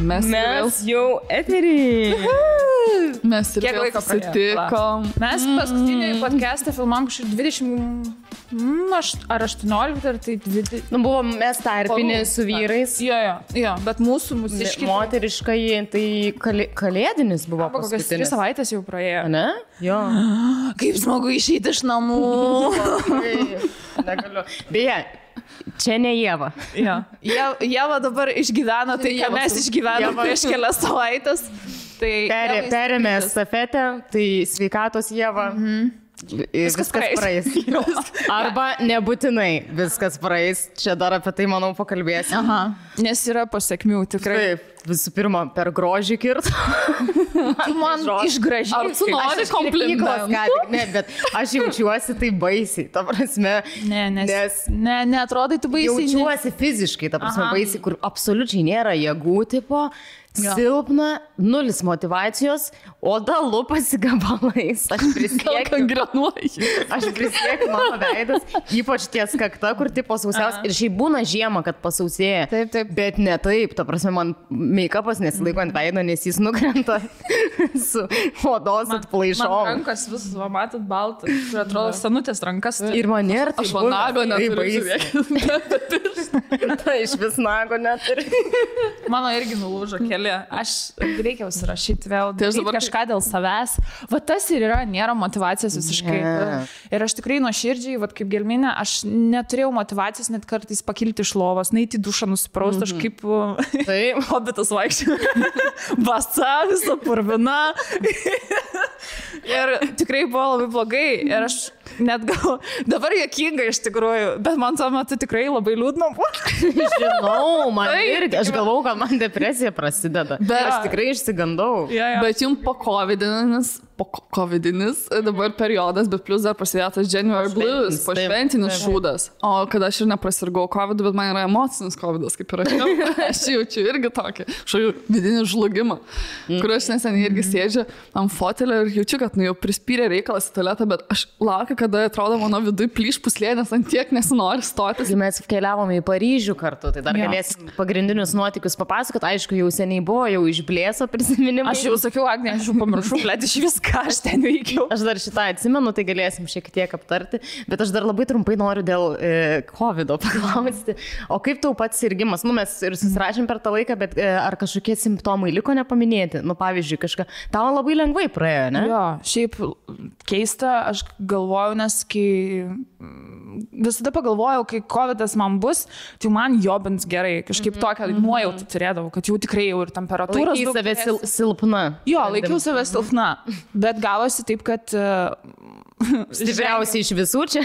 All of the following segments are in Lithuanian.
Mes jau eterį. Mes ir Kiek vėl laiko susitikom. Mes paskutinį podcastą filmam kažkaip 20, ar 18, ar tai 20. Nu, buvo mes tarpinė su vyrais. Jo, bet mūsų mūsiški. Moteriškai, tai kalėdinis buvo Kokias 3 paskutinis. savaitės jau praėjo. Ne? Jo. Kaip smagu išeiti iš namų. Negaliu. Beje, čia ne Ieva. Jo. Ieva dabar išgyveno tai, ką mes išgyvenome prieš kelias savaitės. Tai Perėmė estafetę, tai sveikatos Ieva. Viskas praeis. Arba nebūtinai viskas praeis. Čia dar apie tai, manau, pakalbėsim. Aha, nes yra pasiekmių tikrai. Taip, visų pirma, per grožį kirt. Man išgražiai. Ar tu nori komplimentų? Ne, bet aš jaučiuosi tai baisiai. Ta prasme, nes neatrodai tu baisiai. jaučiuosi fiziškai, ta prasme, baisiai, kur absoliučiai nėra jėgų tipo. Silpna, nulis motivacijos, oda lupasi gabalais. Aš prisiekiu, mano veidas, ypač ties kakta, kur tipo sausiaus. Ir šiaip būna žiema, kad pasausėja. Taip. Bet ne taip, ta prasme, man make-upas nesilaiko ant veido, nes jis nukrenta su odos atplaišom. Man rankas vis, matot, baltas. Ir atrodo, senutės rankas. Ir man nėra tai Aš man nago neturiu, žiūrėkit. Tai iš vis nago neturiu. Mano irgi nulūžo keli. Aš reikia užsirašyti vėl. Tai aš dabar kažką dėl savęs. Va tas ir yra, nėra motyvacijos visiškai. Ir aš tikrai nuoširdžiai, va kaip Gelminė, aš neturėjau motyvacijos net kartais pakilti iš lovos, neiti į dušą nusipraust, aš kaip hobitas vaikščiau. Basa, visa purvina. Ir tikrai buvo labai blogai. Ir aš net gal, dabar juokinga iš tikrųjų, bet man tuo metu tikrai labai liūdna buvo. Žinau, man irgi, aš galvau, kad man depresija prasideda. Bet aš tikrai išsigandau. Bet jums po covidinis dabar periodas, bet plus dar prasidėjo tas January Blues, po šventinis šūdas. O kad aš ir neprasirgau covidu, bet man yra emocinis covidas, kaip ir aš jaučiu irgi tokį vidinį žlugimą, kur aš neseniai irgi sėdžiu ant fotelio ir jaučiu, kad jau prispyrė reikalas į tualetą, bet aš laukiu, kada atrodo mano vidui plyš puslė, nes ant tiek nesinori stotis. Mes keliavome į Paryžių kartu, tai dar galėsim pagrindinius nuotykius papasakot. Aišku, jau seniai buvo, jau išblėso prisiminimai. Aš jau sakiau, Agnė, aš jau pamiršau, blėt, iš viską aš ten veikiau. Aš dar šitą atsimenu, tai galėsim šiek tiek aptarti, bet aš dar labai trumpai noriu dėl COVID paklausti. O kaip tau pats sirgimas? Nu, mes ir susirašėm per tą laiką, bet ar kažkokie simptomai liko nepaminėti? Nu, pavyzdžiui, kažką. Tau labai lengvai praėjo, ne? Jo, šiaip keista, aš galvoju, nes kai visada pagalvojau, kai COVIDas man bus, tai man jobins gerai, kažkaip tokią nuojautą turėdavau, kad jau tikrai jau ir temperatūros. Laikai save silpna. Jo, laikiau save silpna, bet gavosi taip, kad... Stipriausiai iš visų čia?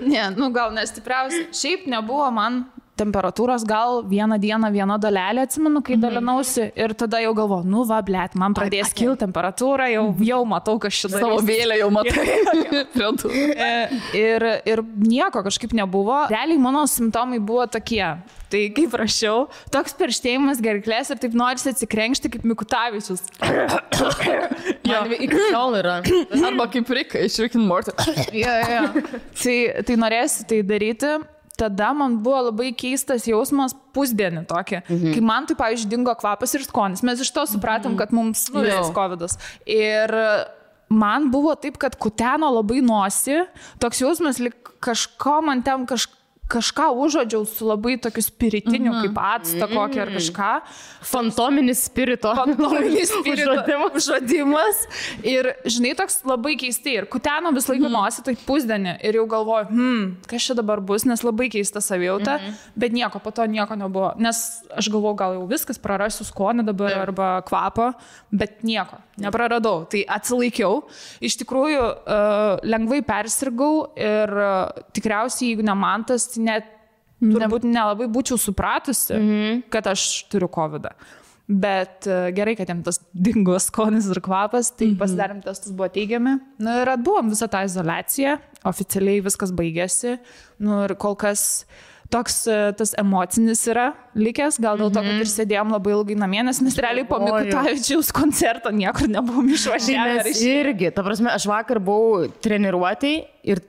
Ne, nu gal nestipriausiai. Šiaip nebuvo man temperatūros, gal vieną dieną viena dalelė, atsimenu, kai dalinausi ir tada jau galvoju, nu va, blėt, man pradės kilti temperatūra, jau matau, kas šitą savo vėlę jau matai. ir nieko kažkaip nebuvo. Realiai mano simptomai buvo tokie. Tai kaip rašiau, toks perštėjimas gerklės ir taip norisi atsikrenkšti kaip Mikutavičius. Man iki šiol yra. Arba kaip Rika iš Rick and Morty. Tai norėsi tai daryti. Tada man buvo labai keistas jausmas pusdienį tokį. Kai man tai, pavyzdžiui, dingo kvapas ir skonis. Mes iš to supratom, kad mums nulis COVIDas. Ir man buvo taip, kad kuteno labai nosį. Toks jausmas, lyg kažko man ten kažką užuodžiau su labai tokiu spiritiniu, kaip actą kokį ar kažką. Fantominis spirito. Fantominis spirito užuodimas. Ir, žinai, toks labai keistai. Ir kuteno vis laiką nosį, tai pusdienį. Ir jau galvoju, kas čia dabar bus, nes labai keista savijauta. Bet nieko, po to nieko nebuvo. Nes aš galvoju, gal jau viskas, prarasiu skonį dabar arba kvapą. Bet nieko, nepraradau. Tai atsilaikiau. Iš tikrųjų, lengvai persirgau ir tikriausiai, jeigu ne man tas, net turbūt nelabai būčiau supratusi, kad aš turiu COVIDą. Bet gerai, kad jam tas dingo skonis ir kvapas, tai pasidarėm testus, buvo teigiami. Nu ir atbuvom visą tą izoliaciją, oficialiai viskas baigėsi. Nu ir kol kas toks tas emocinis yra likęs, gal dėl to, kad ir sėdėjom labai ilgai namie, nes mes realiai po Mikutavičiaus koncerto niekur nebuvom išvažiavę. Mes irgi, ta prasme, aš vakar buvau treniruotėj ir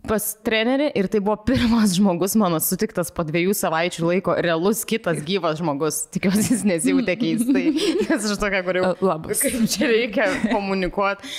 pas trenerį ir tai buvo pirmas žmogus mano sutiktas po 2 savaičių laiko, realus kitas gyvas žmogus. Tikiuosi, jis nesijautė keistai, nes aš tokia, kur jau kaip čia reikia komunikuoti.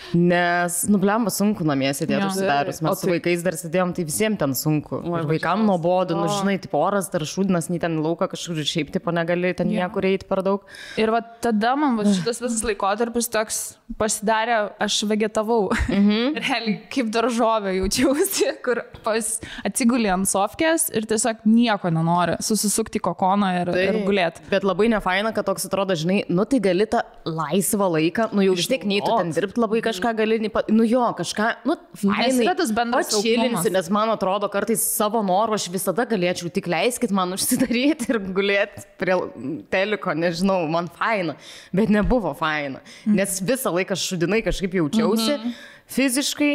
Nes, blemba, sunku namie sėdėti užsidarius. Mes su vaikais dar sėdėjom, tai visiems ten sunku. Ir vaikam nuobodu, žinai, tipo oras dar šūdinas, nei ten lauką kažkur šiaip tipo negali ten niekur eiti per daug. Ir va tada man šitas visas laikotarpis toks pasidarė, aš vegetavau. Realiai kaip daržovė jaučiausi, kur atsigulė ant sofkės ir tiesiog nieko nenori, susisukti kokoną ir gulėti. Bet labai nefaina, kad toks atrodo, žinai, tai gali tą laisvą laiką, jau vis tiek nei tu ten dirbti labai kažką gali, kažką, fainai, atšilinsi, nes man atrodo, kartais savo norų aš visada galėčiau, tik leiskit man užsidaryti ir gulėti prie teliko, nežinau, man faina, bet nebuvo faina, nes visą laiką šudinai kažkaip jaučiausi fiziškai.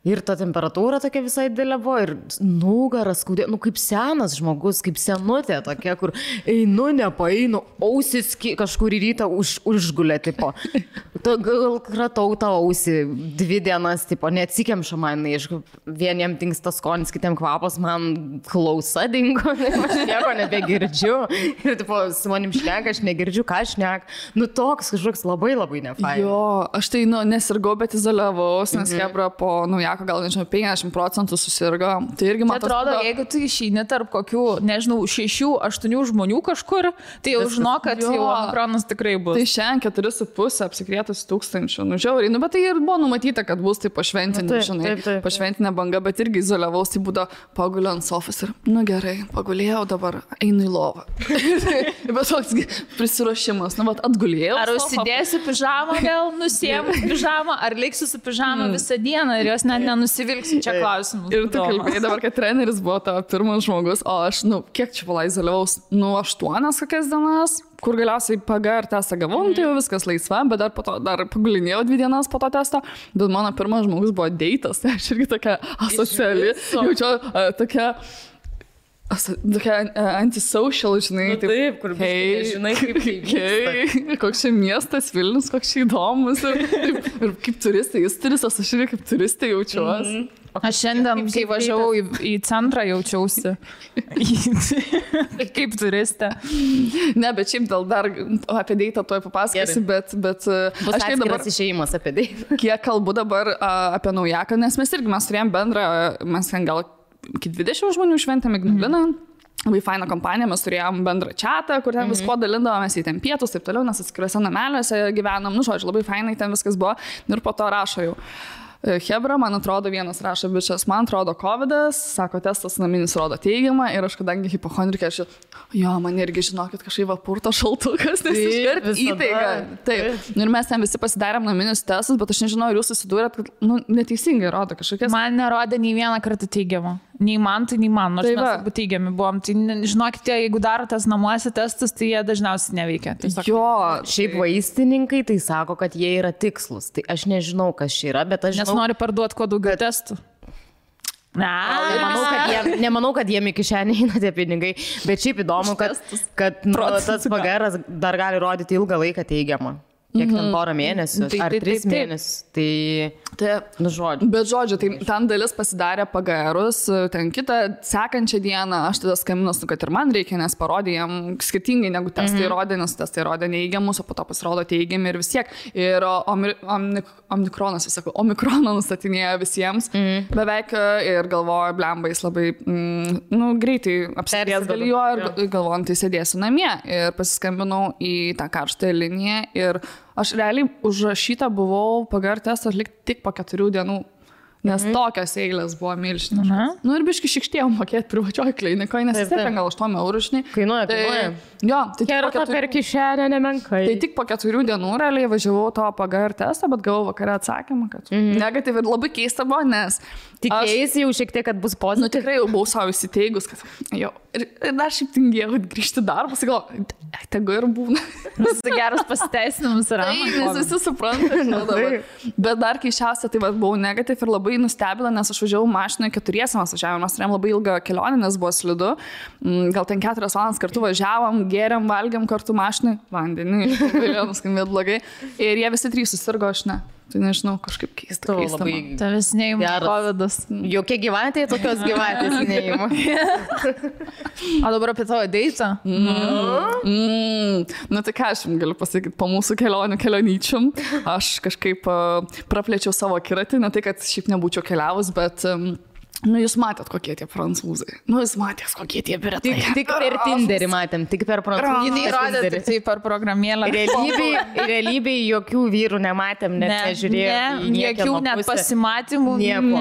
Ir ta temperatūra tokia visai didelė buvo ir nugaras skaudė, kaip senas žmogus, kaip senutė tokia, kur einu, nepaeinu, ausis kažkur į rytą užgulė, tipo. Gal kratau tą ausį 2 dienas, tipo, neatsikemša man, aišku, vieniem tinksta skonis, kitiem kvapas, man klausa dingo, aš nieko nebegirdžiu. Ir, tipo, su manim šneka, aš negirdžiu, ką šneka. Toks kažkoks labai labai nefaina. Jo, aš tai, nesirgau, bet izoliavaus, nes Hebra po naujako gal, nežinau, 50% susirgo. Tai irgi man atrodo, jeigu tu išeini tarp kokių, nežinau, 6-8 žmonių kažkur, tai jau žinok, kad jau omikronas tikrai bus. Tai šiandien 4,5 apsikrėtus 1000. Žiauriai, bet tai ir buvo numatyta, kad bus tai pašventinė, žinai, pašventinė banga, bet irgi izoliavaus, tai būdavo paguliu ant sofos ir, gerai, pagulėjau, dabar einu į lovą. Bet toks prisiruošimas, atgulėjau. Ar užsidėsiu pižamą vėl, nusiėmus pižamą, ar liksiu su pižamą visą dieną ir jos net nenusivilksiu, čia klausimus. Ir tu kalbėjai dabar, kad treneris buvo tavo pirmas žmogus, o aš, kiek čia izoliavaus, 8 kokias dienas, kur galiausiai PGR testą gavau, tai jau viskas laisva, bet dar po to dar pagulinėjau 2 dienas po to testo, bet mano pirmas žmogus buvo deitas, tai aš irgi tokia asociali, jaučiu tokia antisocial, žinai. Taip, kur žinai, kaip koks čia miestas Vilnius, koks čia įdomus. Ir kaip turistai, jis turistas, aš irgi kaip turistė jaučiuosi. Aš šiandien, kai važiavau į centrą, jaučiausi kaip turistė. Ne, bet šiaip dar apie deitą tuoj papasakosiu, bet bus aš dabar išėjimas apie deitą. Kiek kalbu dabar apie naujaką, nes mes turėjom bendrą, mes ten gal iki 20 žmonių šventėm Ignaliną. Labai faina kompanija, mes turėjom bendrą čatą, kur ten visko dalindavomės į ten pietus, taip toliau, nes atskiruose nameliuose gyvenom, žodžiu, labai fainai ten viskas buvo. Ir po to rašo jau. Hebra, man atrodo, vienas rašo, bičias, man atrodo COVID'as, sako, testas naminis rodo teigiamą ir aš kadangi hipochondrikė, man irgi žinokit, kažkaip purto šaltukas, nes iškart įtaiga. Taip. Ir mes ten visi pasidarėm naminius testus, bet aš nežinau, ar jūs susidūrėt, kad neteisingai rodo kažkokias. Man nerodė nei vieną kartą teigiamą. Nei man, nors mes abu teigiami buvom. Tai žinokite, jeigu darotės namuose testus, tai jie dažniausiai neveikia. Jo, šiaip vaistininkai tai sako, kad jie yra tikslus. Tai aš nežinau, kas čia yra, bet aš žinau. Nes nori parduoti kuo daugiau testų. Nemanau, kad jiem iki šiandien eina tie pinigai, bet šiaip įdomu, kad tas PGR dar gali rodyti ilgą laiką teigiamą. Kiek ten porą mėnesių, ar 3 mėnesius, žodžiu. Bet žodžiu, tai ten dalis pasidarė PGR-us, ten kitą sekančią dieną, aš tada skambinus, kad ir man reikia, nes parodė jam skirtingai negu testai rodė, nes testai rodė neįgiamus, o po to pasirodo teigiami ir vis tiek. Ir omikronas, visako, omikroną nustatinėjo visiems beveik ir galvoju, blemba, jis labai greitai apsirės galėjo ir galvojant, tai sėdėsiu namie. Ir pasiskambinau į tą karštąją liniją ir aš realiai užrašyta buvau PGR testą atlikti tik po 4 dienų. Nes tokios eilės buvo milžiniškos. Ir biški šikštėjom mokėti privačioj klinikoje, nes vis tiek gal 8 eurų, žinai. Kainuoja. Jo, tai kerta per kišenę nemenkai. Tai tik po 4 dienų realiai važiavau to PGR testą, bet gavau vakare atsakymą, kad negatyvi ir labai keista buvo, nes tikėjai jau šiek tiek, kad bus pozityvi. Tikrai jau buvau savo įsiteigus, kad jo. Ir dar šiaip tingėjau grįžti darbus, galvoju, tegu ir būna. Tai geras pasiteisinimas yra. Nes visi supranta. Bet dar keišiausia, tai buvau negatyvi ir labai nustebila, nes aš važiavau mašinoje 4 važiavom, mes turėjom labai ilgą kelionę, nes buvo slidu. Gal ten 4 valandas kartu važiavom, gėrėm, valgėm kartu mašinai, vandenį, galėjau nuskambėti blogai. Ir jie visi 3 susirgo, aš ne. Tai nežinau, kažkaip keista. Labai... Tavęs neįma kovidas. Jokie gyvatė, tokios gyvatės neįma. O dabar apie tavo deitą? Na tai ką aš jums galiu pasakyti, po mūsų kelionyčium aš kažkaip praplėčiau savo akiratį, ne tai, kad šiaip nebūčiau keliavus, bet... jūs matėt, kokie tie prancūzai. Jūs matėt, kokie tie britai. Tik per Tinderį matėm, tik per prancūzų. Jinai rodė tai per programėlę. Realybėj jokių vyrų nematėm, net nežiūrėjom. Jokių net pasimatymų. Nieko.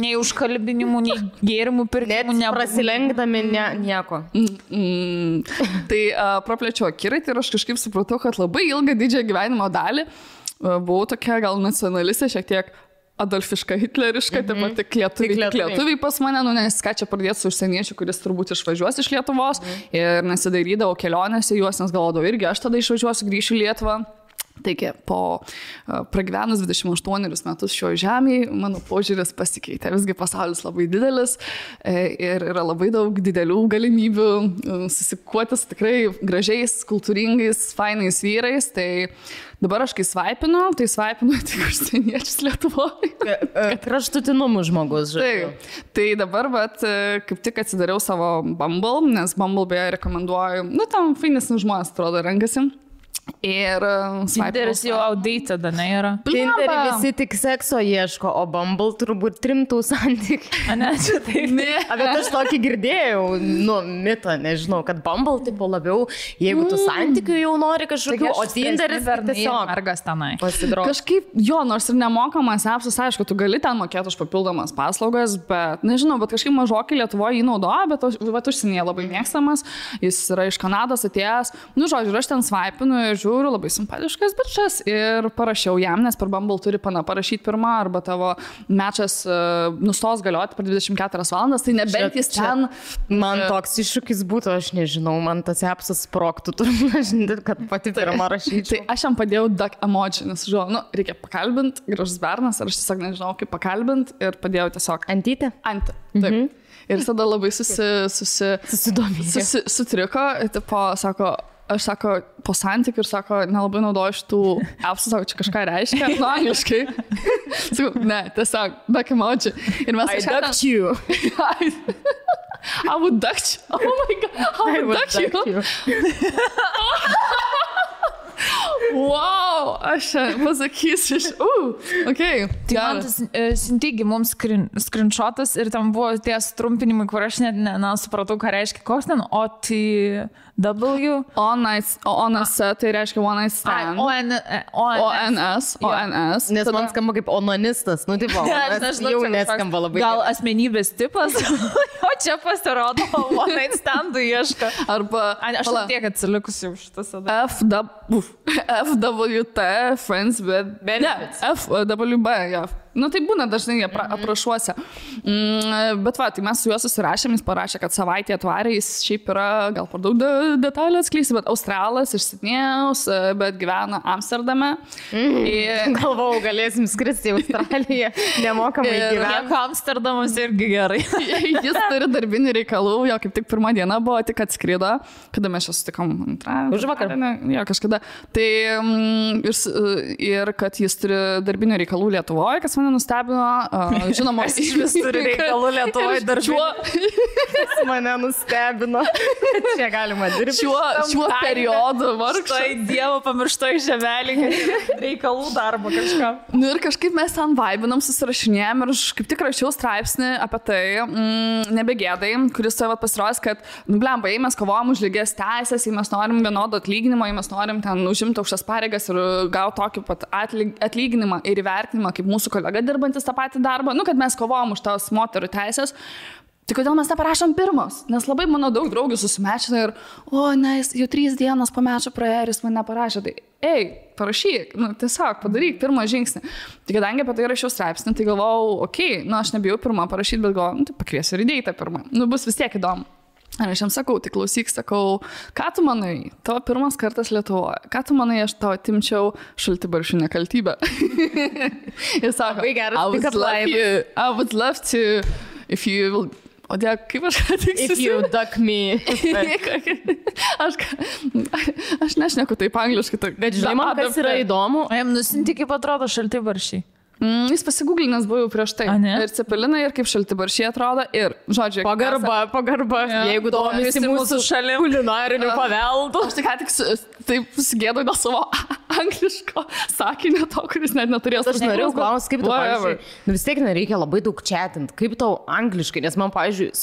Nei užkalbinimų, nei gėrimų pirkimų. Net prasilenkdami nieko. Tai praplėčiau akiratį ir aš kažkaip supratau, kad labai ilgą didžiąją gyvenimo dalį buvau tokia gal nacionalistė, šiek tiek adolfiška, hitleriška, tik lietuviai pas mane, nes ką čia pradėti su užsieniečiu, kuris turbūt išvažiuos iš Lietuvos ir nesidairydavau kelionėse juos, nes galvodavau irgi, aš tada išvažiuosiu, grįšiu į Lietuvą. Taigi, po pragyvenus 28 metus šio žemėje, mano požiūris pasikeitė. Visgi pasaulis labai didelis ir yra labai daug didelių galimybių susikuotis tikrai gražiais, kultūringais, fainais vyrais. Tai dabar aš kai svaipinu tik užsieniečius Lietuvoje. Kraštutinumų žmogus, žodžiu. Tai dabar, kaip tik atsidariau savo Bumble, nes Bumble beje rekomenduoju, tam fainesni žmonės, atrodo, renkasi. Ir Tinderis jau outdated, ne yra. Tinderį visi tik sekso ieško, o Bumble turbūt rimtų santykių. Ne, čia taip. Bet aš tokį girdėjau, mitą, nežinau, kad Bumble tipo labiau, jeigu tu santykių jau nori kažkokių, o Tinderis tiesiog mergas tenai. Kažkaip, nors ir nemokamas appsas, aišku, tu gali ten mokėti už papildomas paslaugas, bet nežinau, bet kažkaip mažokai Lietuvoje jį naudoja, bet užsienyje labai mėgstamas, jis yra iš Kanados atėjęs, žodžiu, aš ten svaipinu ir žiūriu, labai simpatiškas bičas ir parašiau jam, nes per Bumble turi parašyti pirmą arba tavo mečas nustos galioti per 24 valandas, tai nebent jis ten... Man toks iššūkis būtų, aš nežinau, man tas appsas sproktų, turbūt, kad pati pirmą rašyčiau. Tai aš jam padėjau duck emoji, nes reikia pakalbinti, gražus bernas, ar aš tiesiog nežinau, kaip pakalbinti ir padėjau tiesiog... Antytę? Taip. Ir tada labai sutriko, tipo, aš sako, po santykių ir sako, nelabai naudoju šitų appsų, sako, čia kažką reiškia, angliškai. Sakau, ne, tiesiog, duck emoji. Ir mes I ducked you. I would duck you. Oh my God, I would duck you. Wow, aš pasakysiu okay. Tai man tas Sintigi mums screenshotas ir tam buvo tie trumpinimai, kur aš net nesupratau, ką reiškia, koks ten OTW. ONS, tai reiškia one night stand. ONS. Nes man skamba kaip onanistas, tipo, jau neskamba labai. Gal asmenybės tipas, o čia pasirodo one night standų ieška. Arba, aš tiek atsilikusi už šitas. FWT, Friends with Benefits. FWB, ja. Tai būna dažnai aprašuose. Bet tai mes su juo susirašėm, jis parašė, kad savaitę atvarė, jis šiaip yra, gal per daug detalių atskleisi, bet Australas iš Sidnėjaus, bet gyvena Amsterdame. Galvau, galėsim skristi į Australiją, nemokamai gyventi. Kiek Amsterdamas irgi gerai. Jis turi darbinių reikalų, jo kaip tik pirmą dieną buvo, tik atskrido, kada mes čia sutikom už vakar. Jo, kažkada. Tai ir kad jis turi darbinių reikalų Lietuvoje, kas mane nustebino, žinoma, iš vis turi reikalų Lietuvoje darbinių. Kas mane nustebino. Čia galima dirbti. Šiuo periodu vargšai. Štai Dievo pamirštoj žemelį, reikalų darbo kažką. Ir kažkaip mes ten vaibinam, susirašinėjom ir aš kaip tik rašiau straipsnį apie tai, nebegėdai, kuris tai pasirodys, kad, blemba, jei mes kovojam už lygias teisės, jei mes norim vienodo atlyginimo, jei mes norim ten užimti aukštas pareigas ir gauti tokį pat atlyginimą ir įvertinimą kaip mūsų kolega dirbantis tą patį darbą, kad mes kovojam už tos moterų teisės, tai kodėl mes neparašom pirmos? Nes labai mano daug draugių susimečina ir, jau 3 dienos po mečio praėjo ir jis man neparašė, tai parašyk, tiesiog padaryk pirmą žingsnį. Tai kadangi apie tai rašiau straipsnį, tai galvojau, aš nebijau pirmą parašyti, bet galvojau, tai pakviesiu ir įdėjai tą pirmą. Bus vis tiek įdomu. Ir aš jam sakau, tai klausyk, ką tu manai, tavo pirmas kartas Lietuvoje, ką tu manai, aš tau atimčiau šaltibaršių nekaltybę. Jis sako, I would love to, if you will O dėl, kaip aš tik If you duck me. Aš nešneku taip angliškai. Bet žinai, man kas yra įdomu. O jam nusinti, kaip atrodo šaltibaršiai. Jis pasigūglinęs buvo jau prieš tai. Ir cepelinai, ir kaip šaltibaršiai atrodo. Ir, žodžiu, pagarba. Jeigu domisi mūsų šalim kulinariniu paveldu. Aš taip susigėdau dėl savo angliško sakinio to, kuris net neturėjo. Aš norėjau klausti, kaip tu, pavyzdžiui, vis tiek nereikia labai daug chatint. Kaip tau angliškai, nes man, pavyzdžiui,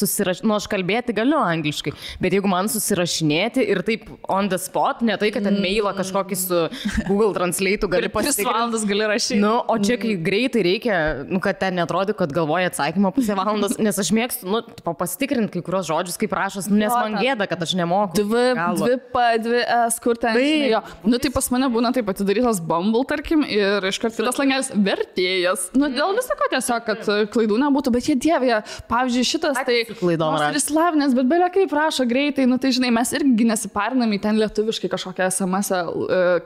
aš kalbėti galiu angliškai, bet jeigu man susirašinėti ir taip on the spot, ne tai, kad ten mailą kažkokį su Google Translate gali pasitikrinti. 3 valandas gali rašyti. Nu, o čia kai greitai reikia, kad ten netrodo, kad galvoja atsakymą pusę valandos, nes aš mėgstu, pasitikrinti kai kurios žodžius, kaip rašos, nes man gėda, kad aš nemoku. 2 S, kur ten. Tai pas mane būna taip atidarytas Bumble, tarkim, ir iškart kitas langelis vertėjas. Dėl visako tiesiog, kad klaidų nebūtų, bet jie dievė, pavyzdžiui, šitas tai ir slavinės, bet belia kaip rašo greitai, tai žinai, mes irgi nesiparinam į ten lietuviškai kažkokią SMS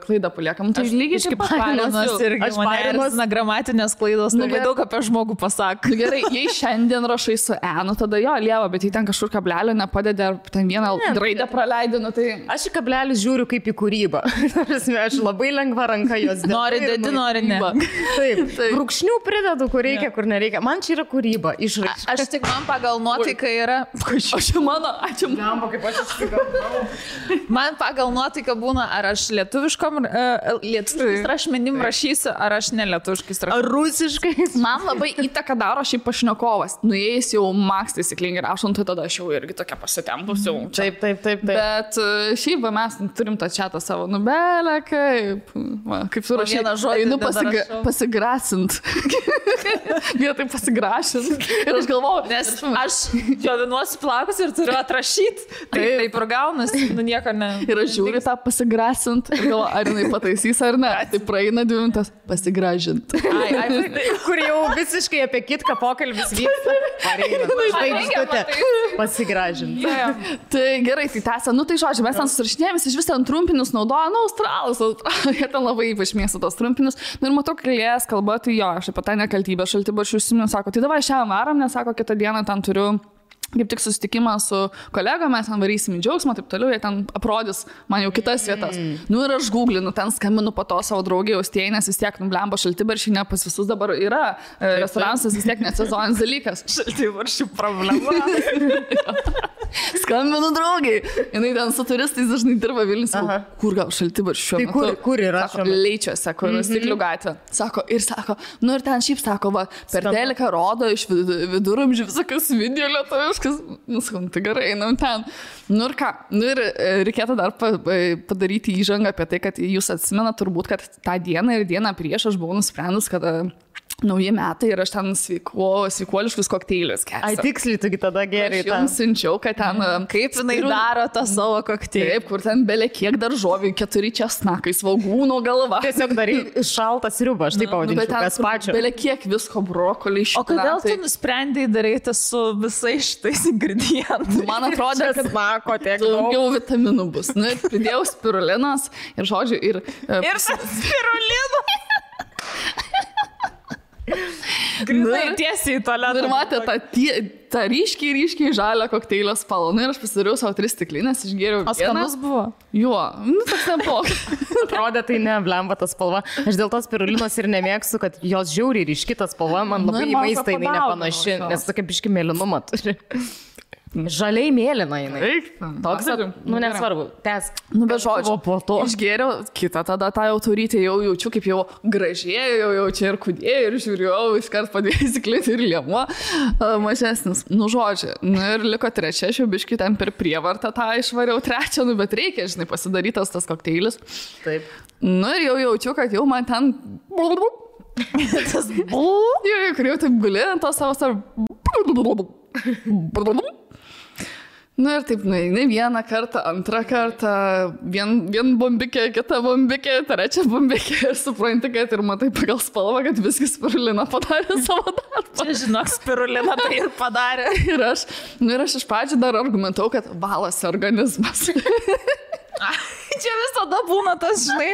klaidą paliekam. Tai lygiai kaip parinos irgi. Aš parinos gramatinės klaidos, labai daug apie žmogų pasako. Gerai, jei šiandien rašai su E, tada jo, lieva, bet jei ten kažkur kablelio nepadedė, ar ten vieną raidę praleidė, tai... Aš į kablelį žiūriu kaip į kūrybą. Aš labai lengva ranka jos dėti. Nori dėti, nori ne. Taip. Brūkšnių pridedu, kur reikia, kur nereikia. Man čia yra kūryba, išraiška. Aš tik man pagal nuotaiką yra... Ačiū mano, ačiū. Kaip aš išsigalvau. Man pagal nuotaiką būna, ar aš lietuviškom rašmenim rašysiu, ar aš nelietuviškais rašysiu. Ar rusiškai. Man labai įtaką daro šiaip pašnekovas. Nuėjęs jau maks taisyklingai rašant, tai tada aš jau irgi tokia pasitempusiu. Taip. Bet šiaip mes turim tą chatą savo nubelę, kaip surašyti. Einu pasigrasint. Vietoj pasigrašint. Ir aš galvoju, nes aš džiovinuosi plaukus ir turiu atrašyti. Taip ir gaunasi, nieko ne. Ir aš žiūriu tą pasigrasint ir galvoju, ar jinai pataisys ar ne. Tai praeina 2 minutės pasigražint. Kur jau visiškai apie kitką pokalbis vyksta. Pasigražint. Tai gerai, tai tęsia. Tai žodžiu, mes ten susirašinėjomės, iš vis ten trumpinius naudoja, australus. Jie ten labai ypač mėgsta tos trumpinius. Ir matau, kalės kalba, tai jo, aš apie tą nekaltybę šaltibaršių užsimenu, sako, tai davai šiandien varam, nes sako, kitą dieną ten turiu kaip tik susitikimą su kolegom, mes ten varysim į džiaugsmą, taip toliau, jie ten aprodys man jau kitas vietas. Ir aš googlinu, ten skambinu po to savo draugį Austėjai, nes vis tiek blemba šaltibaršiai, ne pas visus dabar yra restoranas, vis tiek nesezoninis dalykas. Šaltibaršių problema. Skambinu draugiai. Jinai ten su turistais dažnai dirba Vilnius. Kur gal šaltibaršių šiuo metu? Tai kur yra? Sako, Leičiuose, kur Stiklių gatvė. Sako, ir ten šiaip sako, va, per teliką rodo iš viduramžių visokius video lietuviškus. Tai gerai, einam ten. Ir ką? Ir reikėtų dar padaryti įžangą apie tai, kad jūs atsimenat turbūt, kad tą dieną ir dieną prieš aš buvau nusprendus, kad nauji metai ir aš ten sveikuoliškus kokteilius kesiu. Ai, tiksliai, tu tada gerai. Aš jums siunčiau, kad ten... Kaip jinai daro tą savo kokteilį? Taip, kur ten belė kiek daržovių, 4 česnakai, svogūno galva. Tiesiog darai šaltą sriubą, aš taip pavadinčiau, kas pačio. Belė kiek visko, brokoliai, špinatai. O kodėl tu nusprendai daryti su visais šitais ingredientais? Man atrodė, kad daugiau vitaminų bus. Ir pridėjau spirulinos ir žodžiu, ir spiruliną. Grinai tiesiai į tualetą. Ir matė tą ryškiai žalią kokteilio spalvą. Ir aš pasidariau savo 3 stiklinės, išgėriau vieną. O skanus buvo? Jo, toks nebuvo. Atrodė, tai ne, blemba ta spalva. Aš dėl tos spirulinos ir nemėgstu, kad jos žiauriai ryški ta spalva, man labai į maistą jinai nepanaši, nes tokia biški mėlynumą turi. Žaliai mėlyna jinai. Toks, nesvarbu, tęsk. Bet žodžiu, po to išgėriau kitą tada tą jau turyti, jau jaučiu, kaip jau gražėjau, jau čia ir kudėjau, ir žiūrėjau, iškart padėjau įsiklinti ir liemuo mažesnis. Žodžiu, ir liko 3, aš jau biškį ten per prievartą tą išvariau 3, bet reikia, žinai, pasidarytas tas kokteilis. Taip. Ir jau jaučiu, kad jau man ten... Kur jau taip guli ant to savo... Ir taip, ne vieną kartą, antrą kartą, vien bombikė, kita bombikė, 3 bombikė ir supranti, kad ir matai pagal spalvą, kad viskas spirulina padarė savo darbą. Čia, žinok, spirulina tai ir padarė. Ir aš iš pradžių dar argumentau, kad valasi organizmas. Čia visada būna tas, žinai,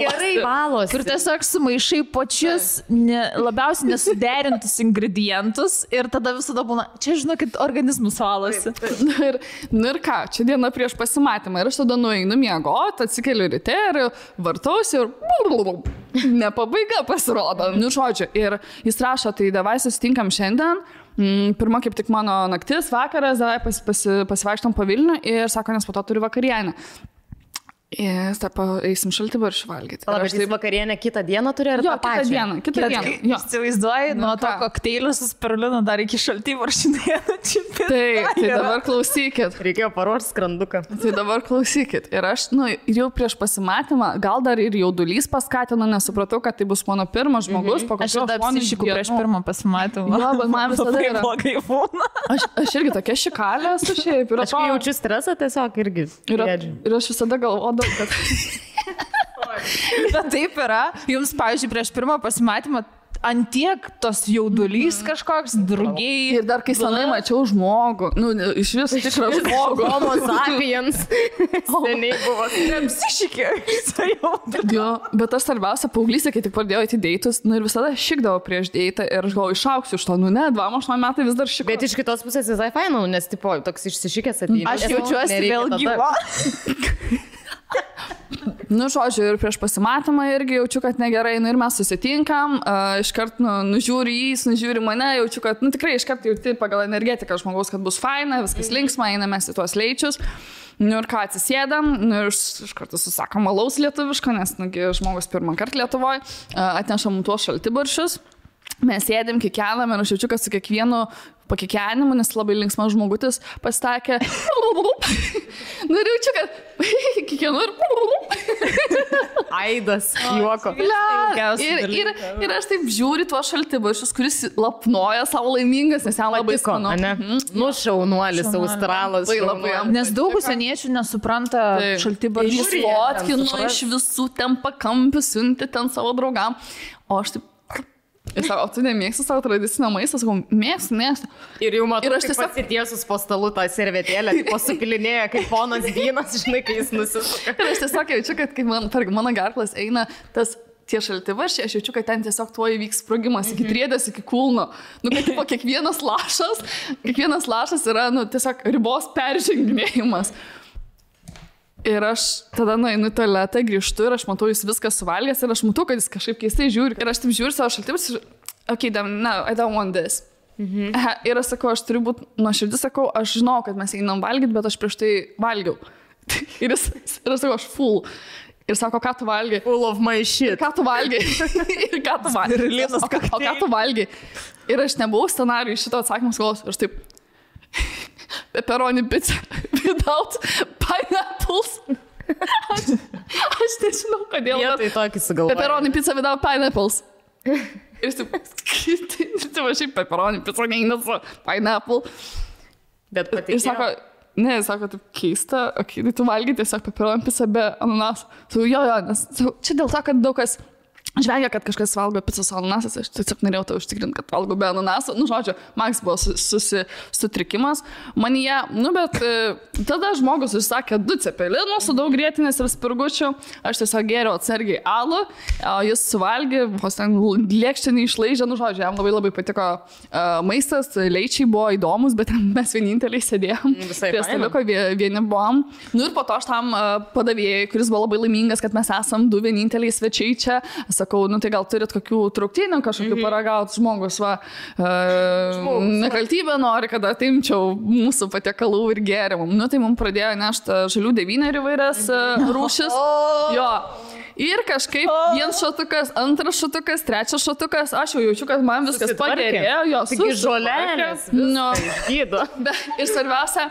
Gerai valos. kur tiesiog sumaišai pačius labiausiai nesuderintus ingredientus ir tada visada būna, čia žinokit, organizmus valosi. Ir ką, čia diena prieš pasimatymą ir aš tada nueinu miegoti, atsikeliu ryte ir vartausi ir ne pabaiga pasirodo. Nu, žodžiu, ir jis rašo, tai davai susitinkam šiandien. Pirma, kaip tik mano naktis, vakaras, davai pasivaikštom po Vilnių ir sako, nes po to turi vakarienę. Ir eisim šaltibarščių valgyti. Bet jis vakarienę kitą dieną turi ar tą pačią? Kitą dieną. Įsivaizduoji, nuo to kokteilio su spirulinu dar iki šaltibarščių dieną. Tai dabar klausykit. Reikėjo paruošti skranduką. Tai dabar klausykit. Ir aš, jau prieš pasimatymą, gal dar ir jaudulys paskatino, nesupratau, kad tai bus mano pirmas žmogus. Aš jau apsišikau prieš pirmą pasimatymą. Jo, bet man visada yra. Blogai būna. Aš irgi tokia šikalė esu šiaip. Aš jaučiu stresą tiesiog irgi. Ir aš visada galvodavau, kad... Bet taip yra. Jums, pavyzdžiui, prieš pirmą pasimatymą antiek tos jaudulys kažkoks, drugiai. Ir dar kai senai mačiau žmogų, iš vis tikrą žmogų. Homo sapiens. Seniai buvo. Apsišikė. Jo, bet aš svarbiausia, paauglystė, kai tik pradėjau į deitus, ir visada šikdavau prieš deitą ir aš galvoju, išauksiu iš to, 28 metai vis dar šikau. Bet iš kitos pusės visai fainau, nes tipo, toks išsišikęs ateina. Aš jaučiuosi vėl gyva. Žodžiu, ir prieš pasimatymą irgi jaučiu, kad negerai, ir mes susitinkam, iškart nužiūri jis, nužiūri mane, jaučiu, kad, tikrai iškart jauti pagal energetiką žmogaus, kad bus faina, viskas linksma, einame į tuos leičius. Ir ką, atsisėdam, ir iš karto susakom alaus lietuviško, nes žmogus pirmą kartą Lietuvoje atnešam tuos šaltibarščius. Mes sėdėm, kikenam ir aš jaučiu, kad su kiekvienu pakikenimu, nes labai linksmas žmogutis pastakė. Ir jaučiu, kad kiekvienu ir... Aidas, juoko. Ir aš taip žiūri tuos šaltibarščius, kuris lapnoja savo laimingas, nes jam labai skanu. Šaunuolis, australas. Nes daug užsieniečių nesupranta šaltibarščių. Jis fotkino iš visų ten pakampių, siunti ten savo draugam. O aš taip... Ir sako, tu nemėgsti savo tradicinio maisto? Sakau, mėgstu. Ir jau matau, kaip pasitiesus po stalu tą servetėlę, tipo supilinėja, kaip ponas vynas, žinai, kai jis nusisuka. Ir aš tiesiog jaučiu, kad kai mano garklas eina tie šaltibarščiai, aš jaučiu, kad ten tiesiog tuo įvyks sprogimas iki triedės, iki kulno. Kad tipo kiekvienas lašas yra, tiesiog ribos perženginėjimas. Ir aš tada nueinu į tualetą, grįžtu ir aš matau, jis viską suvalgęs ir aš matau, kad jis kažkaip keistai žiūri. Ir aš taip žiūriu savo šaltibarščius ir, okay, no, I don't want this. Ir aš sakau, aš turiu būti nuoširdus, sakau, aš žinau, kad mes einam valgyti, bet aš prieš tai valgiau. Ir aš sakau, aš full. Ir sako, ką tu valgai? Full of my shit. Ką tu valgai? Ir ką tu valgai? O ką tu valgai? Ir aš nebuvau scenarijų šito atsakymus galvos. Ir aš taip... Pepperoni pizza without pineapples. Aš nežinau, kodėl. Jie tai tokį sugalvoja. Pepperoni pizza without pineapples. Ir taip, šiaip pepperoni pizza neina su pineapple. Bet patikėjo. Ir sako, taip keista, okay, tai tu valgai tiesiog pepperoni pizza be ananaso. Jo, nes čia dėl to, kad daug kas žvengia, kad kažkas valgo picą su ananasas, aš tiesiog norėjau to užtikrinti, kad valgo be ananaso. Žodžiu, Maks buvo sutrikimas manyje, bet tada žmogus užsakė 2 cepelinus su daug grietinės ir spirgučių, aš tiesiog gėriau atsargiai alų, o jis suvalgė, vos ten lėkštę neišlaižė, žodžiu, jam labai labai patiko maistas, leičiai buvo įdomus, bet mes vieninteliai sėdėjom, prie staliuko vieni buvom. Ir po to aš tam padavėjai, kuris buvo labai laimingas, kad mes esam 2 vieninteliai svečiai čia. Sakau, tai gal turit kokių trauktinių kažkokių paragauti žmogus, nekaltybę nori, kad atimčiau mūsų patiekalų ir gėrimų. Tai mums pradėjo nešti žalių 9 įvairias rūšis. Jo. Ir kažkaip vienas šotukas, antras šotukas, trečias šotukas, aš jau jaučiu, kad man viskas pagerėjo. Taigi žolelės, gydo. Ir svarbiausia,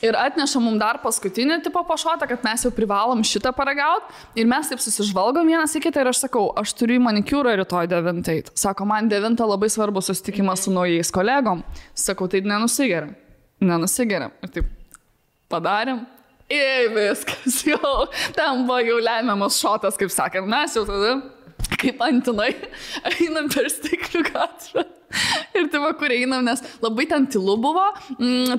ir atneša mums dar paskutinį tipo pašotą, kad mes jau privalom šitą paragauti. Ir mes taip susižvalgom vienas į kitą ir aš sakau, aš turiu į manikiūrą rytoj 9. Sako, man 9 labai svarbu susitikimas su naujais kolegom. Sakau, tai nenusigeriam. Ir taip padarėm. Ir viskas jau, ten buvo jau lemiamas šotas, kaip sakėm, mes jau tada kaip antinai, einam per Stiklių gatvę. Ir tai va, kur einam, nes labai ten tylu buvo,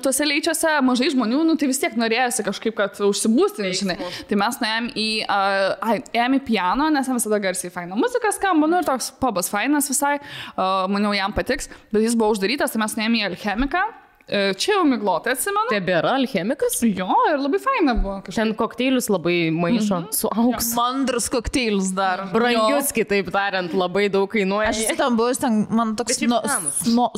tuose leičiuose mažai žmonių, nu tai vis tiek norėjosi kažkaip, kad užsibūstinį, žinai. Tai mes ėjom į piano, nes visada garsiai faina muzika skamba, nu ir toks pubas fainas visai, maniau jam patiks, bet jis buvo uždarytas, tai mes ėjom į Alchemiką. Čia jau miglotai atsimenu. Tebėra Alchemikas? Jo, ir labai faina buvo. Ten kokteilius labai maišo su auksu. Mandrus kokteilius dar. Brangius, kitaip tariant, labai daug kainuoja. Aš ten buvau, man toks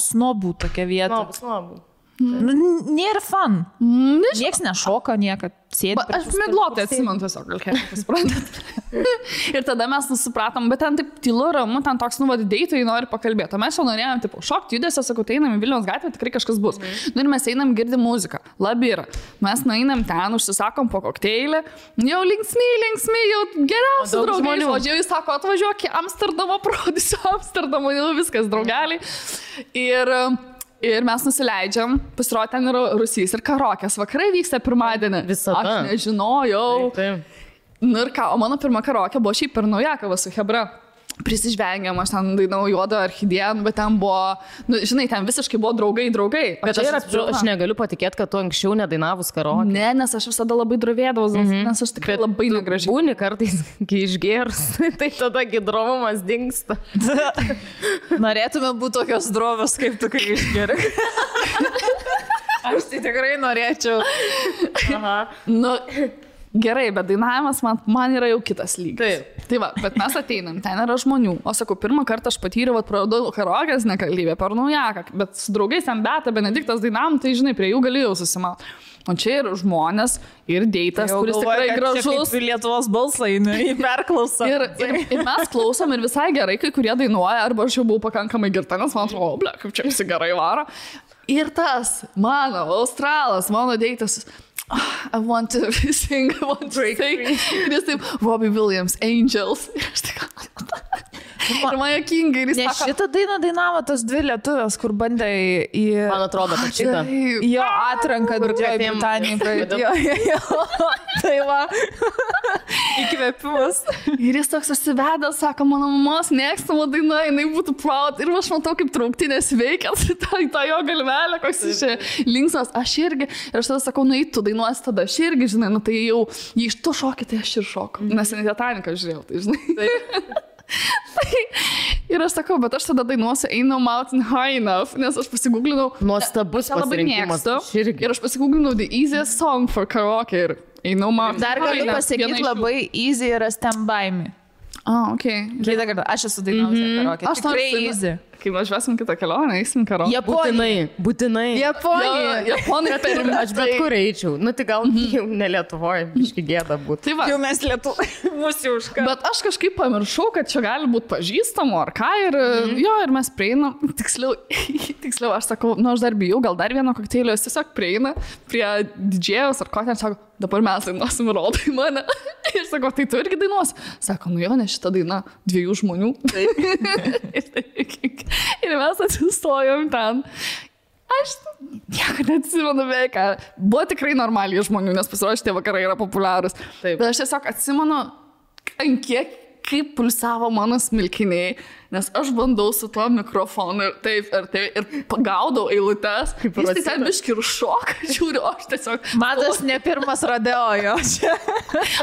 snobų tokia vieta. Snobų. Nėra fun. Nieks nešoka, niekad sėdi. Aš miglotai atsimenu tiesiog, Alchemikas, suprantat. Ir tada mes supratom, bet ten taip tylu, ramu, ten toks, deitai nori pakalbėti. O mes jau norėjom, tipo, šokti judesio, sakau, tai einam į Vilniaus gatvę, tikrai kažkas bus. Nu ir mes einam, girdim muziką. Labira. Mes nueinam ten, užsisakom po kokteilį. Jau linksmi, jau geriausi draugai. O jis sako, atvažiuok į Amsterdamą, parodysiu Amsterdamą, jau viskas, draugeliai. Ir mes nusileidžiam, pasirodė ten yra Rusys ir karokės. Vakarai vyksta pirmadienį. Visada. Aš nežinojau. Taip. Nu ir ką, o mano pirma karokė buvo šiaip per Naujakovą su Hebra. Prisižvengiam, aš ten dainau Juodą orchidiją, bet ten buvo, žinai, ten visiškai buvo draugai. Bet aš negaliu patikėti, kad tu anksčiau nedainavus karaoke. Ne, nes aš visada labai drovėdavau, nes aš tikrai labai negražiai. Būni kartais, kai išgėrus, tai tada gidrovumas dingsta. Norėtume būti tokios drovios, kaip tu, kai išgėri. Aš tai tikrai norėčiau. Aha. Nu, gerai, bet dainavimas man yra jau kitas lygis. Taip. Tai va, bet mes ateinam, ten yra žmonių. O sakau, pirmą kartą aš patyriau, praradau karaokės nekalbė per Naujaką, bet su draugais ten Beata, Benediktas dainavom, tai žinai, prie jų galėjau susimauti. O čia yra žmonės ir deitas, kuris tikrai gražus. Ir Lietuvos balsai, į perklausą. Ir mes klausom ir visai gerai, kai kurie dainuoja, arba aš jau buvau pakankamai girta, nes man atrodo, ble, kaip čia visi gerai varo. Ir tas, mano, australas, mano deitas, I want to sing, I want to sing. Ir jis taip, Robbie Williams, Angels. Ir aš tik, ir man jokingai. Ne, šitą dainą dainavo tos dvi lietuvės, kur bandė į... Man atrodo, kad šitą. Jo atranką Didžioji Britanija. Jo. Tai va. Įkvėpimas. Ir jis toks užsivedęs, sako, mano mamos mėgstama daina, jinai būtų proud. Ir aš matau, kaip trauktinės veikia, tą jo galvelę, koks jis linksmas. Aš irgi. Ir aš tada sakau, tu dainuosi tada. Aš irgi, žinai, tai jau, jei iš to šokį, tai aš ir šoku. Nes ne Titaniką žiūrėjau, tai žinai. Ir aš sakau, bet aš tada dainuosiu Ain't No Mountain High Enough, nes aš pasigūglinau. Nuostabus pasirinkimas. Ir aš pasigūglinau The Easiest Song for Karaoke ir Ain't No Mountain. Dar galiu pasakyti, labai easy yra Stand By Me. Okay. Kitą kartą, aš esu dainavusi karaoke. Aš tikrai easy. Kai važiuosim kitą kelionę, eisim karaoke. Būtinai. Japonai per aš bet kur eičiau. Nu, tai gal jau ne Lietuvoje, biški gėda būtų. Tai va. Jau mes mūsų užką. Bet aš kažkaip pamiršau, kad čia gali būti pažįstamo ar ką ir mes prieinam. Tiksliau, aš sakau, aš dar bijau, gal dar vieno kokteilio, jis tiesiog prieina prie didžėjos ar ko ten, sako, dabar mes dainuosim, rodai mane. Ir sako, tai tu irgi dainuosi. Sako, jo, ne šitą dainą 2 žmonių. Ir mes atsistojom ten. Aš nieko neatsimenu beveik. Buvo tikrai normaliai žmonių, nes pasirodė, šitie vakarai yra populiarūs. Bet aš tiesiog atsimenu, ant kiek kaip pulsavo mano smilkiniai, nes aš bandau su tuo mikrofonu ir taip, ir pagaudau eilutes. Jis tai ten biški ir šoka, žiūriu, aš tiesiog... Matas ne pirmas rodeo jo čia.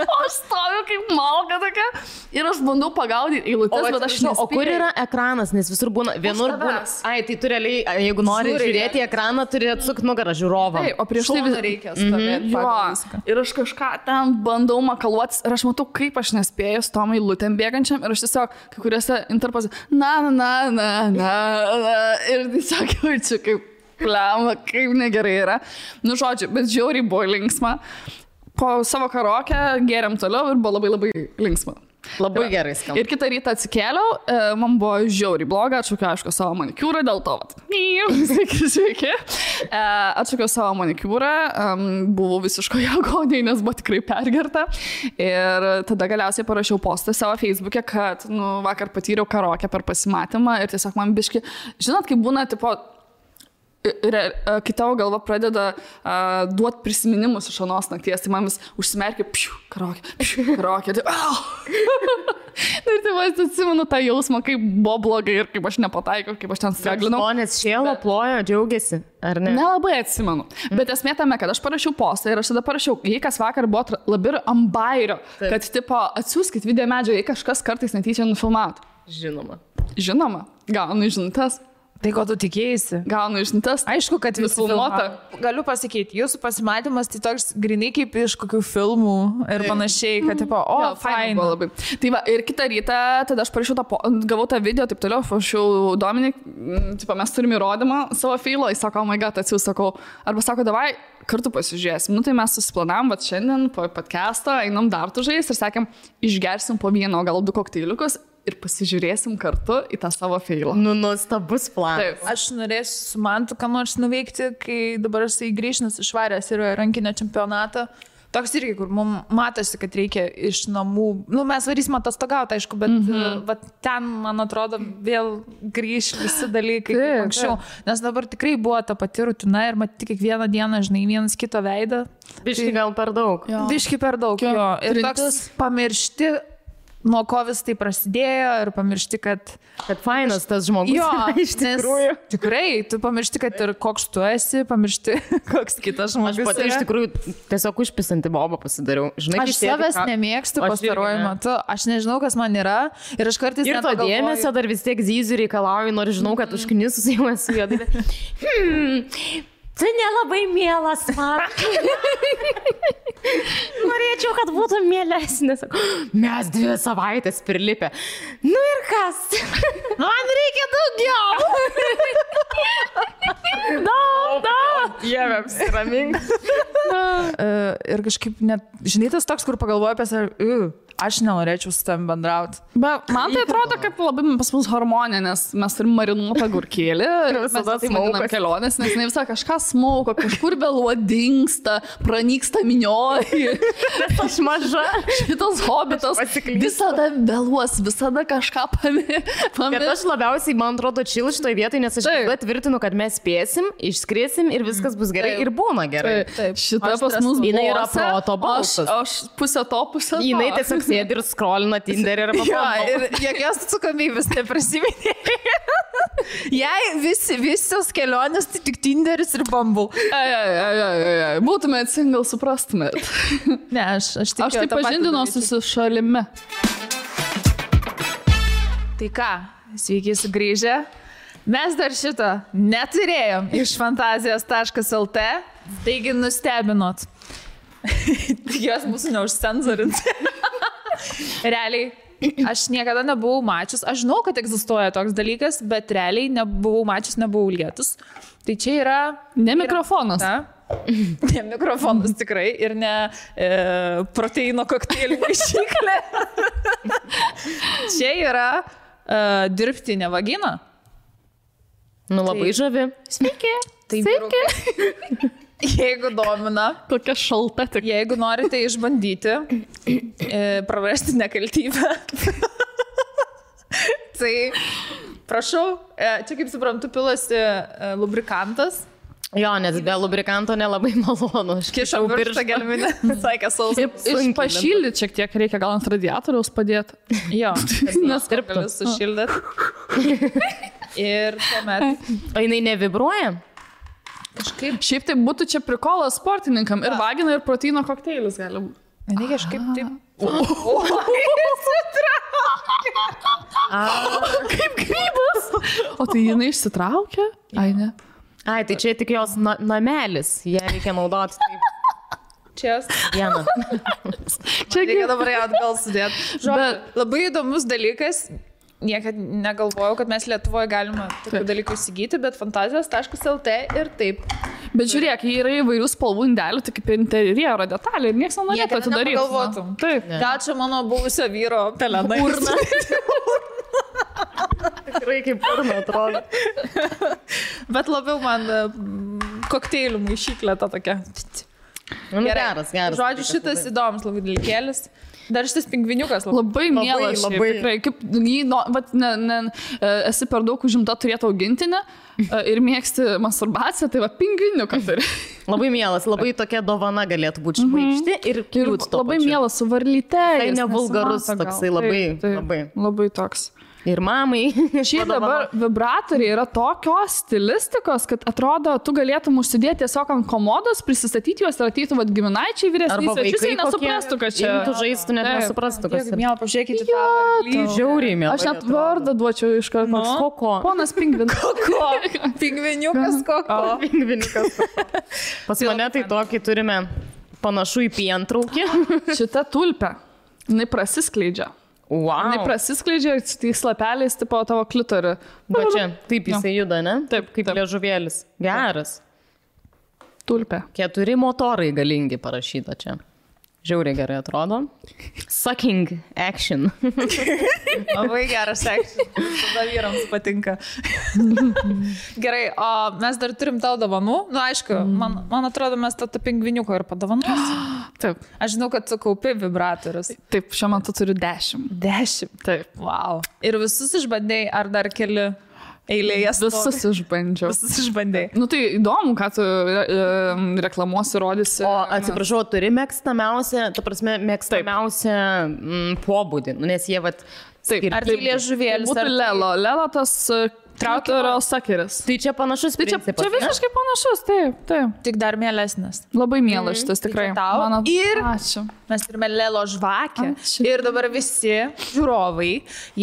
O aš stoviu kaip malka tokia ir aš bandau pagaudyti eilutes, bet aš nespėjau. O kur yra ekranas, nes visur būna, vienur būna... Ai, tai tu realiai, jeigu nori žiūrėti ekraną, turi atsukti nugarą žiūrovam. Taip, o prieš tai reikia stovėti pagal viską. Ir aš kažką ten bandau makaluotis ir aš matau, kaip aš nespėjau su tom eilutėm bėgančiam ir aš tiesiog kai kuriuose interpose na. Ir tiesiog jaučiu, kaip plema, kaip negerai yra. Nu, žodžiu, bet žiauriai buvo linksma. Po savo karaoke gėrėm toliau ir buvo labai, labai linksma. Labai gerai skamba. Ir kitą rytą atsikėliau, man buvo žiauriai bloga, atšaukiau, aišku, savo manikiūrą, dėl to, sveiki. Atšaukiau savo manikiūrą, buvau visiškoje agonijai, nes buvo tikrai pergerta. Ir tada galiausiai parašiau postą savo Facebook'e, kad, vakar patyriau karaoke per pasimatymą ir tiesiog man biški, žinot, kaip būna, tipo, kai tavo galva pradeda duoti prisiminimus iš anos nakties, tai man vis užsimerkia, karokė, tai ir tai vas atsimenu tą jausmą, kaip buvo blogai ir kaip aš nepataikiau, kaip aš ten streglinau. Žmonės šėlo, plojo, džiaugiasi, ar ne? Nelabai atsimenu. Bet esmė tame, kad aš parašiau postą ir aš tada parašiau, jei kas vakar buvo labai ant bairio, kad tipo atsiųskit video medžio, jei kažkas kartais netyčia nufilmautų. Žinoma, gaunu žinutes. Tai ko tu tikėjai? Gaunu žinutes. Aišku, kad visi filmuota. Galiu pasakyti, jūsų pasimatymas tai toks grinai kaip iš kokių filmų ir panašiai, kad tipo, fain. Buvo labai. Tai va, ir kitą rytą, tada aš parašiau gavau tą video, taip toliau, parašiau Dominik, tipo, mes turime įrodymą savo feilo, jis sako, oh my god, atsiųs, sakau, arba sako, davai, kartu pasižiūrėsim. Nu, tai mes susiplanavom, va, šiandien po podcast'o einam dar tužais ir sakėm, išgersim po vieną, gal 2 kokteiliukus ir pasižiūrėsim kartu į tą savo feilą. Nu, nuostabus planas. Taip. Aš norėsiu su Mantu ką nors nuveikti, kai dabar jisai grįžęs išvaręs ir rankinio čempionatą. Toks irgi, kur mums matosi, kad reikia iš namų. Nu, mes varysim atostogauti, aišku, bet ten, man atrodo, vėl grįž visi dalykai kaip anksčiau. Nes dabar tikrai buvo ta pati rutina ir matyti kiekvieną dieną, žinai, vienas kito veidą. Biški gal per daug. Biški per daug, jo. Ir toks pamiršti, nuo ko vis tai prasidėjo ir pamiršti, kad fainas tas žmogus. Jo, iš tikrųjų. Tikrai, tu pamiršti, kad ir koks tu esi, pamiršti, koks kitas žmogus. Aš pati iš tikrųjų tiesiog užpisanti bobą pasidariau. Žinai, aš savęs nemėgstu pastaruoju metu, aš nežinau, kas man yra ir aš kartais ir to dėmesio dar vis tiek zyziu reikalauju, nors žinau, kad užknisus jau esu juodai. Tai nelabai mielas man. Norėčiau, kad būtų mielesnis. Mes 2 savaitės prilipę. Nu ir kas? Man reikia daugiau. Daug. Dieve, apsiramink. Ir kažkaip net, žinai, tas toks, kur pagalvoju apie save, aš nenorėčiau su tam bendrauti. Bet man tai atrodo, kad labai pas mus harmonija, nes mes turim marinuotą gurkėlį ir visada smaugam kelionės, nes ne visą kažką smauko, kažkur vėluo dingsta, pranyksta minioji. Nes aš maža. Šitas hobitas visada vėluos, visada kažką pamirš. Bet aš labiausiai, man atrodo, čil šitoj vietoj, nes aš tvirtinu, kad mes spėsim, išskriesim ir viskas bus gerai ir būna gerai. Šita pas mus jinai yra proto balsas. Aš pusę to, pusę to. Jinai tiesiog sėdi ir skrolina Tinderį ir ir jokios atsakomybės neprisiminė. Jei visos kelionės, tai tik Tinderis ir Bumble. Būtumėt single, suprastumėt. Ne, aš taip pažindinuosi su šalimi. Tai ką, sveiki sugrįžę. Mes dar šito neturėjom iš fantazijos.lt, taigi nustebinot. Jos mūsų neužcenzorinti. Realiai, aš niekada nebuvau mačius, aš žinau, kad egzistuoja toks dalykas, bet realiai nebuvau mačius, nebuvau lietus. Tai čia yra... Ne mikrofonas. Ne mikrofonas tikrai ir ne proteino kokteilių maišyklė. Čia yra dirbtinė vagina. Nu, labai žavi. Sveiki. Sveiki. Jeigu domina, kokia šalta tik. Jeigu norite išbandyti, prarasti nekaltybę, tai prašau, čia kaip suprantu, pilasi lubrikantas. Jo, nes be lubrikanto nelabai malonu. Kišau pirštą gelminę, sakė sausai. Pašildyti šiek tiek reikia, gal ant radiatoriaus padėti. Jo, nes gali sušildyti. Ir tuomet. O jinai nevibruoja? Kažkaip. Šiaip tai būtų čia prikolas sportininkam ir vagina ir proteino kokteilis gali būti. Ne, kažkaip taip. Kaip grybas. O tai jinai išsitraukia? Ai, ne. Ai, tai čia tik jos namelis. Ją reikia naudoti taip. Čia vieną. Čia reikia dabar ją atgal sudėti. Bet labai įdomus dalykas. Niekad negalvojau, kad mes Lietuvoje galime tokių dalykų įsigyti, bet fantazijos.lt ir taip. Bet žiūrėk, jie yra įvairių spalvų indelių, tai kaip interjero detalė ir niekas nenorėtų atidaryti. Taip. Gal čia mano buvusio vyro pelenai. Urna. Tikrai kaip urna atrodo. Bet labiau man kokteilių maišyklė ta tokia. Geras. Žodžiu, šitas įdomus labai dalykėlis. Dar šitas pingviniukas labai mielas. Labai. Tikrai, kaip jį, esi per daug užimta turėti augintinę ir mėgsti masturbaciją, tai pingviniuką turi. Labai mielas, labai tokia dovana galėtų būti šmaikšti ir kliūt to labai pačiu. Mielas su varlyte. Tai nevulgarus toksai, labai toks. Ir mamai. Šiaip dabar vibratoriai yra tokios stilistikos, kad atrodo, tu galėtum užsidėti tiesiog ant komodos, prisistatyti juos ir ateitų giminaičiai vyresniai svečius ir nesuprastų, kad čia... Tu žaistų, net nesuprastų, kas yra. Mėla, pažiūrėkite tą varlytę. Žiauriai mėla. Aš net vardą duočiau iš karto. Koko. Ponas pingvinas. Koko. Pingviniukas Koko. Pingviniukas Koko. Pas mane tai tokį turime panašu į pientraukį. Šita tulpė, jinai prasiskleidžia. Wow. Jinai prasiskleidžia ir tais lapeliais tipo tavo klitorį. Va čia, taip jisai juda, ne? Taip, kaip liežuvėlis. Geras. Tulpė. 4 motorai galingi parašyta čia. Žiauriai gerai atrodo. Sucking action. Labai geras action. Tada vyrams patinka. Gerai, o mes dar turim tau dovanų. Nu, aišku, man atrodo, mes tą pingviniuką ir padovanuosim. Taip. Aš žinau, kad tu kaupi vibratorius. Taip, šiuo metu turiu 10. 10? Taip. Wow. Ir visus išbandėjai, ar dar keli eilėje? Visus išbandžiau. Visus išbandėjai. Nu tai įdomu, ką tu reklamuosi, rodysi. O atsiprašau, turi mėgstamiausią, ta prasme, mėgstamiausią pobūdį, nes jie vat... Taip, ar tai liežuvėlis? Būtų Lelo. Lelo tas trauterio sakeris. Tai čia panašus principas. Čia visiškai panašus, taip. Tik dar mielesnis. Labai mielas šitas tikrai. Tau. Ir ačiū. Mes turime Lelo žvakę. Ačiū. Ir dabar visi žiūrovai,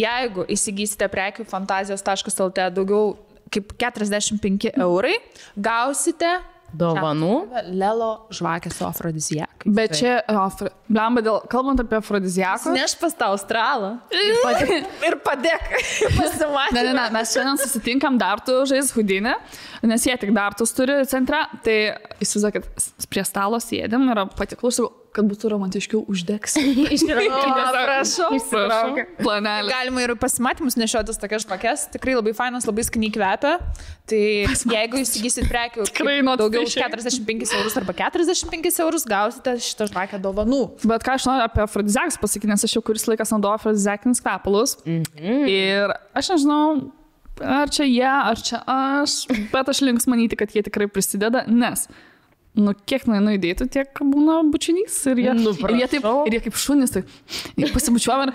jeigu įsigysite prekių fantazijos.lt daugiau kaip 45 eurai, gausite dovanų. Lelo žvakę su afrodiziakai. Bet čia, blemba, kalbant apie afrodiziakus. Neš pas tą Australą. Ir padėk. Pasimatyti. Ne, mes šiandien susitinkam dartų žais Hudinį, nes jie tik dartus turi centre. Tai įsivaizduokit, prie stalo sėdėm ir patiklus, kad būtų romantiškiau uždegs. Prašau. Planelį. Galima ir pasimatymus nešiotis tokias žvakes. Tikrai labai fainas, labai skaniai kvepia. Tai jeigu įsigysit prekių daugiau už 45 eurus arba 45 eurus, gausite šitą žvakę dovanų. Bet ką aš noriu apie afrodiziakus pasakyti, nes aš jau kuris laikas naudoju afrodiziakinius kvepalus. Ir aš nežinau, ar čia jie, ar čia aš, bet aš links manyti, kad jie tikrai prisideda, nes kiek nueinu įdėtų, tiek būna bučinys ir jie kaip šunys, tai pasibučiuojam ir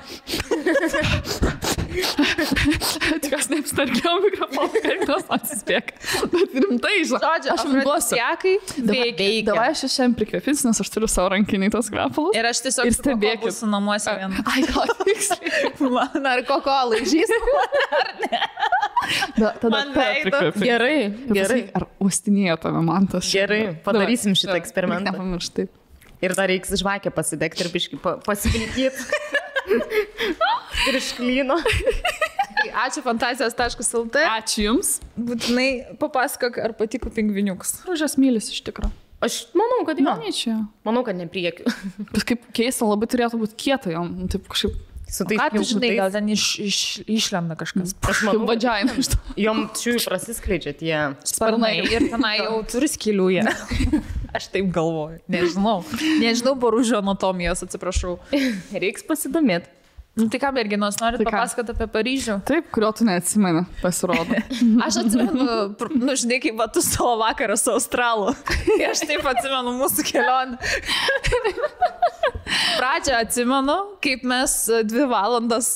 tikas neapstarkiau mikrofoną, kaip tas atsispėk. Bet rimtai, žodžiu, aš jums duosiu. Veikia. Davai aš šiandien prikvėpins, nes aš turiu savo rankinį tos kvepalus. Ir aš tiesiog stebėkit su namuose vieną. Ai, gal tiksliai. Man ar Koko laižys, ar ne? Tada prikvėpins. Gerai. Ar uostinėjo tave man tas? Gerai, padarysim šitą eksperimentą. Nepamirštai. Ir dar reiks žvakę pasidegti ir biškį pasivilkyti. Ir išklyno. Ačiū fantazijos.lt. Ačiū jums. Būtinai papasakok, ar patiko pingviniukas. Aš mylis iš tikro. Aš manau, kad jo. Manau, kad ne priekiu. Bet kaip keista, labai turėtų būti kieta jom. Taip kažkaip. Ką tu žinai, gal ten išlenda kažkas. Aš manau, vadžiaina iš to. Jom šiui prasiskleidžia tie sparnai. Ir tenai jau turi skylių jie. Aš taip galvoju. Nežinau boružio anatomijos, atsiprašau. Reiks pasidomėti. Nu tai ką, merginos, norit papasakoti apie Paryžių? Taip, kurio tu neatsimeni, pasirodo. Aš atsimenu, žinai, kaip tu savo vakarą su Australu. Aš taip atsimenu mūsų kelionę. Pradžią atsimenu, kaip mes 2 valandas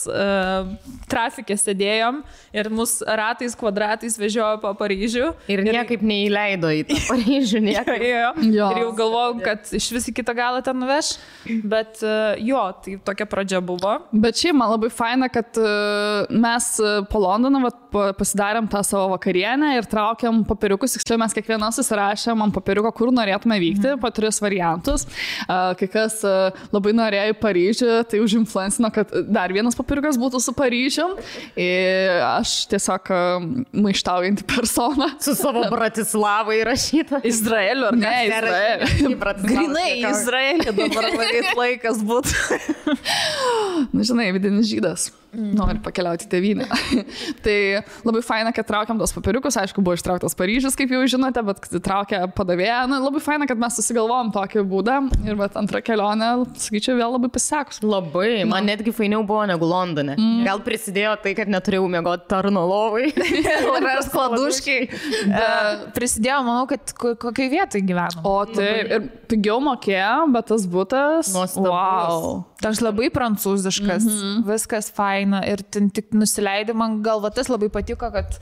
trafikė sėdėjom ir mus ratais, kvadratais vežiojo po Paryžių. Ir niekaip neįleido į tą Paryžių. Ir jau galvojau, kad iš vis į kitą galą ten nuveš. Bet tai tokia pradžia buvo. Bet šiaip man labai faina, kad mes po Londoną pasidarėm tą savo vakarienę ir traukiam popieriukus. Tiksliau, mes kiekvieną susirašėm ant popieriuko, kur norėtume vykti, po 3 variantus. Kai kas labai norėjo į Paryžių, tai užinfluencino, kad dar vienas popieriukas būtų su Paryžium. Ir aš tiesiog maištaujantį personą. Su savo Bratislavą įrašytą. Izraeliu, ar ne? Izraeliu. Grinai Izraelį dabar varėt laikas būtų. Na, žinai, vidinis žydas. nori pakeliauti tėvynę. Tai labai faina, kad traukiam tos papiriukus, aišku, buvo ištrauktas Paryžius, kaip jau žinote, bet traukė padavėją. Labai faina, kad mes susigalvojom tokį būdą ir bet antrą kelionę, sakyčiau, vėl labai pasisekus. Labai, man netgi fainiau buvo negu Londone. Gal prisidėjo tai, kad neturėjau miegoti tarno lovai. Ir skladuškai. Prisidėjo, manau, kad kokiai vietai gyveno. O taip, ir pigiau mokėjo, bet tas būtas. Wow. Toks labai prancūziškas, viskas faina ir tik nusileidai, man galva tas labai patiko, kad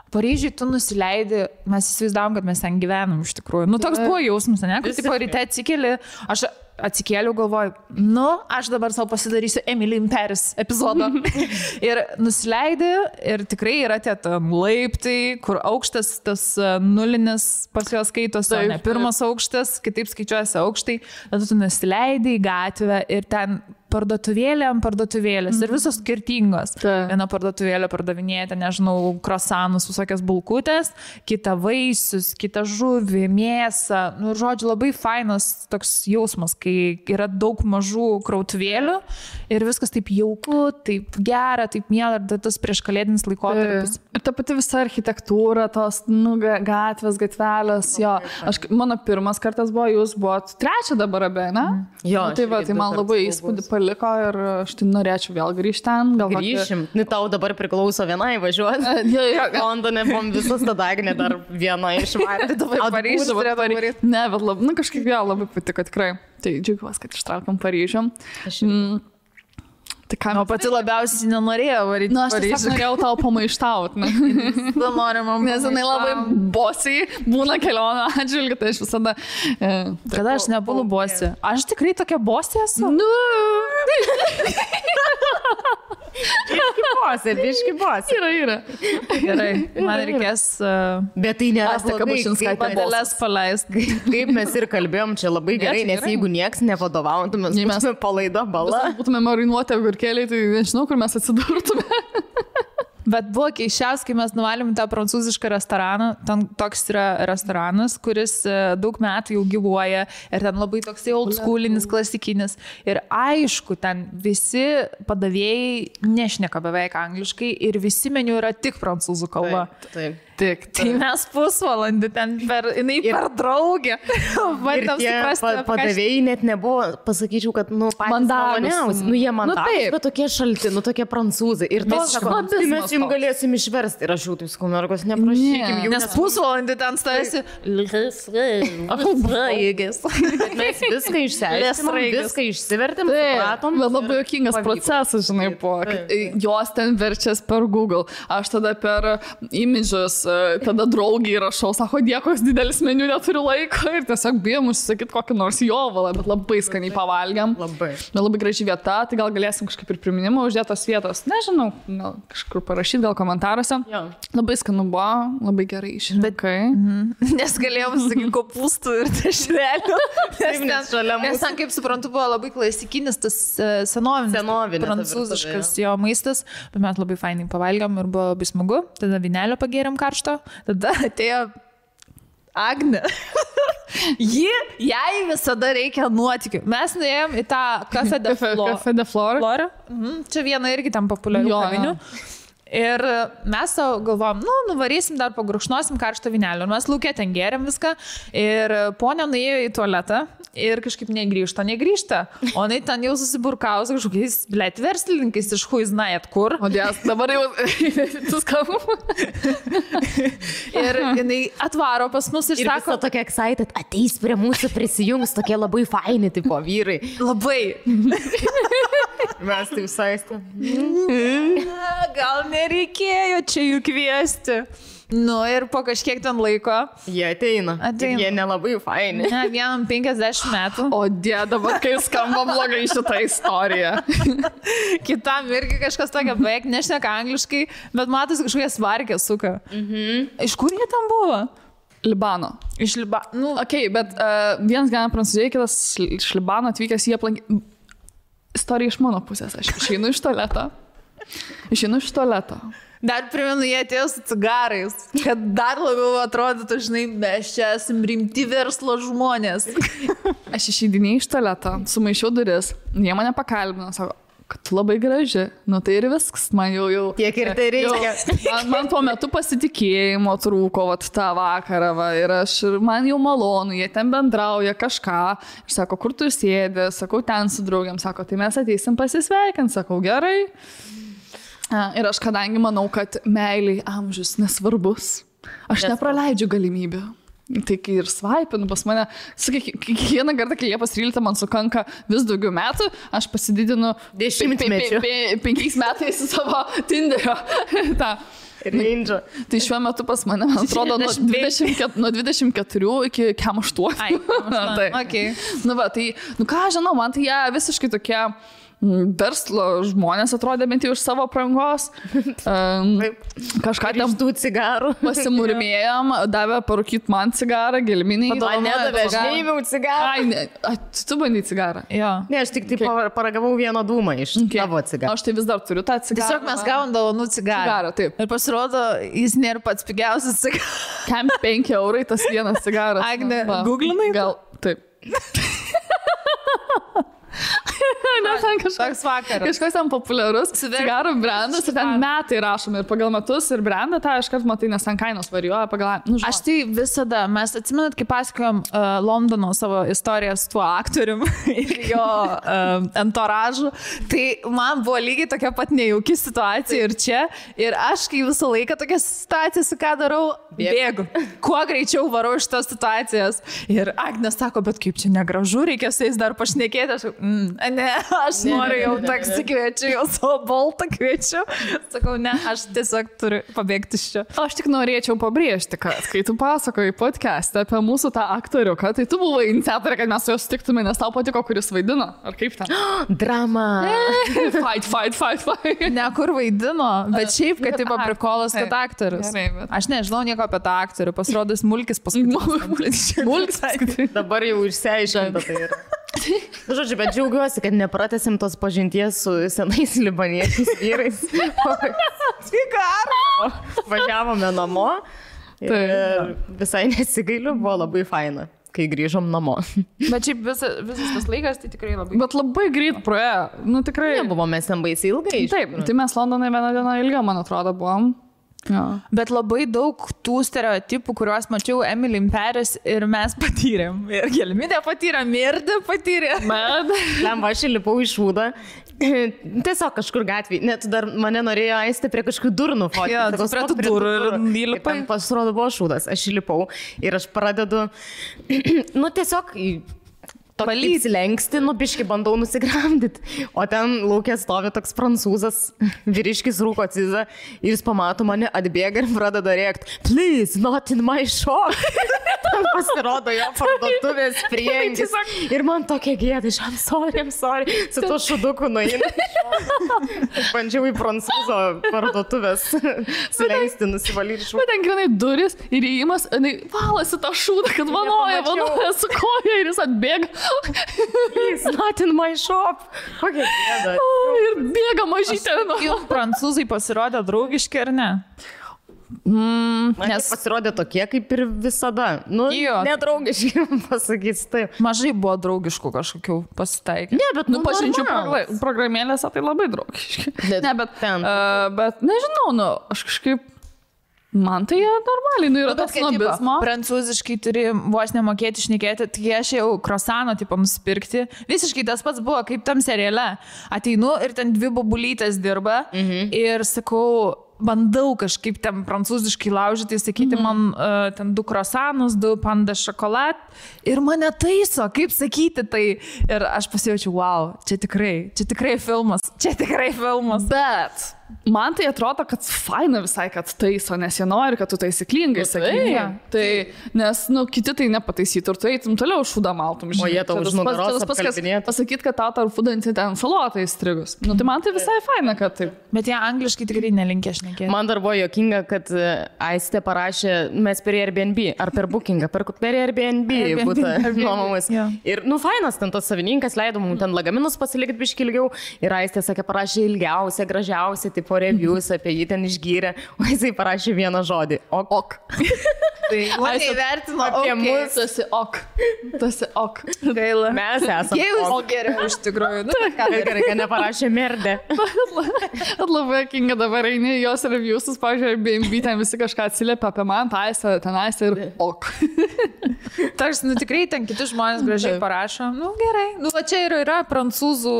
Paryžiui tu nusileidai, mes įsivaizdavom, kad mes ten gyvenam iš tikrųjų. Toks buvo jausmas, ne? Kad tipo ryte atsikeli, aš atsikėliau, galvoju, aš dabar savo pasidarysiu Emily in Paris epizodą. Ir nusileidai ir tikrai yra tie laiptai, kur aukštas tas nulinis pas juos skaitos, o ne pirmas aukštas, kitaip skaičiuojasi aukštai. Tada tu nusileidai į gatvę ir ten parduotuvėlės ir visos skirtingos. Viena parduotuvėlė pardavinėja, nežinau, krosanus, visokias bulkutės, kita vaisius, kita žuvį, mėsą. Žodžiu, labai fainas toks jausmas, kai yra daug mažų krautuvėlių ir viskas taip jauku, taip gera, taip miela, ir tas prieškalėdinis laikotarpis. Ir ta pati visa architektūra, tos gatvės, gatvelės, jo. Mano pirmas kartas buvo, jūs buvot trečia dabar abie, ne? Jo. Tai man labai įspūdį paliko ir aš tai norėčiau vėl grįžti ten. Grįšim. Tau dabar priklauso vienai važiuoti. Londone buvom visas tada Agnė dar viena išvarė. Dabar Paryžių turėtų varyti. Ne, bet kažkaip vėl labai patiko tikrai. Tai džiaugiuosi, kad ištraukam Paryžių. Tai ką, pati labiausiai nenorėjau varyti. Aš tiesiog norėjau tau pamaištauti. Nes jinai labai bosiai būna kelionę atžvilgiu, tai aš visada... Kada aš nebūnu bosė? Aš tikrai tokia bosė esu? Biški bosė. Yra. Gerai, man reikės... Bet tai nėra patelės paleist. Kaip mes ir kalbėjom, čia labai gerai, nes jeigu nieks nevadovautų, mes būtume palaida bala. Būtume marinuoti agurkėliai, tai nežinau, kur mes atsidurtume. Bet buvo keiščiausia, kai mes nuvalėm tą prancūzišką restoraną. Ten toks yra restoranas, kuris daug metų jau gyvuoja ir ten labai toksai old schoolinis, klasikinis. Ir aišku, ten visi padavėjai nešneka beveik angliškai ir visi meniu yra tik prancūzų kalba. Taip. Tai mes pusvalandį ten jinai per draugę. Ir tie padavėjai net nebuvo, pasakyčiau, kad, patys maloniausi. Jie mandagus, bet tokie šalti, tokie prancūzai. Ir mes jums galėsim išversti. Ir aš jau taip sakau, mergos, neprašykim jų. Nes pusvalandį ten stovėsi. Bet mes viską išsiaiškinom, viską išsivertėm, supratom. Bet labai juokingas procesas, žinai, buvo. Jos ten verčias per Google. Aš tada per imidžus, tada draugiai rašau, sako, koks didelis meniu, neturiu laiko ir tiesiog bijom užsisakyti kokį nors jovalą, bet labai skaniai pavalgiam. Labai graži vieta, tai gal galėsim kažkaip ir priminimą uždėtos vietos. Nežinau, gal kažkur parašyti, gal komentaruose. Labai skanu buvo, labai gerai išrinkai. Nes galėjom sakyti kopūstų ir dešrelių. Nes ten, kaip suprantu, buvo labai klasikinis tas senovinis prancūziškas jo maistas, bet mes labai fainai pavalgiam ir buvo labai smagu. Tada vynelio pagėrėm karštą. Tada atėjo Agnė. Jai visada reikia nuotykių. Mes nuėjom į tą Café de Flore. Čia viena irgi tam populiarių kavinių. Ir mes savo galvom, nuvarysim dar pagurkšnosim karštą vynelį. Ir mes lauke ten gėrėm viską. Ir ponia nuėjo į tualetą ir kažkaip negrįžta. O jinai ten jau susiburkaus kažkokiais, verslininkais iš huiznajat kur. O dės, dabar jau tu skambų. Ir jinai atvaro pas mus ir sako... Ir tokia excited, ateis prie mūsų prisijungs, tokie labai faini tipo vyrai. Labai. Mes tai saistėm. Gal nereikėjo čia jų kviesti. Ir po kažkiek ten laiko. Jie ateina. Jie nelabai faini. Ne, vienam 50 metų. O dabar, kai skamba blogai šitą istoriją. Kitam irgi kažkas tokia beveik nešneka angliškai, bet matosi kažkokie svarkė suka. Iš kur jie tam buvo? Libano. Iš Libano. Bet vienas gyvena Prancūzijoje, kitas iš Libano atvykęs, jie aplankė. Istorija iš mano pusės. Aš išeinu iš tualeto. Dar primenu, jie atėjo su cigarais, kad dar labiau atrodytų, žinai, mes čia esam rimti verslo žmonės. Aš išeidinėjau iš tualeto, sumaišiau duris, jie mane pakalbino, sako, kad tu labai graži. Nu tai ir viskas, man jau... Tiek ir tai reikia. Man tuo metu pasitikėjimo trūko tą vakarą, ir man jau malonu, jie ten bendrauja kažką. Ir sako, kur tu sėdi, sakau, ten su draugiam, sako, tai mes ateisim pasisveikinti, sakau, gerai. Ir aš kadangi manau, kad meiliai amžius nesvarbus, aš nepraleidžiu galimybių. Tai kai ir svaipinu pas mane, kiekvieną kartą, kai Liepos 13 man sukanka vis daugiau metų, aš pasididinu 10 mečių. 5 metais savo Tinderio. Range. Tai šiuo metu pas mane, man atrodo, nuo 24 iki 8. Tai. Okay. Tai, ką žinau, man tai jie visiškai tokie verslo žmonės atrodė bent jau iš savo aprangos. Kažką ten tų cigarų. Pasimurmėjom, davė parūkyti man cigarą, gelminiai. Nedavė, aš neįmiau cigarą. Tu bandai cigarą? Jo. Ne, aš tik paragavau vieną dūmą iš tavo cigarą. Aš tai vis dar turiu tą cigarą. Tiesiog mes gavom dovanų cigarą. Taip. Ir pasirodo, jis nėra pats pigiausias cigaras. Kam 5 eurai tas vienas cigaras? Agne, googlinai? Gal, taip. Toks vakaras. Kažkoks ten populiarus cigarų brandas ir ten metai rašomi ir pagal metus ir brandą tą iškart matai, nes ten kainos varijuoja pagal... Aš tai visada, mes atsimenat, kai pasakojom Londono savo istoriją su tuo aktorium ir jo entouražu, tai man buvo lygiai tokia pat nejauki situacija ir čia. Ir aš, kai visą laiką tokia situacija, su ką darau, bėgu. Kuo greičiau varau iš tos situacijos. Ir Agnė sako, bet kaip čia negražu, reikia su jais dar pašnekėti. Aš noriu jau taksi kviečiu, jau savo boltą kviečiu. Sakau, ne, aš tiesiog turiu pabėgti iš čia. Aš tik norėčiau pabrėžti, kad kai tu pasakoji podcast'ą apie mūsų tą aktoriuką, tai tu buvai iniciatorė, kad mes su juo sutiktume, nes tau patiko, kuris vaidino. Ar kaip ten? Drama. Fight. Ne, kur vaidino, bet šiaip, kad taip aprikolas, kad aktorius. Aš nežinau nieko apie tą aktorių, pasirodys Mulkis paskutinis. Mulkis. Dabar jau išsiaiškinta tai yra. Žodžiu, bet džiaugiuosi, kad nepratęsim tos pažinties su senais libaniečiais vyrais. Važiavome namo ir visai nesigailiu, buvo labai faina, kai grįžom namo. Bet šiaip visas tas laikas tai tikrai labai... Bet labai greit praėjo. Nu tikrai. Nebuvo mes ten baisiai ilgai. Taip, tai mes Londone vieną dieną ilgiau, man atrodo, buvom. Ja. Bet labai daug tų stereotipų, kuriuos mačiau Emily in Paris ir mes patyrėm. Ir Gelminė patyrė, Mirda patyrė. Lemba, aš įlipau į šūdą. Tiesiog kažkur gatvėje. Net dar mane norėjo aisti prie kažkokių durų nufotyti. Jo, prie tų durų ir įlipai. Pasirodo, buvo šūdas. Aš įlipau ir aš pradedu, tiesiog... Įsilenksti, biškai bandau nusigramdyti. O ten laukia stovi toks prancūzas, vyriškis rūko cizą ir jis pamato mane, atbėga ir pradeda rėkti, please, not in my shop. Ten pasirodo jo parduotuvės prieangis. Ir man tokia gėda, I'm sorry. Su tuo šuduku nueina. Bandžiau į prancūzo parduotuvės sulenksti, nusivalyti šūdą. Bet ten grinai duris ir įėjimas, valasi tą šūdą, kad vanoja su koja ir jis atbėga. He's not in my shop. Kokia gėda. Ir bėga mažytė. Juk prancūzai pasirodė draugiški, ar ne? Nes pasirodė tokie, kaip ir visada. Nedraugiški, pasakys taip. Mažai buvo draugiškų kažkokių pasitaikė. Ne, bet pažinčių programėlėse tai labai draugiški. Ne, bet nežinau, aš kažkaip... Man tai normaliai, yra tas snobizmo. Prancūziškai turi vos nemokėti šnekėti, tai aš jau krosano tipą nusipirkti. Visiškai tas pats buvo, kaip tam seriale. Ateinu ir ten 2 bobulytės dirba ir sakau, bandau kažkaip ten prancūziškai laužyti, sakyti man ten 2 krosanus, 2 panda šokolad ir mane taiso, kaip sakyti tai. Ir aš pasijaučiu, wow, čia tikrai filmas. Bet man tai atrodo, kad faina visai, kad taiso, nes jie nori, kad tu taisyklingai sakytum. Tai, nes, kiti tai nepataisytų ir tu eitum toliau šūdą maltum. O jie tau už nugaros apkalbinėtų. Pasakyti, kad tau tarp fūdanti ten salotą įstrigus. Tai man tai visai faina, kad taip. Bet jie angliškai tikrai nelinkė šnekėti. Man dar buvo juokinga, kad Aistė parašė, mes per Airbnb, ar per Bookingą, per Airbnb būtų nuomomas. Ir, fainas, ten tas savininkas leido mums ten lagaminus pasilikti biškį ilgiau ir Aistė sakė, parašė ilgiausia, gražiausia. tipo reviews apie jį ten išgyrė, o jisai parašė vieną žodį. Ok. Tai mane įvertino apie mus. Tas ok. Gaila. Mes esame. Jėzus geriau iš tikrųjų. Nu, Gerai, kad neparašė merdė. Labai akinga dabar eini jos reviewsus, pavyzdžiui, BNB ten visi kažką atsiliepia apie man, tenais ir ok. Tarsi, nu tikrai ten kiti žmonės gražiai parašo. Nu gerai. Nu, va čia yra prancūzų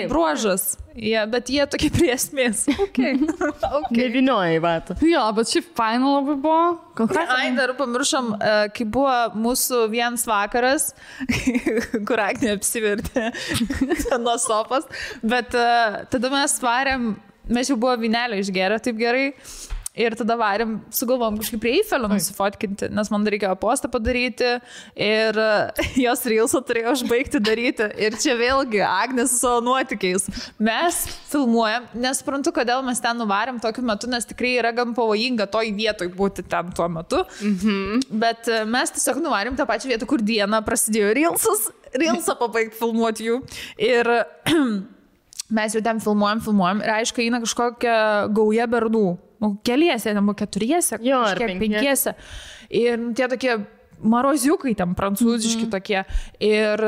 bruožas. Bet jie tokie prie esmės. Okay. Nevinioja į vatą. Jo, bet šiaip faina labai buvo. Ai, dar pamiršom, kai buvo mūsų vienas vakaras, kur Agnė apsivertė nuo sofos, bet tada mes varėm, mes jau buvo vynelio išgėrę taip gerai. Ir tada varėm, sugalvom kažkaip prie Eifelio nusifotkinti, nes man reikėjo postą padaryti ir jos reelsą turėjo užbaigti daryti. Ir čia vėlgi Agnė su savo nuotykiais. Mes filmuojam, nesuprantu, kodėl mes ten nuvarėm tokiu metu, nes tikrai yra gan pavojinga toj vietoj būti ten tuo metu. Bet mes tiesiog nuvarėm tą pačią vietą, kur dieną prasidėjo reelsą pabaigti filmuoti jų. Ir mes jau ten filmuojam ir aišku, eina kažkokia gauja bernų. Keliese, ten buvo 4, kažkiek 5. Ir tie tokie maroziukai ten prancūziški tokie. Ir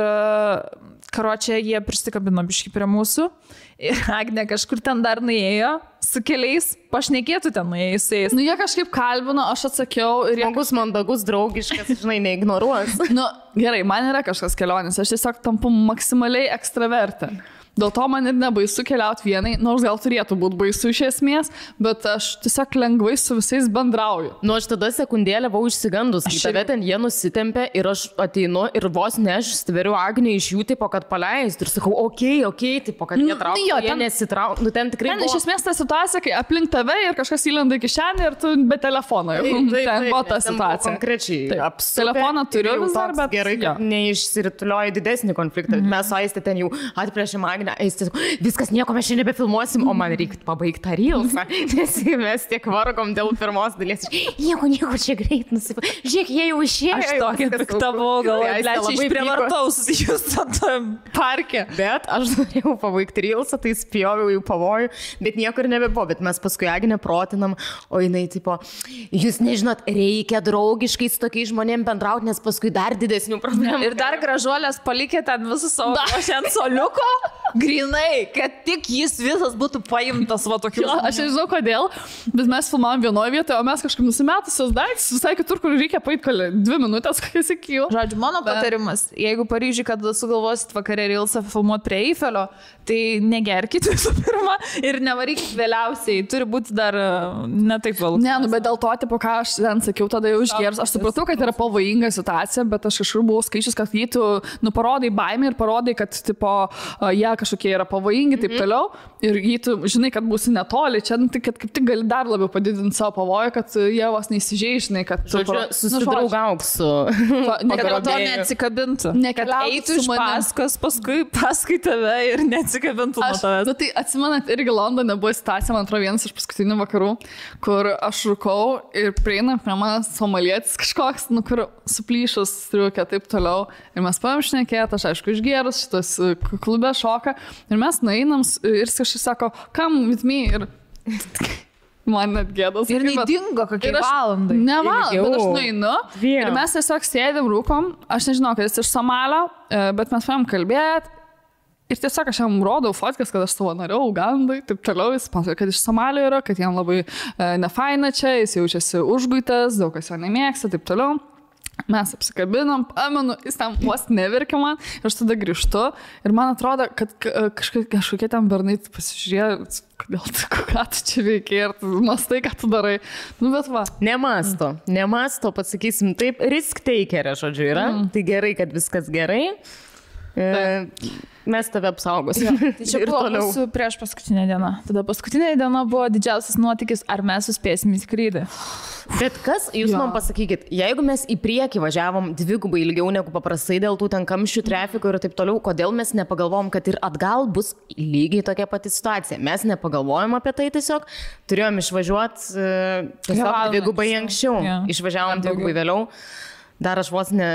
karočią jie prisikabino biškį prie mūsų. Ir Agnė kažkur ten dar nuėjo su keliais, pašnekėtų ten nuėjusiais. Nu, jie kažkaip kalbino, aš atsakiau ir jie... Žmogus mandagus, draugiškas, žinai, neignoruos. Nu, gerai, man yra kažkas kelionės, aš tiesiog tampu maksimaliai ekstravertė. Dėl to man ir nebaisu keliauti vienai, nors gal turėtų būti baisu iš esmės, bet aš tiesiog lengvai su visais bendrauju. Nu, aš tada sekundėlę buvau išsigandus, kai tave ten jie nusitempė ir aš ateinu ir vos ne aš stveriu Agnę iš jų, tipo, kad paleist ir sakau, okei, tipo, kad jie traukia, jie nesitraukia. Nu, ten tikrai ten buvo... iš esmės ta situacija, kai aplink tave ir kažkas įlenda į kišenę ir tu be telefono. Ten buvo ta situacija. Konkrečiai. Telefoną turiu vis dar, bet... Gerai, kad neišsiritulioja didesnį konfliktą. Mes su Aiste ten jau atplėšėm Agnę. Viskas, nieko mes šiandien nebefilmuosim, o man reikia pabaigti tą reelsą, nes mes tiek vargom dėl pirmos dalies. Nieko, čia greit nusipirkti. Žiūrėk, jie jau išėjo. Aš tokia pikta buvau, galvoju, aš išprievartaus jūs tam parke. Bet aš norėjau pabaigti reelsą, tai spjoviau į pavojų, bet nieko ir nebebuvo. Bet mes paskui Agnę protinam, o jinai tipo, jūs nežinot, reikia draugiškai su tokiais žmonėm bendrauti, nes paskui dar didesnių problemų. Ir dar gražuolės palikė ten visus savo ant soliuko. Grinai, kad tik jis visas būtų paimtas va tokiu. Aš nežinau kodėl, bet mes filmavom vienoje vietoje, o mes kažkaip nusimetusios daiktus visai kitur, kur reikia paeiti 2 minutės, kokias iki jų. Žodžiu, mano patarimas, jeigu Paryžiui, kad sugalvosit vakarė reelsą filmuoti prie Eifelio, tai negerkit visų pirma ir nevarykit vėliausiai, turi būti dar ne taip vėlų. Ne, nu, bet dėl to, tipo, ką aš ten sakiau, tada jau išgėrus, aš supratau, kad yra pavojinga situacija, bet aš kažkur buvau skaičius, kad jį tu parodai baimę ir parodai, kad tipo, jie kažkokie yra pavojingi, taip toliau. Ir jį tu žinai, kad būsi netoli, čia tai, kad kaip tik gali dar labiau padidinti savo pavojų, kad jie vos neįsižeidžinai, kad... Susidraugauk su... Kad to neatsikabintų. Kad eitų iš paskui tave ir neatsikabintų nuo tavęs. Nu, tai atsimenat, irgi Londone buvo situacija, man atrodo, vienas iš paskutinių vakarų, kur aš rūkau ir prieina prie manęs somalietis kažkoks, nu, kur suplyšus striukė, taip toliau. Ir mes paėm šnekėt, aš aišku išgėrus, šitas klube šoka. Ir mes nueinam ir kažkas sako, come with me. Ir man net gėdas. Ir neįdingo kokie valandai. Ne valandai, bet aš nueinu. Ir mes tiesiog sėdėm, rūkom. Aš nežinau, kad jis iš Somalio, bet mes paėm kalbėti. Ir tiesiog aš jam rodau fotkas, kad aš savanoriau Ugandai, taip toliau. Jis pasakoja, kad iš Somalio yra, kad jam labai nefaina čia, jis jaučiasi užguitas, daug kas jo nemėgsta, taip toliau. Mes apsikabinom, pamenu, jis ten vos neverkė man ir aš tada grįžtu ir man atrodo, kad kažkokie ten bernai pasižiūrėjo, ką tu čia veikia ir tu mastai, ką tu darai. Nu, bet va. Nemasto, pasakysim taip, risk takerė, žodžiu, yra. Tai gerai, kad viskas gerai. Mes tave apsaugosim. Tai čia buvo mūsų prieš paskutinę dieną. Tada paskutinė diena buvo didžiausias nuotykis, ar mes suspėsim į skrydį. Bet kas, jūs man pasakykit, jeigu mes į priekį važiavom 2 ilgiau negu paprastai dėl tų ten kamščių, trafiko ir taip toliau, kodėl mes nepagalvojom, kad ir atgal bus lygiai tokia pati situacija? Mes nepagalvojom apie tai tiesiog, turėjom išvažiuoti tiesiog 2 anksčiau, išvažiavom 2 vėliau. dar aš vos ne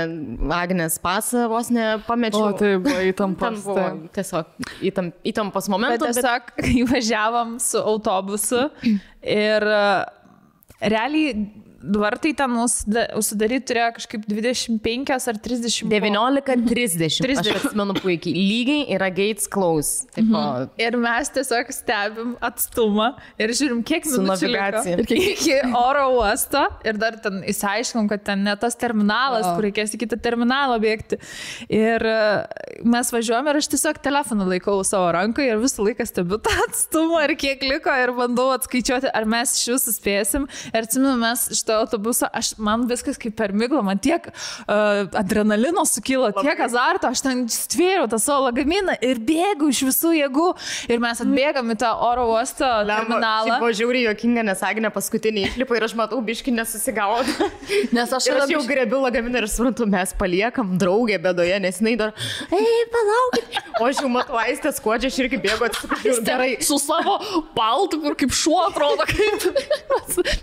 Agnės pasą, vos ne pamečiau. O tai buvo įtampas. Buvo tiesiog įtampos momentas. Bet tiesiog, kai važiavom su autobusu ir realiai vartai ten užsidaryti turėjo kažkaip 25 ar 30. 19:30. Aš atsimenu puikiai. Lygiai yra gates close. Tipo, Ir mes tiesiog stebim atstumą ir žiūrim, kiek minučių liko iki oro uosto. Ir dar ten įsiaiškinom, kad ten ne tas terminalas, kur reikės į kitą terminalą bėgti. Ir mes važiuojame ir aš tiesiog telefoną laikau savo rankoje ir visą laiką stebiu tą atstumą ir kiek liko ir bandau atskaičiuoti, ar mes iš jūsų spėsim. Ir atsimenu, mes iš autobusą, man viskas kaip per miglą, man tiek adrenalino sukilo, tiek azarto, aš ten stvėriau tą savo lagaminą ir bėgu iš visų jėgų ir mes atbėgam į tą oro uosto terminalą. Buvo žiauriai juokinga, nes Agnė paskutinį įklipą ir aš matau biškį nesusigaudo. Nes aš jau grebiu lagaminą ir suprantu, mes paliekam draugę bėdoje, nes jinai dar, palaukit. O aš jau matau Aistę skuodžią, aš irgi bėgu atsiprašau. Gerai. Su savo paltu, kur kaip šuo atrodo, kaip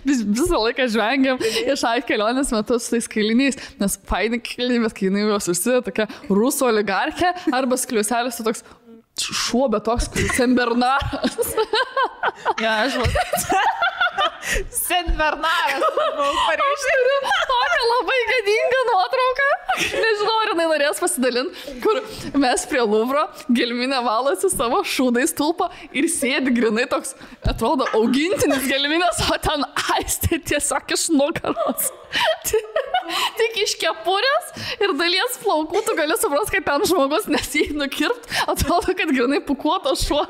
visą laiką žvengiam iš kelionės metu su tais kailiniais, nes faini kailiniai, bet kai jinai juos užsideda tokia rusų oligarchė arba skliuselis toks šuo, bet toks Senbernaras. Ja, aš Senbernaras. Tokia labai gadinga nuotrauka. Nežinau, ar jinai norės pasidalinti, kur mes prie Luvro gelminė valosi savo šūdais tulpą ir sėdi grinai toks, atrodo, augintinis gelminės, o ten Aistė tiesiog iš nugaros. Tik iš kepurės ir dalies plaukų tu gali suprasti, kad ten žmogus nesijai nukirpt, atrodo, kad grinai pukuotas šuo.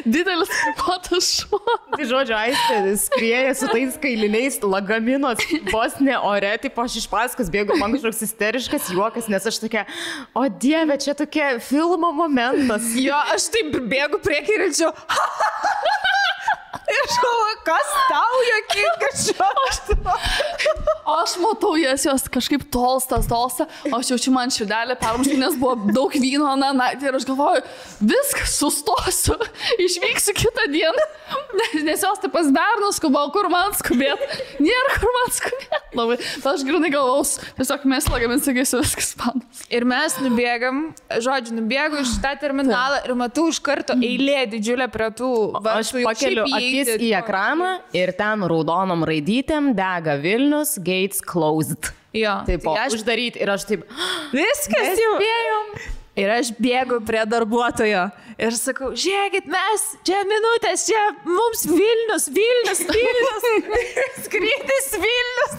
Didelis pukuotas šuo. Tai žodžiu, Aistė skrieja su tais kailiniais lagaminos vos ne ore, tipo aš iš paskos bėgu, man kažkoks isteriškas juokas, nes aš tokia, o Dieve, čia tokia filmo momentas. Jo, aš taip bėgu priekį ir čia. Ir aš galvoju, kas tau jokinga šiuo? Aš matau jos kažkaip tolsta, aš jaučiu man širdelę permušti, nes buvo daug vyno naktį ir aš galvoju, viskas, sustosiu, išvyksiu kitą dieną, nes jos taip pas bernus skubau, kur man skubėt, nėra kur man skubėt. Labai, aš grinai galvaus, tiesiog mes lagamin, sakysiu, viskas panas. Ir mes nubėgu iš tą terminalą ir matau iš karto eilė didžiulė prie tų vartų. Aš pakeliu akis į ekraną ir ten raudonom raidytėm dega Vilnius, gates closed. Jo. Taip, uždaryti ir aš taip, viskas jau. Ir aš bėgu prie darbuotojo ir sakau, žiūrėkit, mes, čia minutės, čia mums Vilnius, skrydis Vilnius.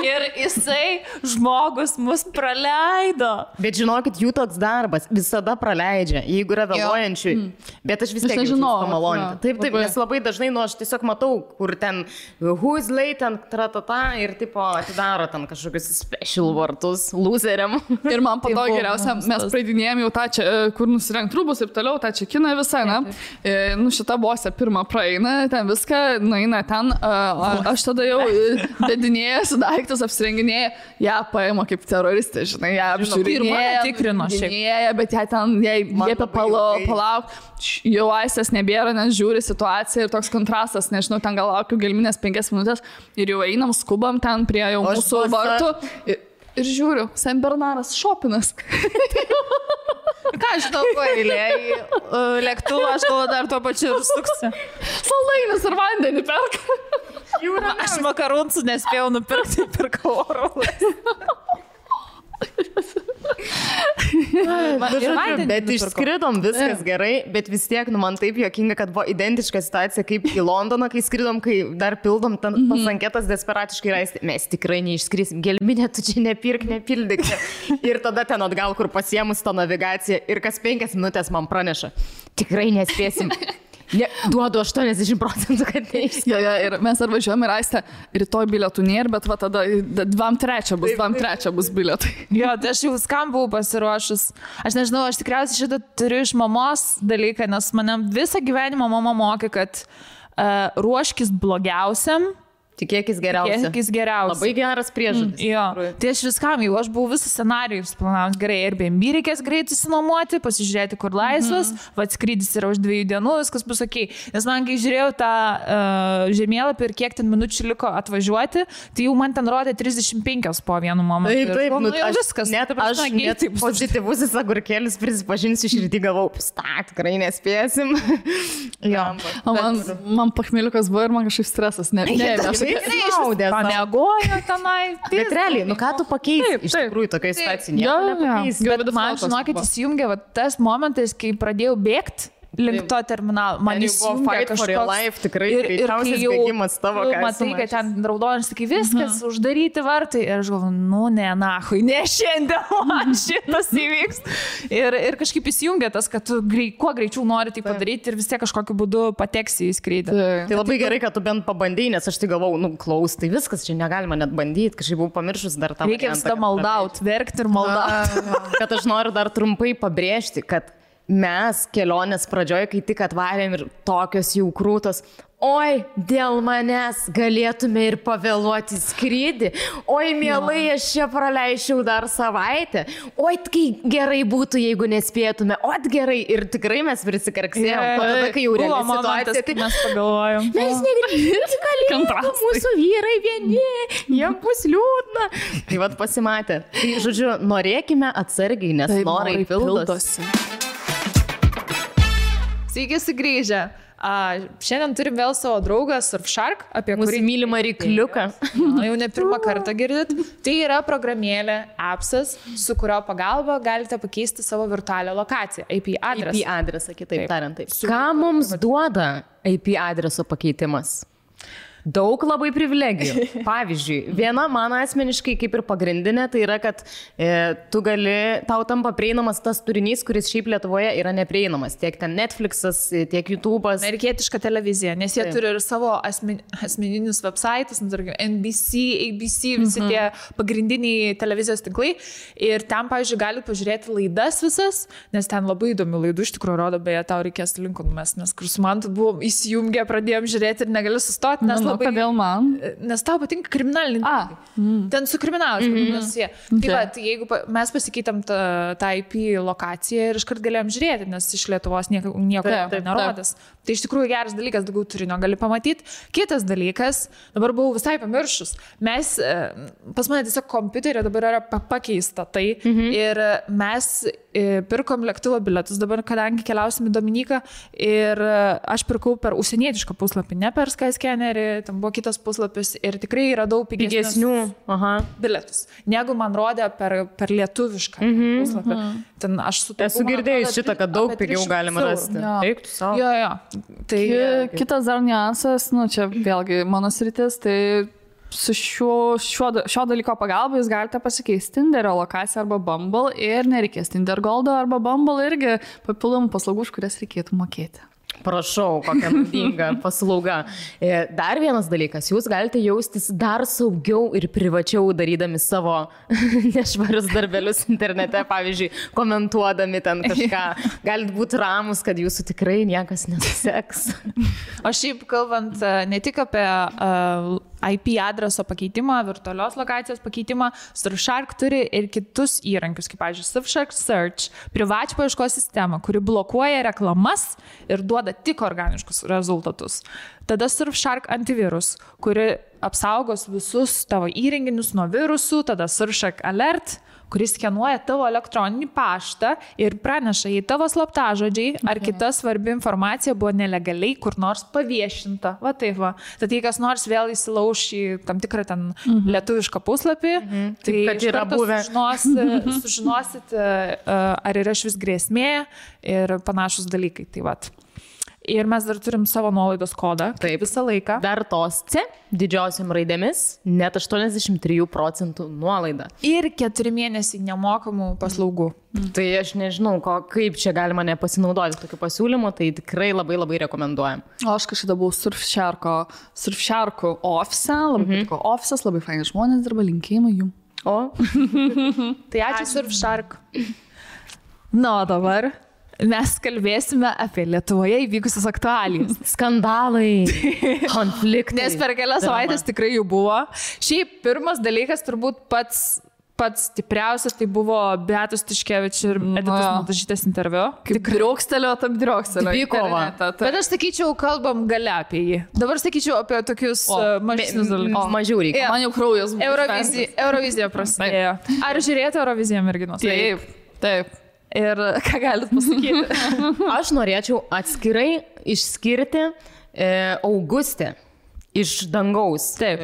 Ir jisai, žmogus, mus praleido. Bet žinokit, jų toks darbas visada praleidžia, jeigu yra vėluojančių. Bet aš vis tiek jaučiu pamaloninti. Taip, nes labai dažnai, aš tiesiog matau, kur ten who is late, tratata ir tipo atidaro ten kažkokius special vartus loseriam. Ir man po to geriausia, mes praeidinėjom jau tą čia, kur nusirengt rūbus ir toliau, tą čekiną visą, ne? Šita bosė pirmą praeina, ten viską, nueina ten, aš tada jau dedinėjęs daiktus, apsirenginėję, ją paima kaip teroristė, žinai, ją apžiūrinėja, tikrino šiek. Bet ją ten, jai liepia palauk, jau Aistės nebėra, nes žiūri situaciją ir toks kontrastas, nežinau, ten gal laukiu gelminės 5 minutės ir jau einam, skubam ten prie jau mūsų vartų. Ir žiūriu, Senbernaras šopinas. Ką aš žinau, ko eilė į lėktuvą, aš galvoju dar tuo pačiu ir suksiu. Saldainius ir vandenį perka. Aš makaronų nespėjau nupirkti, pirkau oro. Bet išskridom, viskas gerai, bet vis tiek, man taip juokinga, kad buvo identiška situacija kaip į Londoną, kai skridom, kai dar pildom tas anketas desperatiškai raisti. Mes tikrai neišskrisim, gelminė, tu čia nepildyk. Ir tada ten atgal, kur pasiemus tą navigaciją ir kas 5 minutės man praneša. Tikrai nespėsim. Duodu 80%, kad neišskrisim. Jo, ir mes ar važiuojame ir Aistė, rytoj bilietų nėra, bet va tada 2-3 bus bilietai. Jo, tai aš jau skam buvau pasiruošus. Aš nežinau, aš tikriausiai šitą turiu iš mamos dalyką, nes mane visą gyvenimą mama mokė, kad ruoškis blogiausiam Tikėkis geriausia. Tikėkis geriausia. Labai geras priežodis. Jo. Tai aš viskam, jau aš buvau visą scenarijų planavęs gerai. Airbnb reikės greitai išsinuomoti, pasižiūrėti, kur laisvas, skrydis yra už 2 dienų, viskas bus ok. Nes man, kai žiūrėjau tą žemėlapį ir kiek ten minučių liko atvažiuoti, tai jau man ten rodė 35 po vienu momentu. Taip, aš viskas. Net pozityvusis agurkėlis, prisipažinsiu, širdį galvau, tikrai nespėsim. Jo. Man pachmeliukas buvo ir man kažkaip stresas. Pamiegojo tenai. Bet realiai, ką tu pakeisi iš tikrųjų tokiai situacijai? Bet man, žinokit, įsijungė tas momentas, kai pradėjau bėgti link to terminalo. Man įsijungė kažkoks... Tikrai greičiausias bėgimas tavo, ką matai, kad ten raudonis, sakai, viskas, uždaryti vartai. Ir aš galvoju, ne šiandien man šitas įvyks. Ir kažkaip įsijungė tas, kad tu kuo greičiau nori tai padaryti ir vis tiek kažkokiu būdu pateksi į skrydį. Tai labai gerai, kad tu bent pabandai, nes aš tai galvau, klaus, tai viskas, čia negalima net bandyti, kažkaip buvau pamiršus dar tą. Reikia visada maldauti, verkti ir maldauti. Kad aš noriu dar trumpai pabrėžti, kad mes kelionės pradžioje, kai tik atvarėm ir tokios jau krūtos, oi, dėl manęs galėtume ir pavėluoti skrydį, oi, mielai, aš čia praleičiau dar savaitę, oi, kai gerai būtų, jeigu nespėtume, oi, gerai, ir tikrai mes prisikarksėjom, o tada, kai jau reali situacija, tai mes pagalvojom. Mes negrįžti kalėjimą, mūsų vyrai vieni, jie bus liūdna. Tai vat pasimatė. Tai, žodžiu, norėkime atsargiai, nes norai pildosi. Sveiki sugrįžę. Šiandien turim vėl savo draugą Surfshark, apie kurį mylimą rykliuką. Jau ne pirmą kartą girdit. Tai yra programėlė, appsas, su kurio pagalba galite pakeisti savo virtualią lokaciją, IP adresą. IP adresą, kitaip tariant. Ką mums duoda IP adreso pakeitimas? Daug labai privilegijų. Pavyzdžiui, viena mano asmeniškai kaip ir pagrindinė, tai yra, kad tau tampa prieinamas tas turinys, kuris šiaip Lietuvoje yra neprieinamas. Tiek ten Netflixas, tiek YouTube'as. Amerikietiška televizija, nes jie turi ir savo asmeninius websaitus, NBC, ABC, visi tie pagrindiniai televizijos tinklai. Ir ten, pavyzdžiui, galite pažiūrėti laidas visas, nes ten labai įdomių laidų iš tikrųjų rodo, beje, tau reikės linkų numest, nes kur su man buvom įsijungę, pradėjom žiūrėti ir negali sustoti, nes kodėl man? Nes tau patinka kriminaliniai. Ten su kriminalas. Tai va, tai jeigu mes pasikeitėm tą IP lokaciją ir iškart galėjom žiūrėti, nes iš Lietuvos nieko nerodės. Tai iš tikrųjų geras dalykas, daugiau turinio gali pamatyti. Kitas dalykas, dabar buvau visai pamiršus. Pas mane tiesiog kompiuterio dabar yra pakeista tai ir mes pirkom lėktuvo bilietus dabar, kadangi keliausim į Dominiką ir aš pirkau per užsienietišką puslapį, ne per Skyscannerį, ten buvo kitas puslapis ir tikrai radau pigesnių bilietus, negu man rodė per lietuvišką puslapį. Ten aš esu girdėjus šitą, kad daug pigiau galima rasti. Eik tu savo. Jo. Tai kitas dar niuansas, čia vėlgi mano sritis, tai su šio dalyko pagalba jūs galite pasikeisti Tinderio lokaciją arba Bumble ir nereikės Tinder Goldo arba Bumble irgi papildomų paslaugų, už kurias reikėtų mokėti. Prašau, kokia naudinga paslauga. Dar vienas dalykas, jūs galite jaustis dar saugiau ir privačiau darydami savo nešvarius darbelius internete, pavyzdžiui, komentuodami ten kažką. Galite būti ramus, kad jūsų tikrai niekas neseks. O šiaip kalbant ne tik apie IP adreso pakeitimą, virtualios lokacijos pakeitimą, Surfshark turi ir kitus įrankius, kaip, pavyzdžiui, Surfshark Search, privačią paieškos sistemą, kuri blokuoja reklamas ir duoda tik organiškus rezultatus. Tada Surfshark antivirus, kuri apsaugos visus tavo įrenginius nuo virusų, tada Surfshark Alert, kuris skenuoja tavo elektroninį paštą ir praneša, jei tavo slaptažodžiai ar kita svarbi informacija buvo nelegaliai kur nors paviešinta. Va taip va. Tad jei kas nors vėl įsilauš į tam tikrą ten lietuvišką puslapį, tai iš karto sužinosit, ar yra švis grėsmė ir panašus dalykai. Tai va. Ir mes dar turim savo nuolaidos kodą. Taip, visą laiką. Dar tos C didžiosiam raidėmis, net 83% nuolaida. Ir 4 mėnesiai nemokamų paslaugų. Tai aš nežinau, kaip čia galima nepasinaudoti tokiu pasiūlymu, tai tikrai labai labai rekomenduojam. O aš kažkada buvau Surfsharko ofise, labai patiko ofisas, labai faini žmonės dirba, linkėjimai jum. O? Tai ačiū Surfshark. Na, dabar mes kalbėsime apie Lietuvoje įvykusius aktualijas. Skandalai, konfliktai. Nes per kelias savaitės tikrai jų buvo. Šiaip pirmas dalykas turbūt pats stipriausias, tai buvo Beatos Tiškevič ir Editos Mildažytės interviu. Kaip driokstelio. Dvikova. Bet aš sakyčiau, kalbam gale apie jį. Dabar sakyčiau apie tokius mažesnius dalykus. Mažiau reikia. Man jau kraujas buvo. Eurovizija prasidėjo. Ar žiūrėjote Euroviziją, merginos? Taip. Ir ką galit pasakyti? Aš norėčiau atskirai išskirti Augustę iš Dangaus. Taip.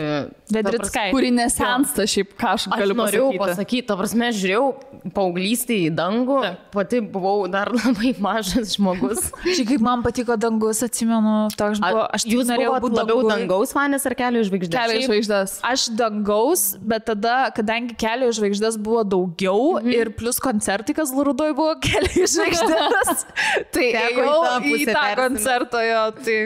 Vedrickai. Kuri nesensta šiaip, ką aš galiu pasakyti. Ta prasme, žiūrėjau paauglystį į dangų, pati buvau dar labai mažas žmogus. Šiaip kaip man patiko Dangus, atsimenu, toks buvo. Jūs buvote labiau Dangaus fanės ar Kelio žvaigždės? Kelio žvaigždės. Aš Dangaus, bet tada, kadangi Kelio žvaigždės buvo daugiau ir plus koncertai, kas Lurudoj buvo Kelio žvaigždės, tai ėjau į tą koncertą, jo, tai...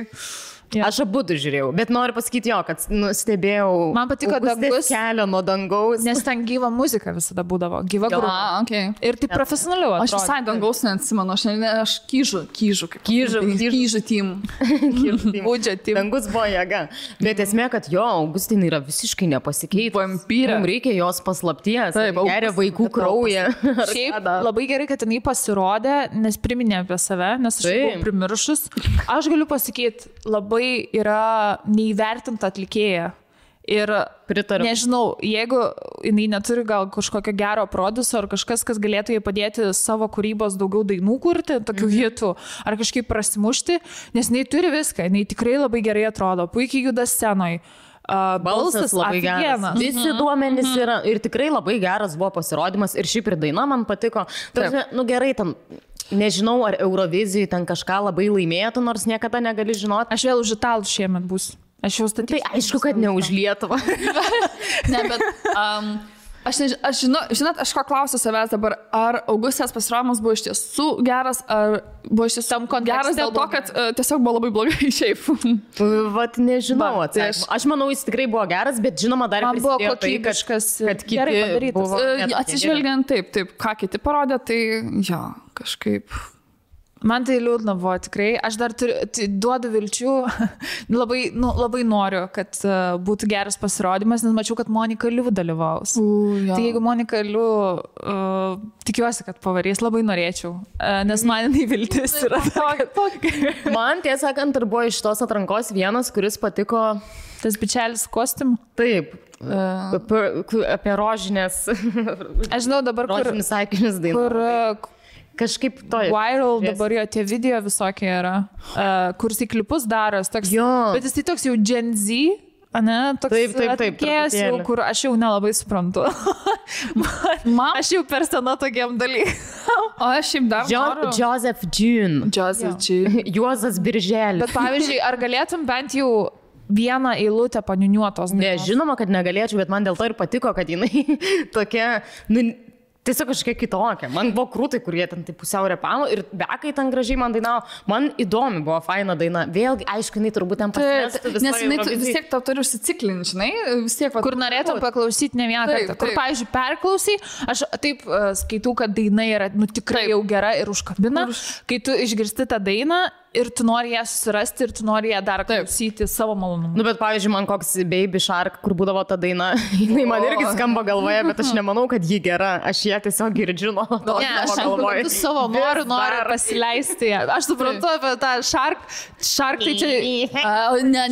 Ja. Aš abu žiūrėjau, bet noriu pasakyti kad stebėjau. Man patiko Dangus Kelio nuo Dangaus. Nes ten gyva muzika visada būdavo, gyva grupė. Okay. Ir tai profesionaliau atrodo. Aš visai Dangaus neatsimenu, aš kyžu tím. Būdžia tím. Dangus buvo jėga. Bet esmė, kad Augustinai yra visiškai nepasikeitę. Vampyrė. Mums reikia jos paslapties. Geria vaikų kraują. Šiaip labai gerai, kad jinai pasirodė, nes priminė apie save, nes aš buvau primiršus. Aš galiu pasakyti, labai yra neįvertinta atlikėja. Ir pritariu. Nežinau, jeigu jinai neturi gal kažkokio gero produso ar kažkas, kas galėtų jai padėti savo kūrybos daugiau dainų kurti, tokių hitų, ar kažkaip prasimušti, nes jinai turi viską, jinai tikrai labai gerai atrodo, puikiai juda scenoje. Balsas labai geras. Visi duomenys yra ir tikrai labai geras buvo pasirodymas ir šiaip ir daina man patiko. Gerai, tam nežinau, ar Eurovizijai ten kažką labai laimėtų, nors niekada negali žinoti. Aš vėl už Italų šiemet bus. Aš jau statysiu. Tai aišku, kad ne už Lietuvą. Ne, bet... Žinot, aš ko klausiu savęs dabar, ar Augustės pasirodymas buvo iš tiesų geras, ar buvo iš tiesų geras dėl to, kad tiesiog buvo labai blogai šiaip. Vat nežinau. Aš manau, jis tikrai buvo geras, bet žinoma, dar prisidėjo tai, kad kiti buvo... Atsižvelgiant taip, ką kiti parodė, tai kažkaip... Man tai liūdna buvo tikrai. Aš dar duodu vilčių. labai noriu, kad būtų geras pasirodymas, nes mačiau, kad Monika Liu dalyvaus. Tai jeigu Monika Liu, tikiuosi, kad pavarys, labai norėčiau. Nes man jinai viltis yra. Man, tiesą sakant, ir buvo iš tos atrankos vienas, kuris patiko... Tas bičelis kostiumų? Taip. Apie rožinės... Aš žinau dabar, rožinės saikinius dainą. Kažkaip to. Viral dabar jo tie video visokie yra, kur jis į klipus daros, toks, bet jis tai toks jau Gen Z, ne? Toks atlikėjas jau, kur aš jau nelabai suprantu. Aš jau per sena tokiam dalykam. O aš šiaip dar noriu. Joseph June. Juozas Birželis. Bet pavyzdžiui, ar galėtum bent jau vieną eilutę paniuniuotos? Ne, žinoma, kad negalėčiau, bet man dėl to ir patiko, kad jinai tokia... Tiesiog kažkiek kitokia. Man buvo krūtai, kurie ten tai pusiau repavo ir bekai ten gražiai man dainavo. Man įdomi buvo faina daina. Vėlgi, aišku, jinai turbūt ten pasimestų. Nes jinai vis tiek tau turi užsiciklinti, žinai, vis tiek. Kur norėtum paklausyti ne vieną kartą. Kur, pavyzdžiui, perklausai, aš taip skaitau, kad daina yra tikrai jau gera ir užkabina. Kai tu išgirsti tą dainą ir tu nori ją susirasti ir tu nori ją dar klausyti savo malonumu. Bet pavyzdžiui, man koks Baby Shark, kur būdavo ta daina, jinai man irgi skamba galvoje, bet aš nemanau, kad ji gera. Aš ją tiesiog girdžiu nuo to. Ne, aš suprantu savo noriu pasileisti. Aš suprantu apie tą Shark tai čia... Ne,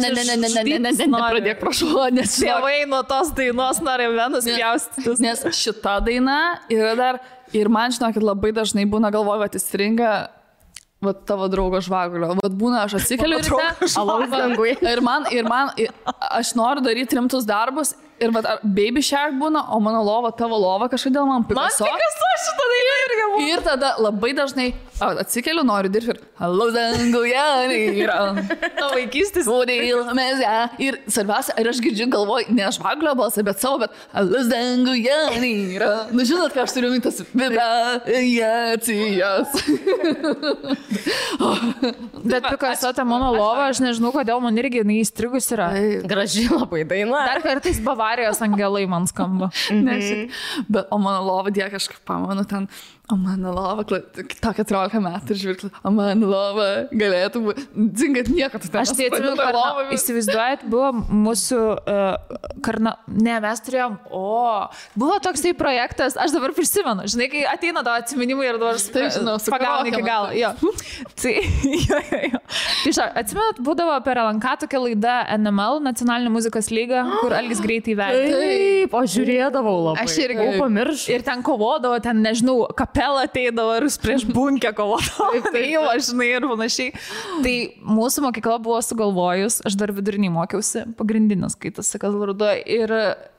pradėk, prašau, nes tėvai nuo tos dainos nori vienas pjaustytis. Nes šita daina yra dar, ir man žinokit, labai dažnai būna galvoju, kad įstringa tavo draugo žvagulio. Būna, aš atsikeliu ir man, aš noriu daryti rimtus darbus ir Baby Shark būna, o mano lova, tavo lova kažkodėl man Picasso. Man Picasso šitą dainą irgi būna. Ir tada labai dažnai atsikeliu, noriu dirbti ir Hello danguje yra. To vaikystės. Ir svarbiausia, ir aš girdžiu galvoju, ne žvagulio balsą, bet savo, bet Hello danguje yra. Nu žinot, ką aš turiu mintas vibracijas. Bet Picasso ta mano lova, aš nežinau, kodėl man irgi įstrigus yra. Graži labai daina. Dar kartais Bavarijos angelai man skamba. Bet o mano lova, kažkaip pamanu ten, o mano lova, tokia atrodo 14 metų ir žvilgti, o man lova galėtų būti. Dzingat nieko, tu ten. Aš tai atsimenu, įsivaizduojat, buvo mūsų ne, mes turėjom, buvo toksai projektas, aš dabar prisimenu, žinai, kai ateina tavo atsiminimai ir dabar pagauni iki galo. Jo. Tai, jo. Atsimenat, būdavo per LNK tokia laida NML, Nacionalinė muzikos lyga, kur Algis greitai vedė. Taip, aš žiūrėdavau labai. Aš irgi pamiršau. Ir ten kovodavo, ten, nežinau, kapela ateidavo ir prieš bunkę kovodavo. Tai jau, žinai, ir panašiai. Tai mūsų mokykla buvo sugalvojus, aš dar vidurinį mokiausi, pagrindinis, kai tas sakas vardu, ir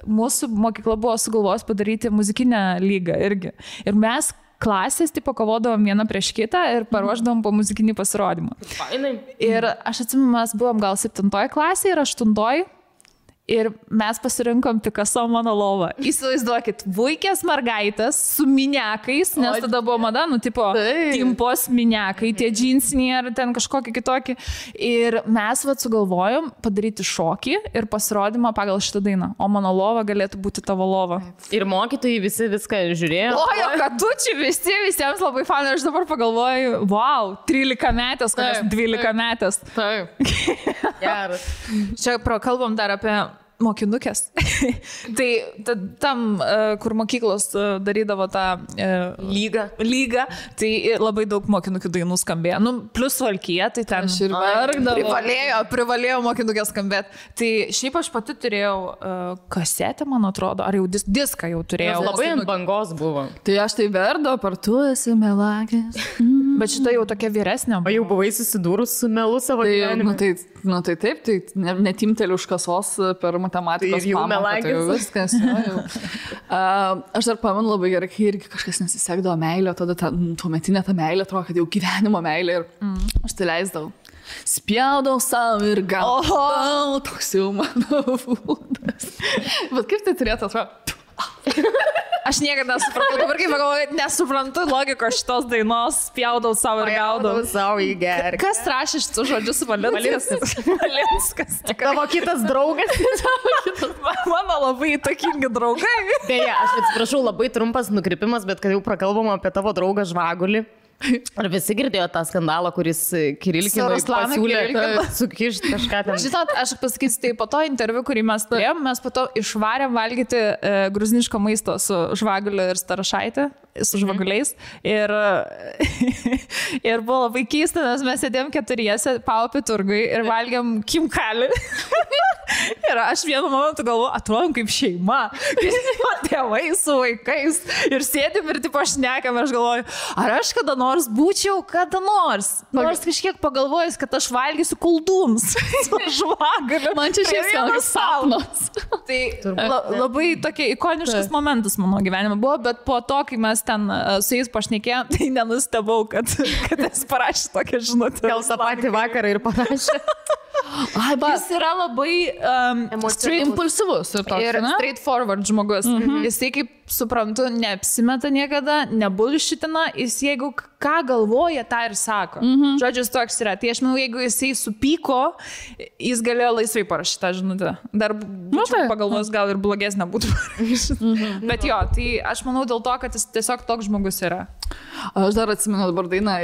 mūsų mokykla buvo sugalvojus padaryti muzikinę lygą irgi. Ir mes klasės, tipo, kovodavom vieną prieš kitą ir paruošdavom po muzikinį pasirodymą. Fainai. Ir aš atsimenu, mes buvom gal 7 klasėje ir 8. Ir mes pasirinkom Picasso mano lovą. Įsivaizduokit, vaikės mergaitės su miniakais, nes tada buvo mada, tipo, timpos miniakai, tie džinsiniai ar ten kažkokie kitokie. Ir mes sugalvojom padaryti šokį ir pasirodymą pagal šitą dainą. O mano lova galėtų būti tavo lova. Ir mokytojai visi viską žiūrėjo. O, katučiai visiems labai fanai. Aš dabar pagalvoju, wow, 13 metės, kokias 12 metės. Taip. Geras. Čia prakalbam dar apie mokinukės. Tai tam, kur mokyklos darydavo tą lygą, tai labai daug mokinukių dainų skambėjo. Nu, plus Valkija, tai ten aš ir verkdavau. Privalėjo mokinukės skambėti. Tai šiaip aš pati turėjau kasetę, man atrodo, ar jau diską jau turėjau. Labai ant bangos buvo. Tai aš tai verdo, par tu esi melagės. Bet šita jau tokia vyresnė. O jau buvai susidūrus su melu savo gyvenime? Tai taip, tai netimteliu už kasos per matematikos pamoką. Tai jau viskas. Aš dar pamenu labai gerai, kai irgi kažkas nesisekdavo meilė, tada tuometinė ta meilė, atrodo, kad jau gyvenimo meilė ir aš tai leisdavau. Spjaudau savo ir gaudau, toks jau mano būdas. Bet kaip tai turėtų atrodo? Aš niekada nesupratau, dabar kaip pagalvoju, nesuprantu logikos šitos dainos, spjaudau savo ir gaudau. Savo į gerą. Kas rašė šitus žodžius? Valinskas. Tavo kitas draugas. Mano labai įtakingi draugai. Beje, aš atsiprašau, labai trumpas nukrypimas, bet kad jau prakalbam apie tavo draugą Žvagulį. Ar visi girdėjo tą skandalą, kuris Kirilkinui pasiūlė sukišti kažką ten? Žinot, aš pasakysiu, tai po to interviu, kurį mes turėjom, mes po to išvarėm valgyti gruziniško maisto su Žvaguliu ir Starašaitė, su žvaguliais. Ir buvo labai keista, nes mes sėdėjom keturiese Paupį turgui ir valgėm kimkalį. Ir aš vienu momentu galvoju, atrodom kaip šeima, tėvai su vaikais. Ir sėdim ir tipo šnekam, ir aš galvoju, ar aš kada nors būčiau, nors kažkiek pagalvojus, kad aš valgysiu koldūnus su Žvaguliu. Man čia šiek tiek sapnas. Tai labai tokie ikoniškas momentas mano gyvenime buvo, bet po to, kai mes ten su jais pašnekėjom, tai nenustebau, kad jis parašė tokią žinutę. Gal tą patį vakarą ir parašė. Jis yra labai impulsyvus ir straightforward žmogus. Jisai, kaip suprantu, neapsimeta niekada, nebulšitina, jis jeigu ką galvoja, tą ir sako. Žodžius toks yra. Tai aš manau, jeigu jisai supyko, jis galėjo laisvai parašyti tą žinutę. Dar pagalvos, gal ir blogesnė būtų parašyti. Bet jo, tai aš manau dėl to, kad jis tiesiog toks žmogus yra. Aš dar atsimenu dabar dainą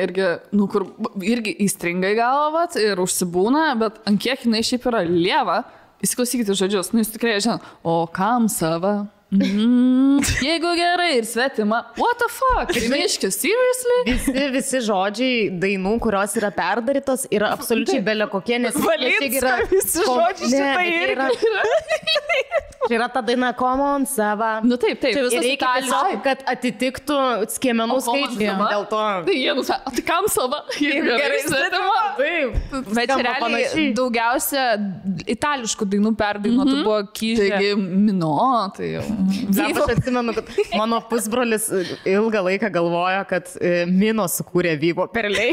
kur irgi įstringai galvat ir užsibūna, bet ant kiek jinai šiaip yra lieva, įsiklausykite žodžius, jūs tikrai žinot, o kam sava? Jeigu gerai ir svetima, what the fuck? Rimiškis, seriously? Visi žodžiai dainų, kurios yra perdarytos, yra absoliučiai belė kokie, nes Valinska, visi žodžiai šitai irgi. Čia yra ta daina Common Sava. Nu taip. Ir reikia tiesiog, kad atitiktų skiemenų skaičių. Dėl to. Tai jie nusako, tai kam sava? Jeigu gerai svetima. Taip. Bet realiai daugiausia itališkų dainų perdainuotų buvo Kyžė. Taigi Mino, tai jau. Aš atsimenu, kad mano pusbrolis ilgą laiką galvojo, kad Mino sukūrė Vyvo perliai.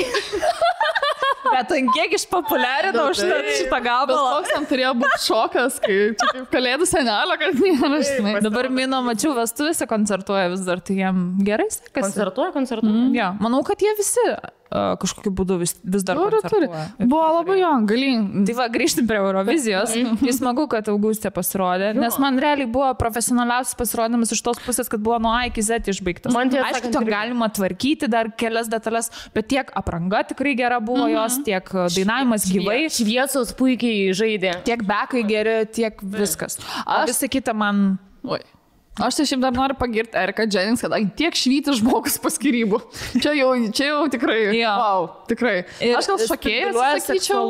Bet ant kiek išpopuliarino šitą gabalą. Koks tam turėjo būti šokas, kai čia kaip kalėdų senelio, kad nėra, žinai. Dabar Mino, mačiau, vestuvėse koncertuoja vis dar, tai jiem gerai sekasi. Koncertuoja? Ja, manau, kad jie visi kažkokiu būdu vis dar Turi. koncertuoja. Buvo labai jo, galin. Tai va, grįžtim prie Eurovizijos. Jis smagu, kad Augustė pasirodė, nes man realiai buvo profesionaliausias pasirodymas iš tos pusės, kad buvo nuo A iki Z išbaigtas. Aišku, to galima tvarkyti dar kelias detalės, bet tiek apranga tikrai gera buvo jos, tiek dainavimas gyvai. Šviesos puikiai žaidė. Tiek bekai geri, tiek viskas. O visą kitą man... Oi. Aš tai šiaip dar noriu pagirti Eriką Jennings, kad tiek švyti žmogus po skyrybų. Čia jau tikrai. Jo. Wow, tikrai. Aš gal šokėjas sakyčiau.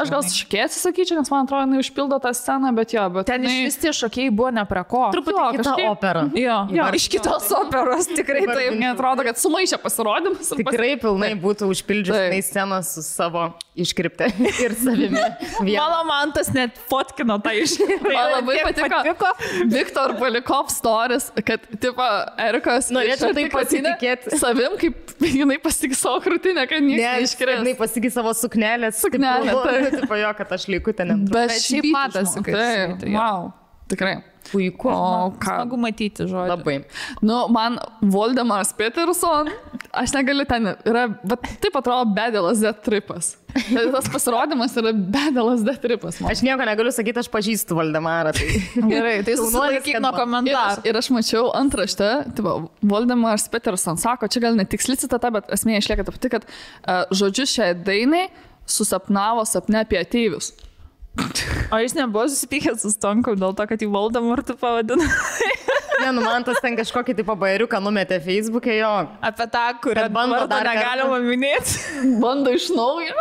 Aš gal šokėjas sakyčiau, nes man atrodo, jinai užpildo tą sceną, bet jo. Bet ten iš vis tie šokėjai buvo ne prie ko. Truputį kita opera. Jo, iš kitos operos tikrai taip. Neatrodo, kad sumaišė pasirodymus. Tikrai pilnai būtų užpildžiusi sceną su savo iškripte ir savimi. Mano mantas net fotkino tą iškriptę. Man labai patiko Viktor Balikov stories, kad, tipo, Erikos norėčiau tai pasitikėti savim, kaip jinai pasikė savo krūtinę, kad niekas neiškrės. Jinai pasikė savo suknelę. Tipo jo, kad aš liku ten. Bet šiaip matosi, kad tai. Wow, tikrai. Puiku. O ką? Smagu matyti žodį. Labai. Nu, man Voldemaras Peterson, aš negaliu ten, bet taip atrodo bedelas D-tripas. Tas pasirodymas yra bedelas D-tripas. Aš nieko negaliu sakyti, aš pažįstu Voldemarą. Tai... Gerai, tai susilaikyk nuo komentarų. Ir aš mačiau antraštę, tipo, Voldemaras Peterson sako, čia gal netiksli citata, bet esmė išlieka ta pati, kad žodžius šiai dainai susapnavo sapne apie ateivius. O jis nebuvo susipykęs su Stonku dėl to, kad jį Voldemartu pavadino. Ne, nu man tas ten kažkokį tipo bajeriuką numetė Facebook'e jo. Apie tą, kurią bando dar negalima minėti. Bando iš naujo.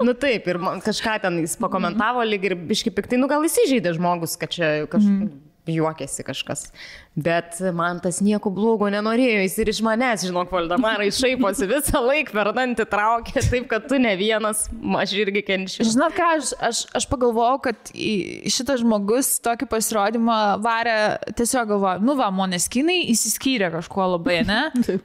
Nu taip, ir kažką ten jis pakomentavo lyg ir biški piktai, nu gal įsižeidė žmogus, kad čia juokėsi kažkas. Bet man tas nieko blogo nenorėjo, jis ir iš manęs, žinok, Voldemarai šaiposi visą laiką per dantį traukė, taip, kad tu ne vienas, aš irgi kenčiu. Žinot ką, aš pagalvojau, kad šitas žmogus tokį pasirodymą varė, tiesiog galvoju, nu va, Måneskinai įsiskyrė kažkuo labai, ne?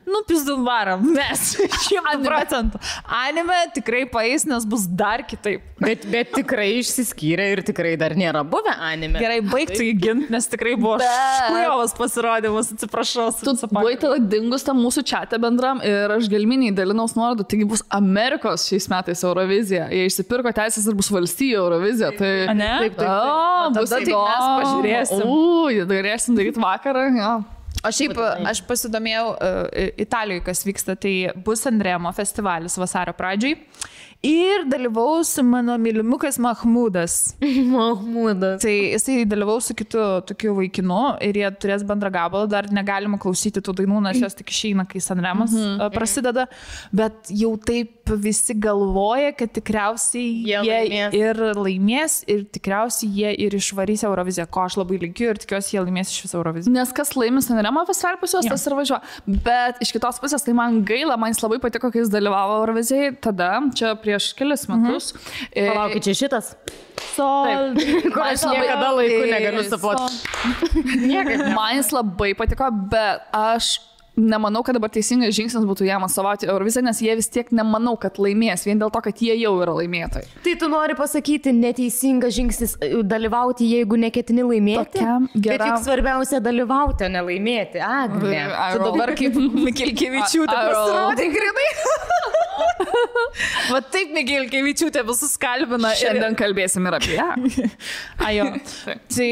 Nu, pizdum varam, mes 100%. Anime tikrai paeis, nes bus dar kitaip. Bet tikrai išsiskyrė ir tikrai dar nėra buvę anime. Gerai, baigtų jį ginti, nes tikrai buvo škujovas pasirodymas, atsiprašau. Tu buvai tada dingus tam mūsų čate bendram ir aš gelminiai dalinaus nuorodų, taigi bus Amerikos šiais metais Eurovizija. Jie išsipirko teisės ir bus valstijų Eurovizija. Tai... A, ne? Taip. Tada tai mes pažiūrėsim. Galėsim daryti vakarą, jo. O šiaip aš pasidomėjau Italijoje, kas vyksta, tai bus Sanremo festivalis vasario pradžiai. Ir dalyvaus mano mylimukas Mahmudas. Mahmudas. Tai jisai dalyvaus su kitu tokiu vaikinu ir jie turės bendrą gabalą. Dar negalima klausyti tų dainų, nes jos tik išeina, kai Sanremas prasideda. Bet jau taip visi galvoja, kad tikriausiai jie ir laimės ir tikriausiai jie ir išvarys Euroviziją, ko aš labai linkiu ir tikiuosi, jie laimės iš viso Euroviziją. Nes kas laimės Sanremo festivalį pas juos, tas ir važiuoja. Bet iš kitos pusės tai man gaila, man jis labai patiko, kai jis dalyvavo Eurovizijai. Tada, čia prieš kelias metus. Palaukit, čia šitas? Sol. Kur aš niekada laiku negaliu supoti. Man jis labai patiko, bet aš nemanau, kad dabar teisingas žingsnis būtų jam atstovauti Euroviziją, nes jie vis tiek nemanau, kad laimės, vien dėl to, kad jie jau yra laimėtojai. Tai tu nori pasakyti, neteisingas žingsnis dalyvauti, jeigu neketini laimėti? Bet juk svarbiausia dalyvauti, o ne laimėti. Agne. Tu dabar kaip Mikilkevičiūtė pasirodė grinai. Va taip Mikilkevičiūtė visus kalbina. Šiandien kalbėsim ir apie ją. Ajo. Tai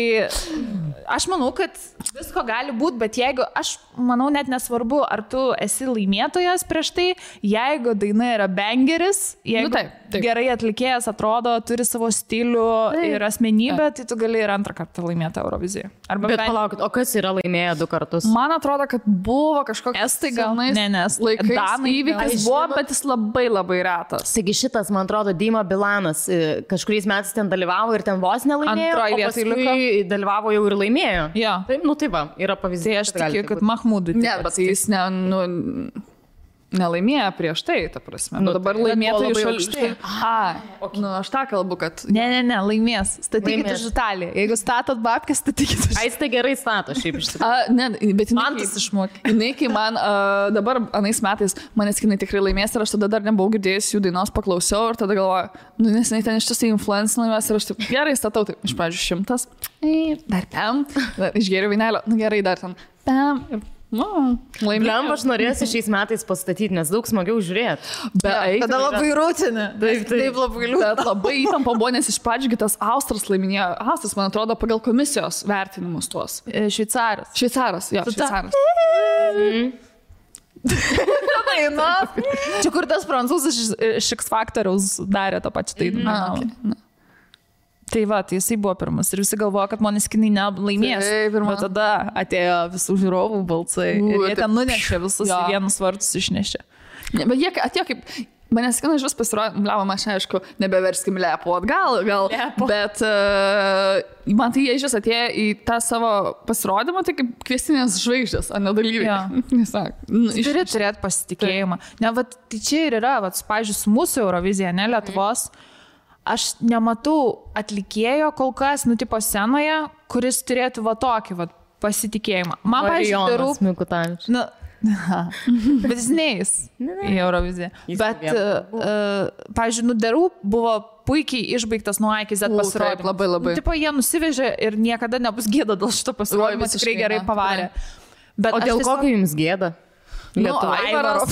aš manau, kad visko gali būti, bet jeigu, aš manau, net nesvarbu, ar tu esi laimėtojas prieš tai, jeigu daina yra bangeris, jeigu taip. Gerai atlikėjas atrodo, turi savo stilių ir asmenybę, tai tu gali ir antrą kartą laimėti Euroviziją. Bet palaukit, o kas yra laimėję 2 kartus? Man atrodo, kad buvo kažkoks Estai gal, nes laikais įvykis buvo, bet jis labai labai retas. Taigi šitas, man atrodo, Dima Bilanas kažkuriais metais ten dalyvavo ir ten vos nelaimėjo, o paskui dalyvavo jau ir laimėjo. Ja. Taip, nu tai va, yra pavyzdys. Tai aš tikiu, kad Mahmudui. Ne, bet jis nelaimėjo prieš tai, ta prasme. Nu, dabar laimėtų iš aukštai. Nu, aš tą kalbu, kad... Ne, laimės. Statykite iš Italiją. Jeigu statot babkės, statykite iš... Ai, tai gerai stato, šiaip iš tikrųjų. Ne, bet man tas išmokė. Jinai, kai man dabar anais metais Måneskinai tikrai laimės ir aš tada dar nebuvau girdėjęs jų dainos, paklausiau ir tada galvoju, nu, nes jinai ten iš tiesų influencinė laimės ir aš taip gerai statau, taip, iš pradžių 100, dar pam, išgėriau vynelio, nu gerai, dar ten pam ir Blemba, aš norėsiu šiais metais pastatyti, nes daug smagiau žiūrėti. Tada labai rūtinė. Taip labai liūdna. Bet labai įtampa buvo, nes iš pradžių tas Austras laiminėjo. Austras, man atrodo, pagal komisijos vertinimus tuos. Šveicaras. Šveicaras. Čia kur tas prancūzas iš X Factoriaus darė tą pačią dainą. Tai va, tai jisai buvo pirmas ir visi galvojo, kad Måneskinai nelaimės. Bet tada atėjo visų žiūrovų balsai ir jie ten nunešė visus į vienus vartus išnešė. Bet jie atėjo kaip... Måneskinai iš vis pasirodė, bliavom, aš aišku, nebeverskim lepo atgal, bet man tai jie iš vis atėjo į tą savo pasirodymą, tai kaip kviestinės žvaigždės, ar ne dalyviai. Turi turėti pasitikėjimą. Ne, va, tai čia ir yra, va, pavyzdžiui, su mūsų Eurovizija, ne Lietuvos, aš nematau atlikėjo kol kas, tipo scenoje, kuris turėtų va tokį va pasitikėjimą. Man, pavyzdžiui, darau... Bet jis neis į Euroviziją. Bet, pavyzdžiui, darau buvo puikiai išbaigtas nuo A iki Z pasirodymas. Labai. Tipo, jie nusivežė ir niekada nebus gėda dėl šito pasirodymo, tikrai gerai pavarė. Bet o dėl kokio jums gėda? Aivaro.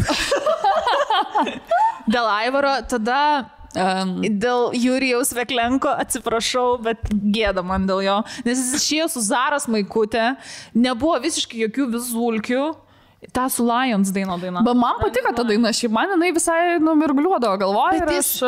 Dėl Aivaro, tada... Dėl Jurijaus Veklenko atsiprašau, bet gėda man dėl jo, nes jis išėjo su Zaros Maikutė, nebuvo visiškai jokių vizulkių, tą su Lions daina. Bet man patiko ta daina, šiaip man jinai visai numirgliuodavo galvoje. Bet jis,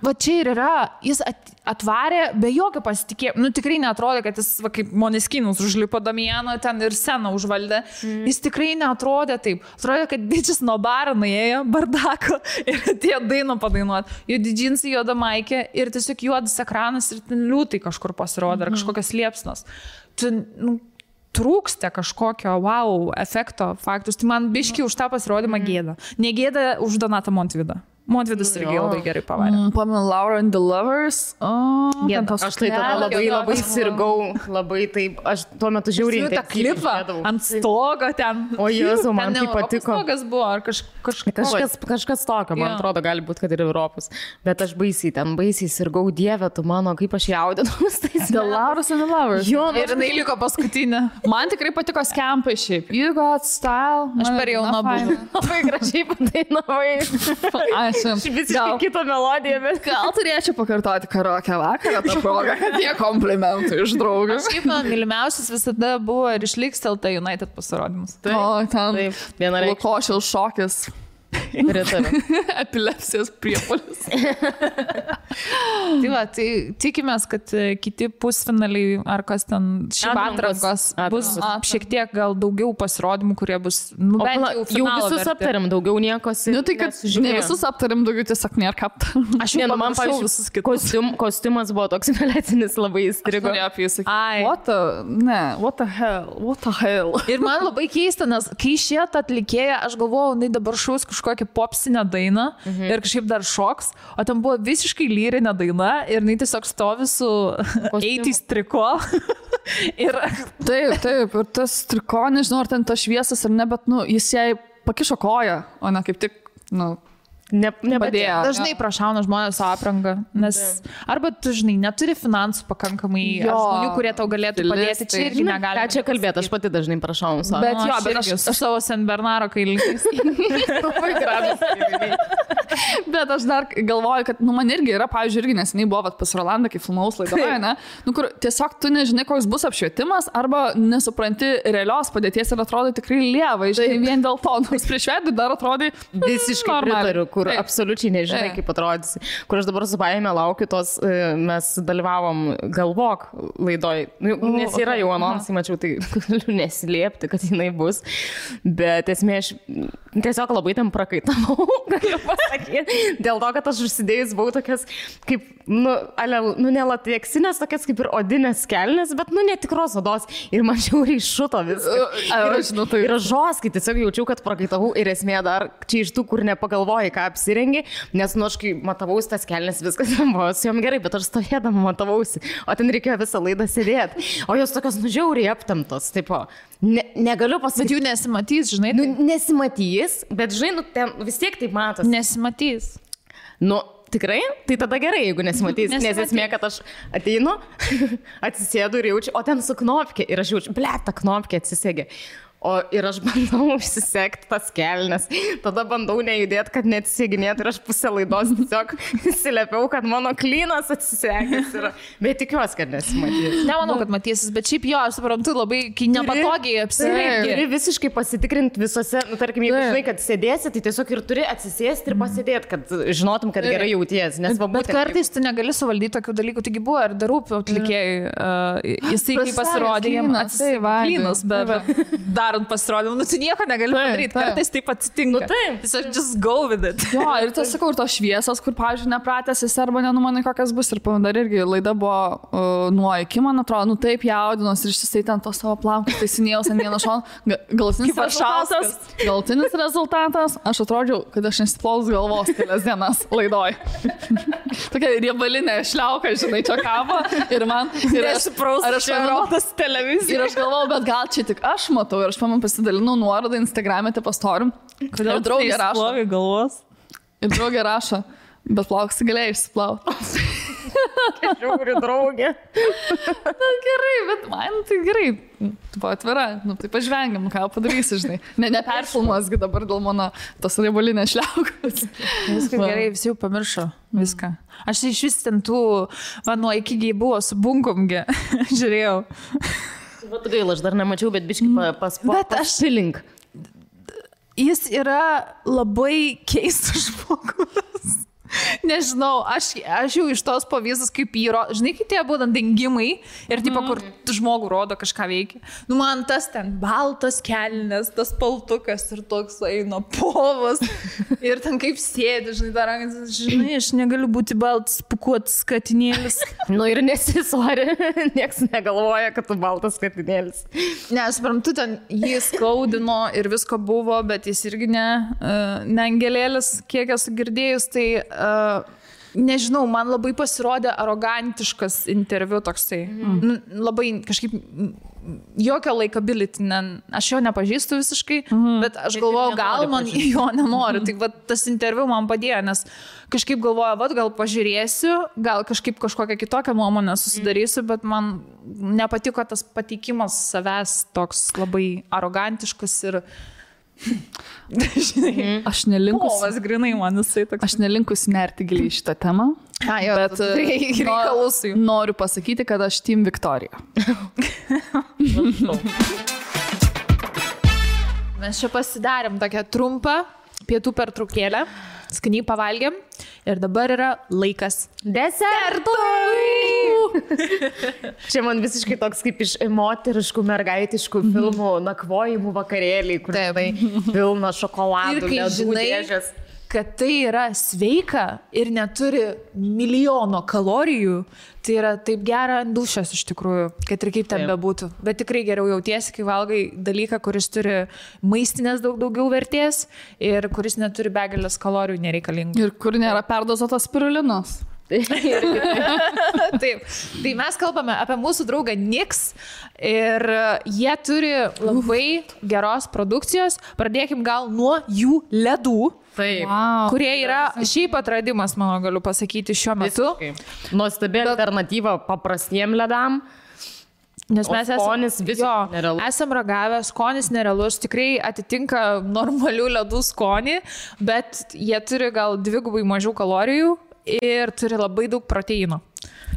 va čia ir yra, jis atvarė be jokio pasitikėjimo, tikrai neatrodė, kad jis va, kaip Måneskinus užlipo Damiano ten ir sceną užvaldė, jis tikrai neatrodė taip, atrodė, kad didžias nuo baro nuėjo, bardako ir atėjo dainą padainuoti, juodi džinsai, juoda maikė ir tiesiog juodas ekranas ir ten liūtai kažkur pasirodė, ar kažkokios liepsnos. Trūksta kažkokio wow efekto faktus, tai man biški už tą pasirodymą gėda. Negėda už Donatą Montvydą. Montvydas irgi labai gerai pavarė. Pamenu Laura and the Lovers. Aš tai tada labai sirgau, labai taip, aš tuo metu žiauriai tą klipą ant stogo ten. O Jėzau, man tai patiko. Stogas buvo, ar kažkas tokio, man atrodo, gali būti, kad ir Europos. Bet aš baisiai sirgau, Dieve, tu mano, kaip aš jaudinaus. The Lauras and the Lovers. Ir jinai liko paskutinė. Man tikrai patiko skempai šiaip. You got style. Aš per jauna buvau. Labai gražiai padainavai. Visiškai kitą melodiją, bet... Gal turėčiau pakartoti karaoke vakarą tą progą, kad tie komplimentai iš draugų. Šiaip man mylimiausias visada buvo ir išliks LT United pasirodymas. O, ten Lukošiaus šokis. Epilepsijos priepuolis. Tai va, tai tikimės, kad kiti pusfinaliai ar kas ten šiaip atrankos bus šiek tiek gal daugiau pasirodymų, kurie bus jau visus aptariam, daugiau niekos. Tai kad ne visus aptariam, daugiau tiesiog nėra ką aptariam. Aš jau man pavyzdžiui visus kitus. Kostiumas buvo toks velecinis, labai įstrigo. What the hell. Ir man labai keista, nes kai šitą atlikėją, aš galvojau, jinai dabar šaus kažkokią popsinę dainą ir kažkaip dar šoks, o ten buvo visiškai lyrinė daina ir jinai tiesiog stovi su 80s triko. Taip, ir tas triko, nežinau, ar ten tas šviesas ar ne, bet jis jai pakišo koją, o ne kaip tik, nepadėjo. Dažnai prašauna žmonės aprangą, nes arba tu, žinai, neturi finansų pakankamai žmonių, kurie tau galėtų padėti, čia irgi negali. Ką čia kalbėti, aš pati dažnai prašau savo. Bet aš savo Sen Bernaro kailiniais. Bet aš dar galvoju, kad man irgi yra, pavyzdžiui, irgi neseniai buvo pas Rolandą, kai filmaus laidoje, ne? Kur tiesiog tu nežinai, koks bus apšvietimas, arba nesupranti realios padėties ir atrodo tikrai lieva, žinai, vien dėl to, nors prieš veidį dar atrodai visiškai pritariu, kur absoliučiai nežinai, kaip atrodysi. Kur aš dabar su baime laukiu tos, mes dalyvavom Galvok laidoj, nes yra jau anonsai, mačiau, tai galiu neslėpti, kad jinai bus, bet esmė, aš tiesiog labai ten prakaitavau, galiu pasakyti, dėl to, kad aš užsidėjus buvau tokias, kaip, nelateksinės, tokias kaip ir odinės kelnes, bet, netikros odos, ir man žiauriai šuto viskas. Ir aš žoskai tiesiog jaučiau, kad prakaitavau ir esmė dar čia iš tų, kur nepagalvojai, ką apsirengi, nes, aš kai matavausi tas kelnes, viskas buvo su jom gerai, bet aš stovėdama matavausi, o ten reikėjo visą laidą sėdėti, o jos tokios žiauriai aptemtos, tipo, negaliu pasakyti. Bet jų nesimatys, žinai? Nesimatys, bet, žinai, ten vis tiek taip matos. Nesimatys. Tikrai? Tai tada gerai, jeigu nesimatys, nes esmė, kad aš ateinu, atsisėdu ir jaučiu, o ten su knopkė ir aš jaučiu, ta knopkė atsisėgė. Ir aš bandau užsisekti tas kelnes, tada bandau nejudėti, kad neatsiseginėtų ir aš pusę laidos tiesiog įsiliepiau, kad mano klynas atsisekęs yra. Bet tikiuosi, kad nesimatys. Nemanau, kad matysis, bet šiaip jo, aš suprantu, labai nepatogiai apsirengti. Turi visiškai pasitikrinti visose, tarkim, jeigu žinai, kad sėdėsi, tai tiesiog ir turi atsisėsti ir pasėdėti, kad žinotum, kad gerai jauties. Bet kartais tu negali suvaldyti tokių dalykų, taigi buvo ir darūpių atlikėjai. Jisai kaip pasirodė, jiems atsivainas, bet darant pasirodymą, tu nieko negali padaryti, kartais taip atsitinka. Tiesiog just go with it. Jo, ir tas sakau, ir tos šviesos, kur, pavyzdžiui, nepratęs esi arba nenumanai, kokias bus. Ir dar irgi laida buvo nuo iki, man atrodo, taip jaudinos ir išsisai ten to savo plaukus, taisinėjau ant vieno šono. Galutinis rezultatas, aš atrodžiau, kad aš nesiplovus galvos kelias dienas laidoj. Tokia riebalinė šliauka, žinai, čia kabo. Ir man... Ir aš rodas televiziją. Ir aš galvojau, bet gal čia tik aš matau. Ir aš pasidalinau nuorodą Instagram'e, tai pastorim. Kodėl draugė rašo? Galvos. Ir draugė rašo, bet plauksi galėjai išsiplauti. Žiūri, draugė. Na gerai, bet man tai gerai. Tu buvo atvira, tai pažvengiam, ką padarysi, žinai. Neperfilmuosgi dabar dėl mano tos riebalinės šliaukos. Viskas gerai, visi jau pamiršo viską. Aš iš vis ten tų, nuo iki buvo su bunkumgi, žiūrėjau. Vat gaila, aš dar nemačiau, bet biškai paspilink. Jis yra labai keistas žmogus. Nežinau, aš jau iš tos pavyzdus, kaip jį rodo, žinai, kai tie būtent dingimai ir tipo, kur žmogų rodo kažką veikia. Nu, man tas ten baltas kelnes, tas paltukas ir toks eina povas ir ten kaip sėdi, žinai, dar rankas, žinai, aš negaliu būti baltas pukuotas katinėlis. Nu ir nesisori, nieks negalvoja, kad tu baltas katinėlis. Ne, aš suprantu, ten jį skaudino ir visko buvo, bet jis irgi ne angelėlis, kiek esu girdėjus, tai nežinau, man labai pasirodė arogantiškas interviu toksai. Labai kažkaip jokio likability, aš jo nepažįstu visiškai, bet aš galvoju, gal man jo nenoriu. Tai va, tas interviu man padėjo, nes kažkaip galvoju, va, gal pažiūrėsiu, gal kažkaip kažkokią kitokią nuomonę susidarysiu, bet man nepatiko tas pateikimas savęs toks labai arogantiškas ir aš nelinkus. Povas grinai man jisai toks. Aš nelinkus nerti giliai šitą temą. Bet noriu pasakyti, kad aš Team Victoria. Mes čia pasidarėm tokią trumpą pietų pertraukėlę, skaniai pavalgėm ir dabar yra laikas desertui. Čia man visiškai toks kaip iš moteriškų, mergaitiškų filmų nakvojimų vakarėliai, kur tai pilna šokoladų, ir kai žinai, dėžės. Kad tai yra sveika ir neturi milijono kalorijų, tai yra taip gera dušas iš tikrųjų, kad ir kaip ten bebūtų. Bet tikrai geriau jautiesi, kai valgai dalyką, kuris turi maistinės daugiau vertės ir kuris neturi begalės kalorijų nereikalingų. Ir kur nėra perdozuotas spirulinos. Taip. Tai mes kalbame apie mūsų draugą Nix ir jie turi labai geros produkcijos. Pradėkim gal nuo jų ledų. Taip. Kurie yra šiaip atradimas, mano galiu pasakyti, šiuo metu. Nuostabi alternatyva paprastiem ledam. Nes mes esam ragavę, skonis nerealus, tikrai atitinka normalių ledų skonį, bet jie turi gal 2 mažiau kalorijų ir turi labai daug proteino.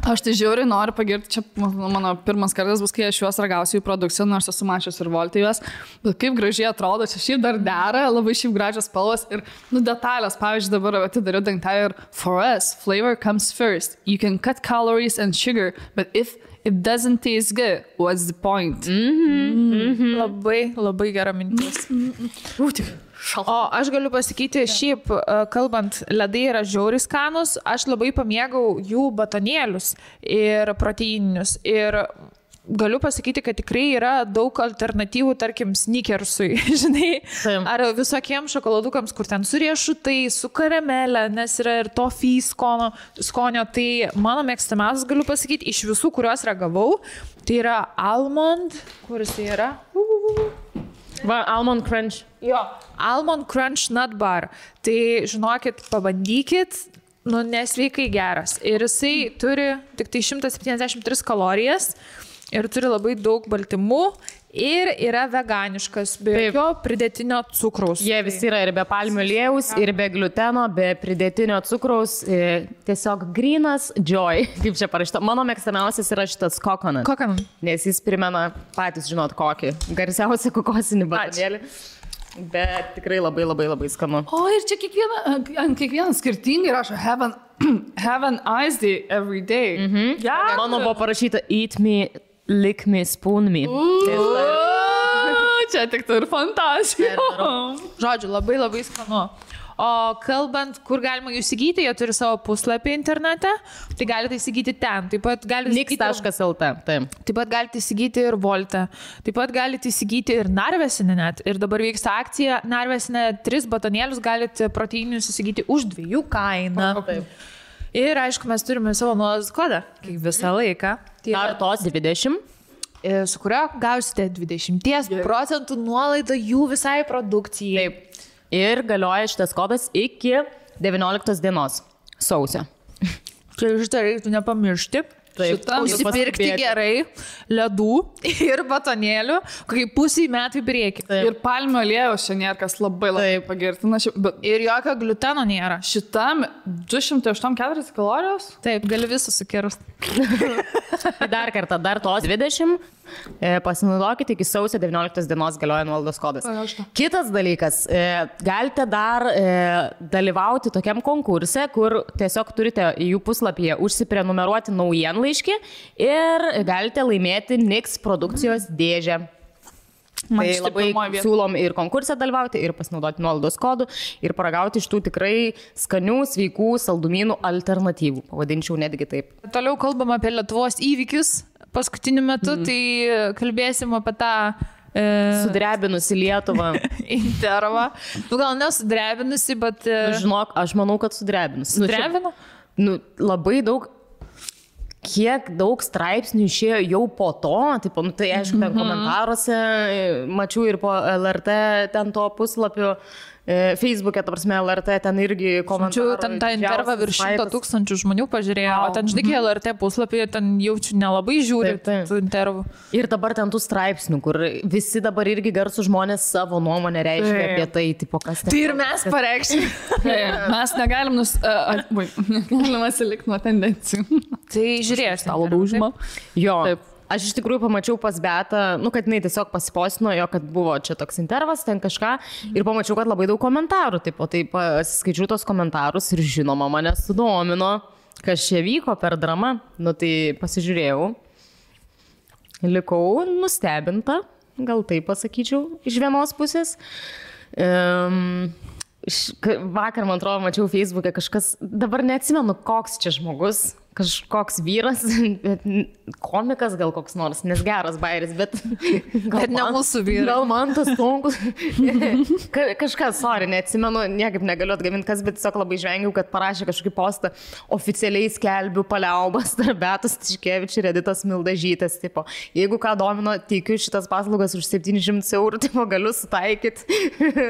Aš tai žiauriai noriu pagirti, čia mano pirmas kartas bus, kai aš juos ragausiu į produkciją, nors esu mačius ir Voltė juos, bet kaip gražiai atrodo, čia šiaip dar dera, labai šiaip gražios spalvos ir detalės, pavyzdžiui, dabar atidariu dangtelį ir for us, flavor comes first, you can cut calories and sugar, but if it doesn't taste good, what's the point? Labai, labai gera mintis. O aš galiu pasakyti, šiaip, kalbant, ledai yra žiauriai skanus, aš labai pamėgau jų batonėlius ir proteininius. Ir galiu pasakyti, kad tikrai yra daug alternatyvų, tarkim, sneakersui, žinai, ar visokiems šokoladukams, kur ten su riešutai, su karamelė, nes yra ir toffee skonio. Tai mano mėgstamiausias, galiu pasakyti, iš visų, kuriuos ragavau, tai yra almond, kuris tai yra? Va, Almond Crunch. Jo, Almond Crunch Nut Bar. Tai, žinokit, pabandykit, nesveikai geras. Ir jisai turi tik tai 173 kalorijas, ir turi labai daug baltymų ir yra veganiškas, be jokio pridėtinio cukraus. Jie visi yra ir be palmių aliejaus, ir be gluteno, be pridėtinio cukraus, tiesiog grynas joy, kaip čia parašyta. Mano mėgstamiausias yra šitas coconut. Nes jis primena, patys žinot kokį, garsiausią kokosinį batonėlį. Bet tikrai labai labai labai skanu. O ir čia kiekvieną skirtingai rašo have an ice day every day. Mano buvo parašyta eat me, lick me, spoon me. Čia tik tai ir fantazija. Žodžiu, labai labai skanu. O kalbant, kur galima jų įsigyti, jie turi savo puslapį internete, tai galite įsigyti ten. Taip pat galite Nix.lt. Taip pat galite įsigyti ir Volte. Taip pat galite įsigyti ir Narvesinę net. Ir dabar vyksta akcija Narvesinę 3 batonėlius galite proteininius įsigyti už 2 kainą. Ir aišku, mes turime savo nuolaidos kodą, kaip visą laiką. Artos 20. Su kurio gausite 20% nuolaidą jų visai produkcijai. Taip. Ir galioja šitas kodas iki 19 dienos sausio. Čia šitą reiktų nepamiršti. Užsipirkti gerai ledų ir batonėlių, kokį pusį metų į priekį. Ir palmių aliejaus čia nėra, kas labai pagirtina. Ir jokio gluteno nėra. Šitam 284 kalorijos? Taip, gali visą sukirsti. Dar kartą, dar tos 20. Pasinaudokite, iki sausio 19 dienos galioja nuolaidos kodas. Kitas dalykas, galite dar dalyvauti tokiam konkurse, kur tiesiog turite į jų puslapyje užsiprenumeruoti naujienlaiškį ir galite laimėti Nix produkcijos dėžę. Tai labai siūlom ir konkursą dalyvauti, ir pasinaudoti nuolaidos kodų, ir paragauti iš tų tikrai skanių, sveikų saldumynų alternatyvų. Pavadinčiau netgi taip. Toliau kalbam apie Lietuvos įvykius. Paskutiniu metu, tai kalbėsim apie tą sudrebinusi Lietuvą. Intervą. Gal nesudrebinusi, bet... Žinok, aš manau, kad sudrebinusi. Sudrebino? Labai daug, kiek daug straipsnių išėjo jau po to, tipo, tai aišku, ten komentaruose mačiau ir po LRT ten to puslapio. Facebook'e, ta prasme, LRT ten irgi komentarų. Ten tą intervą virš 100 000 žmonių pažiūrėjo, o ten, žinai, LRT puslapyje ten jaučiu nelabai žiūri tų intervų. Ir dabar ten tų straipsnių, kur visi dabar irgi garsų žmonės savo nuomonę reiškia apie tai, tipo, kas ten. Tai ir mes pareikšime. Mes negalim negalim atsilikti nuo tendencijų. Tai žiūrėsiu. Stalo daužimą. Jo. Taip. Aš iš tikrųjų pamačiau pas Beatą, kad jinai tiesiog pasipostino jo, kad buvo čia toks intervas, ten kažką, ir pamačiau, kad labai daug komentarų, tai pasiskaičiau tos komentarus ir žinoma, mane sudomino, kas čia vyko per dramą, tai pasižiūrėjau, likau nustebinta, gal taip pasakyčiau, iš vienos pusės. Vakar, man atrodo, mačiau Facebook'e kažkas, dabar neatsimenu, koks čia žmogus, kažkoks vyras, komikas gal koks nors, nes geras bairis, bet ne mūsų vyras. Gal man tas sunkus. Kažkas, sorry, neatsimenu, niekaip negaliu atgaminti kas, bet tiesiog labai žvengiau, kad parašė kažkokį postą, oficialiai skelbiu paliaubas tarp Beatos Tiškevič ir Editos Mildažytės, tipo, jeigu ką domino, teikiu šitas paslaugas už 700 eurų, tipo, galiu sutaikyti.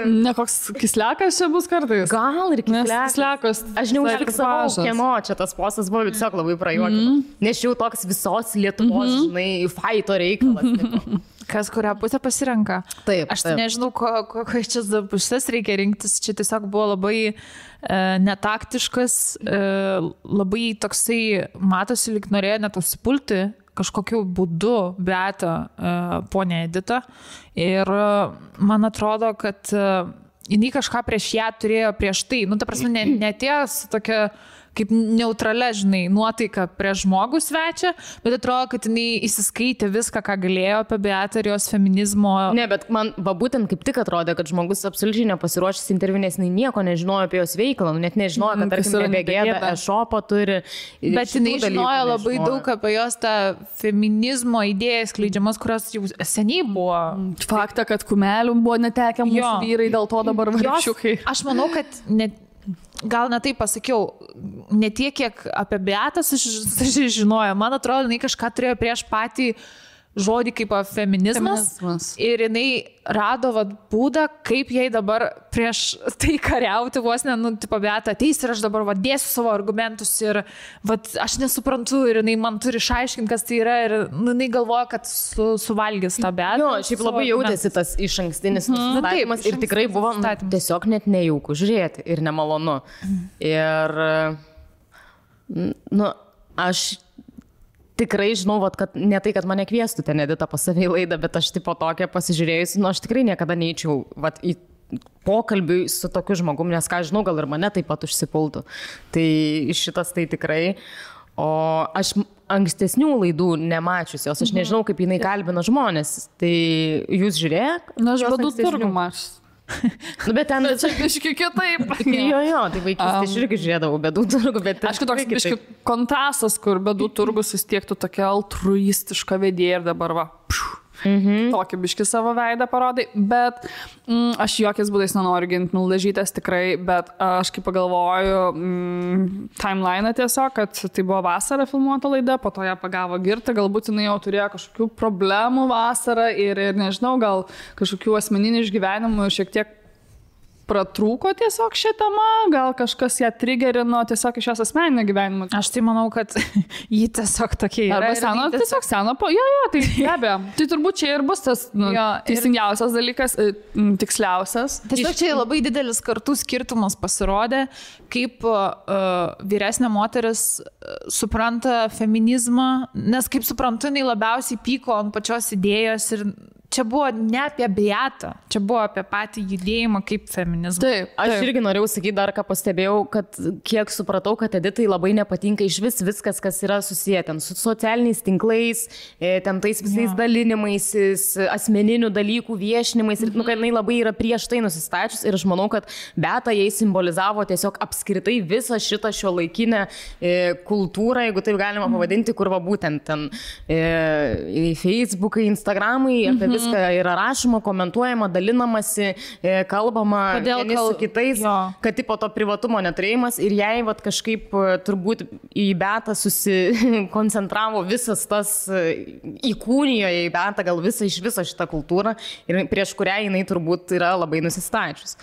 Ne koks kislekas čia bus kartais? Gal ir kislekas. Aš neužfiksavau, kieno čia tas postas buvo, tiesiog labai prajuokino. Nes jau toks visos Lietuvos, žinai, faito reikalas. Tipo. Kas kurią pusę pasirenka. Taip. Aš nežinau, kokias čia pusės reikia rinktis. Čia tiesiog buvo labai netaktiškas, labai toksai, matosi, lyg norėjo net užsipulti kažkokiu būdu Beatą ponę Editą. Ir man atrodo, kad jinai kažką prieš ją turėjo prieš tai. Ta prasme, netėjo su tokia kaip neutralia, žinai, nuotaika prieš žmogų svečią, bet atrodo, kad jinai įsiskaitė viską, ką galėjo apie Beatą ir jos feminizmo. Ne, bet man būtent kaip tik atrodė, kad žmogus absoliučiai nepasiruošęs interviu, nes jinai nieko nežinojo apie jos veiklą, net nežinojo, kad tarkim BG e-shopą turi. Bet jinai žinojo labai daug apie jos tą feminizmo idėjas skleidžiamas, kurios jau seniai buvo. Faktą, kad kumelių buvo netekę mūsų vyrai, dėl to dabar vargšiukai. Aš manau, kad gal ne taip pasakiau, ne tiek, kiek apie Beatą žinojo. Man atrodo, jinai kažką turėjo prieš patį žodį kaip feminizmas. Ir jinai rado būdą, kaip jai dabar prieš tai kariauti vos ne, tipo, Beata ateis ir aš dabar dėsiu savo argumentus ir aš nesuprantu ir jinai man turi išaiškinti, kas tai yra ir jinai galvoja, kad suvalgys tą Beatą. Jo, šiaip labai jautėsi tas išankstinis nusistatymas ir tikrai buvo tiesiog net nejauku žiūrėti ir nemalonu. Ir, aš tikrai žinau, kad ne tai, kad mane kviestų ten Edita pas save į laidą, bet aš tipo tokią pasižiūrėjusi, aš tikrai niekada neįčiau į pokalbį su tokiu žmogum, nes ką žinau, gal ir mane taip pat užsipultų. Tai šitas tai tikrai. O aš ankstesnių laidų nemačiusios, aš nežinau, kaip jinai kalbina žmonės. Tai jūs žiūrėjot? Aš Bėdų turgų mačius. Bet ten... Bet čia biški kitaip. Jo, tai vaikystė aš irgi žiūrėdavau Bėdų turgų, bet... Aišku, toks biški kontrastas, kur Bėdų turgus vis tiek tu tokia altruistiška vedėja ir dabar tokį biški savo veidą parodai, bet aš jokiais būdais nenoriu ginti Mildažytės tikrai, bet aš kaip pagalvoju timeline'ą tiesiog, kad tai buvo vasarą filmuota laida, po to ją pagavo Girta, galbūt jinai jau turėjo kažkokių problemų vasarą ir nežinau, gal kažkokių asmeninių išgyvenimų ir šiek tiek pratrūko tiesiog šią temą, gal kažkas ją triggerino tiesiog iš jos asmeninio gyvenimo. Aš tai manau, kad jį tiesiog tokie yra. Arba seno, tiesiog seno, tai be abejo. Tai turbūt čia ir bus tas teisingiausias dalykas, tiksliausias. Tiesiog čia labai didelis kartų skirtumas pasirodė, kaip vyresnė moteris supranta feminizmą, nes kaip suprantu, jinai labiausiai pyko ant pačios idėjos ir čia buvo ne apie Beatą, čia buvo apie patį judėjimą kaip feminizmą. Taip. Aš irgi norėjau sakyti dar, ką pastebėjau, kad kiek supratau, kad Editai labai nepatinka iš viskas, kas yra susiję ten su socialiniais tinklais, ten tais visais dalinimaisis, asmeninių dalykų viešinimais, ir kad jinai labai yra prieš tai nusistačius ir aš manau, kad Beata jai simbolizavo tiesiog apskritai visą šitą šiuolaikinę kultūrą, jeigu taip galima pavadinti, kur būtent ten Facebookai, Instagramai, apie viską yra rašoma, komentuojama, dalinamasi, kalbama vieni su kitais, kad tipo to privatumo neturėjimas ir jai kažkaip turbūt į Beatą susikoncentravo visas tas, įkūnijo į Beatą gal iš viso šitą kultūrą ir prieš kurią jinai turbūt yra labai nusistačius.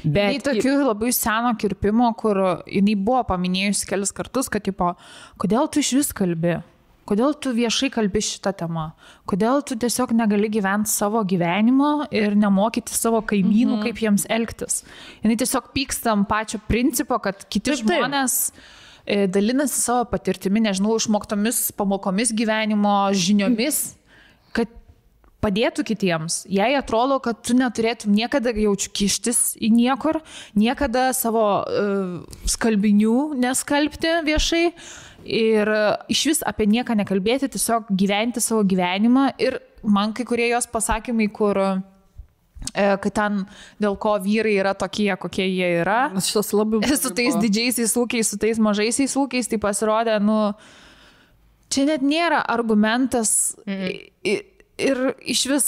Bet tokių labai seno kirpimo, kur jinai buvo paminėjusi kelis kartus, kad tipo, kodėl tu iš vis kalbi? Kodėl tu viešai kalbi šitą temą? Kodėl tu tiesiog negali gyventi savo gyvenimo ir nemokyti savo kaimynų, kaip jiems elgtis? Jinai tiesiog pyksta ant pačio principo, kad kiti žmonės dalinasi savo patirtimi, nežinau, išmoktomis pamokomis gyvenimo, žiniomis, kad padėtų kitiems. Jei atrodo, kad tu neturėtum niekada jaučiu kištis į niekur, niekada savo skalbinių neskalbti viešai, ir iš vis apie nieką nekalbėti, tiesiog gyventi savo gyvenimą. Ir man kai kurie jos pasakymai, kur kad ten dėl ko vyrai yra tokie, kokie jie yra, su tais didžiaisiais ūkiais, su tais mažaisiais ūkiais, tai pasirodė, čia net nėra argumentas ir iš vis,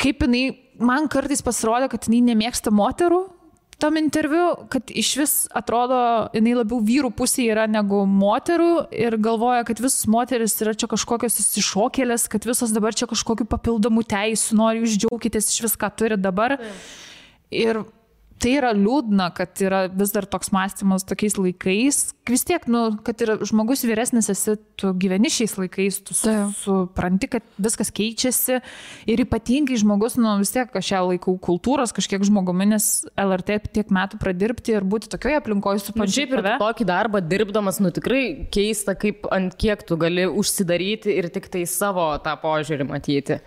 kaip jinai, man kartais pasirodė, kad jinai nemėgsta moterų, tam interviu, kad iš vis atrodo, jinai labiau vyrų pusėje yra negu moterų ir galvoja, kad visos moteris yra čia kažkokios išsišokėlės, kad visos dabar čia kažkokių papildomų teisų, nori jūs džiaukitės iš viską turi dabar. Ir tai yra liūdna, kad yra vis dar toks mąstymas tokiais laikais. Vis tiek, kad ir žmogus vyresnis esi, tu gyveni šiais laikais, tu supranti, kad viskas keičiasi ir ypatingai žmogus, vis tiek kažkiek laikau kultūros, kažkiek žmogumi, nes LRT tiek metų pradirbti ir būti tokioje aplinkoje supančiai. Šiaip ir tokį darbą dirbdamas, tikrai keista, kaip ant kiek tu gali užsidaryti ir tik tai savo tą požiūrį matyti.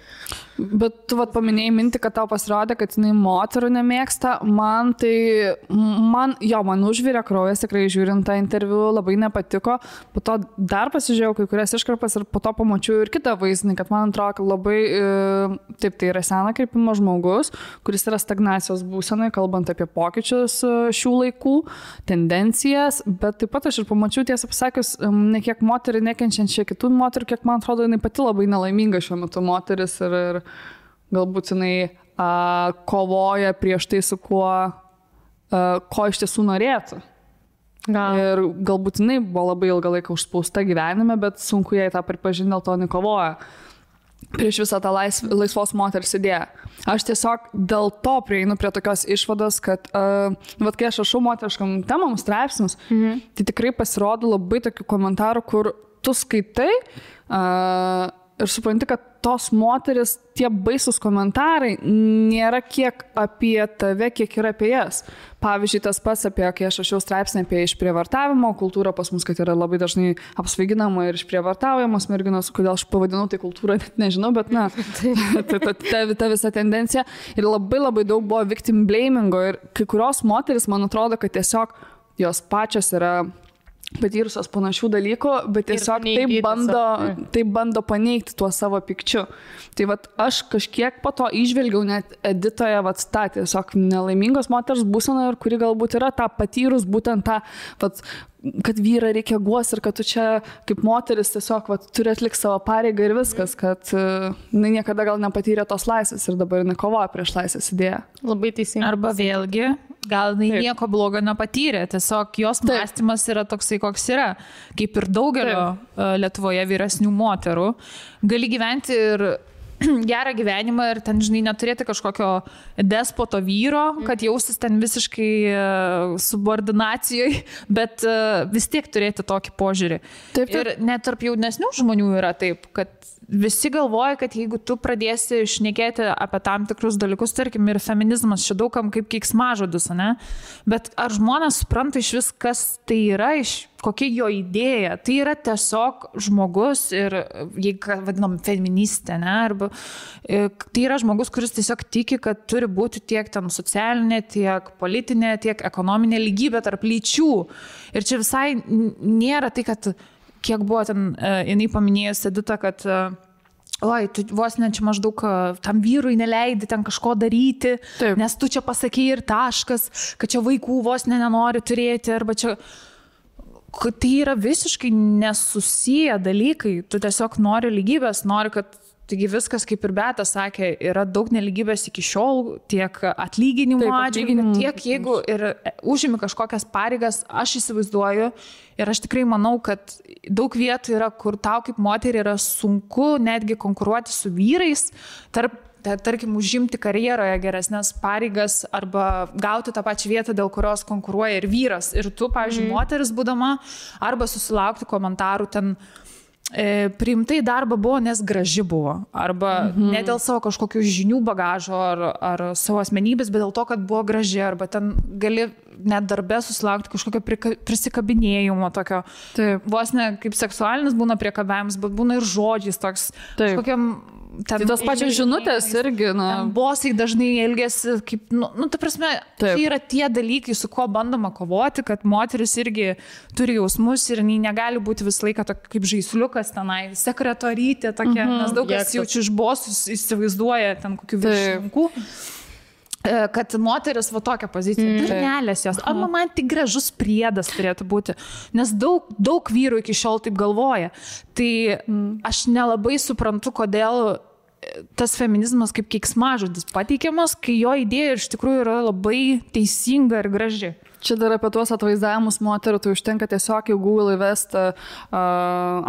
Bet tu paminėjai mintį, kad tau pasirodė, kad jinai moterų nemėgsta. Man užvirė kraujas, tikrai žiūrint tą interviu, labai nepatiko. Po to dar pasižiūrėjau kai kurias iškarpas ir po to pamačiau ir kitą vaizdinį, kad man atrodo, kad labai, taip, tai yra sena kirpimo žmogus, kuris yra stagnacijos būsenai, kalbant apie pokyčius šių laikų, tendencijas, bet taip pat aš ir pamačiau, tiesą pasakius, ne kiek moterį nekenčiančią kitų moterų, kiek man atrodo, jinai pati labai nelaiminga šiuo metu moteris ir galbūt jinai kovoja prieš tai, su kuo iš tiesų norėtų. Ir galbūt jinai buvo labai ilgą laiką užspausta gyvenime, bet sunku jai tą pripažinti, dėl to jinai kovoja. prieš visą tą laisvos moters idėją. Aš tiesiog dėl to prieinu prie tokios išvados, kad vat kai aš rašau moteriškam temam straipsnius, tai tikrai pasirodo labai tokių komentarų, kur tu skaitai ir supranti, kad tos moteris, tie baisus komentarai nėra kiek apie tave, kiek yra apie jas. Pavyzdžiui, tas pats apie, kai aš rašiau straipsnį apie išprievartavimo kultūrą, pas mus, kad yra labai dažnai apsvaiginama ir išprievartaujamos merginos, kodėl aš pavadinau tai kultūrą, net nežinau, bet na, ta visa tendencija. Ir labai daug buvo victim blamingo ir kai kurios moteris, man atrodo, kad tiesiog jos pačios yra patyrusios panašių dalykų, bet tiesiog taip bando paneigti tuo savo pikčiu. Tai vat aš kažkiek po to išvelgiau net Editoje tą tiesiog nelaimingos moters būseną, ir kuri galbūt yra tą patyrus būtent tą, kad vyrą reikia guos ir kad tu čia kaip moteris tiesiog turi atlikti savo pareigą ir viskas, kad niekada gal nepatyrė tos laisvės ir dabar nekovoja prieš laisvės idėją. Labai teisingai. Arba vėlgi, gal nieko blogo nepatyrė, tiesiog jos mąstymas yra toksai, koks yra. Kaip ir daugelio Lietuvoje vyresnių moterų, gali gyventi ir gerą gyvenimą ir ten, žinai, neturėti kažkokio despoto vyro, kad jaustis ten visiškai subordinacijoje, bet vis tiek turėti tokį požiūrį. Taip. Ir net tarp jaunesnių žmonių yra taip, kad visi galvoja, kad jeigu tu pradėsi šnekėti apie tam tikrus dalykus, tarkim, ir feminizmas čia daugam kaip keiksmažodis, ne? Bet ar žmonės supranta iš vis, kas tai yra, kokia jo idėja? Tai yra tiesiog žmogus ir, jeigu vadinam, feministė, ne? Arba tai yra žmogus, kuris tiesiog tiki, kad turi būti tiek ten socialinė, tiek politinė, tiek ekonominė lygybė tarp lyčių. Ir čia visai nėra tai, kad kiek buvo ten, jinai paminėjus Edita, kad oi, tu vos ne čia maždaug tam vyrui neleidi ten kažko daryti, taip, nes tu čia pasakei ir taškas, kad čia vaikų vos nenori turėti, arba čia... Tai yra visiškai nesusiję dalykai. Tu tiesiog nori lygybės, nori, kad taigi viskas, kaip ir Beata sakė, yra daug nelygybės iki šiol, tiek atlyginimų atžvilgiu, tiek jeigu ir užimi kažkokias pareigas, aš įsivaizduoju ir aš tikrai manau, kad daug vietų yra, kur tau kaip moteriai yra sunku netgi konkuruoti su vyrais, tarkim, užimti karjeroje geresnės pareigas arba gauti tą pačią vietą, dėl kurios konkuruoja ir vyras. Ir tu, pavyzdžiui, moteris būdama, arba susilaukti komentarų ten, priimtai darbą buvo, nes graži buvo. Arba ne dėl savo kažkokių žinių bagažo ar savo asmenybės, bet dėl to, kad buvo graži. Arba ten gali net darbe susilaukti kažkokio prisikabinėjimo tokio. Taip. Vos ne kaip seksualinis būna priekabiavimas, bet būna ir žodžiais toks. Kažkokiam... Tai tos pačios žinutės irgi, bosai dažnai elgiasi kaip, ta prasme, tai yra tie dalykai, su kuo bandoma kovoti, kad moteris irgi turi jausmus ir negali būti visą laiką kaip žaisliukas tenai, sekretorytė tokia, nes daug kas jaučiu iš bosus įsivaizduoja ten kokių viršininkų. Kad moteris tokią poziciją, durnelės jos, arba man tik gražus priedas turėtų būti, nes daug vyrų iki šiol taip galvoja. Tai aš nelabai suprantu, kodėl tas feminizmas kaip keiksmažodis pateikiamas, kai jo idėja iš tikrųjų yra labai teisinga ir graži. Čia dar apie tuos atvaizdavimus moterų, tai užtenka tiesiog į Google įvesti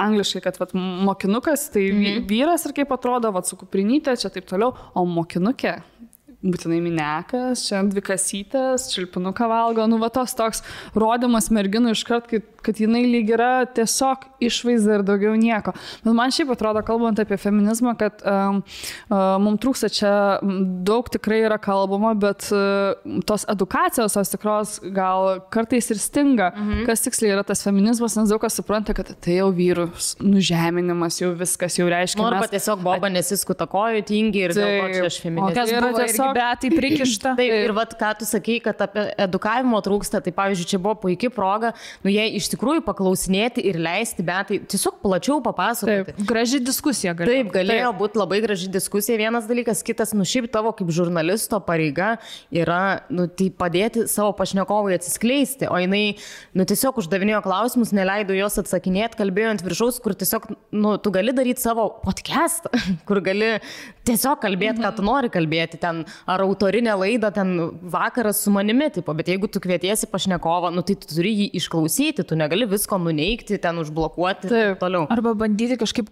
angliškai, kad mokinukas, tai vyras ir kaip atrodo, su kuprinytė, čia taip toliau, o mokinukė. Būtinai minekas, čia dvikasytės, čilpinuką valgo, toks rodymas merginų iškart, kad jinai lyg yra tiesiog išvaizda ir daugiau nieko. Bet man šiaip atrodo, kalbant apie feminizmą, kad mums trūksta čia daug tikrai yra kalbama, bet tos edukacijos, tos tikros gal kartais ir stinga, kas tiksliai yra tas feminizmas, nes daug kas supranta, kad tai jau vyrų nužeminimas, jau viskas jau reiškia. Arba tiesiog boba nesiskuta kojų, tingi ir dėl to čia aš feministė. Beatai prikišta. Taip, ir ką tu sakei, kad apie edukavimo trūksta, tai pavyzdžiui, čia buvo puikia proga, jie iš tikrųjų paklausinėti ir leisti Beatai tiesiog plačiau papasakoti. Taip, graži diskusija galėjo. Taip, galėjo būti labai graži diskusija. Vienas dalykas, kitas, šiaip tavo kaip žurnalisto pareiga yra, tai padėti savo pašnekovui atsiskleisti, o jinai, tiesiog uždavinėjo klausimus, neleido jos atsakinėti, kalbėjo ant viršaus, kur tiesiog, tu gali daryti savo podcastą, kur gali tiesiog kalbėti, ką tu nori kalbėti ten, ar autorinę laidą ten vakaras su manimi, tipo, bet jeigu tu kvietiesi pašnekovą, tai tu turi jį išklausyti, tu negali visko nuneigti, ten užblokuoti ir toliau. Arba bandyti kažkaip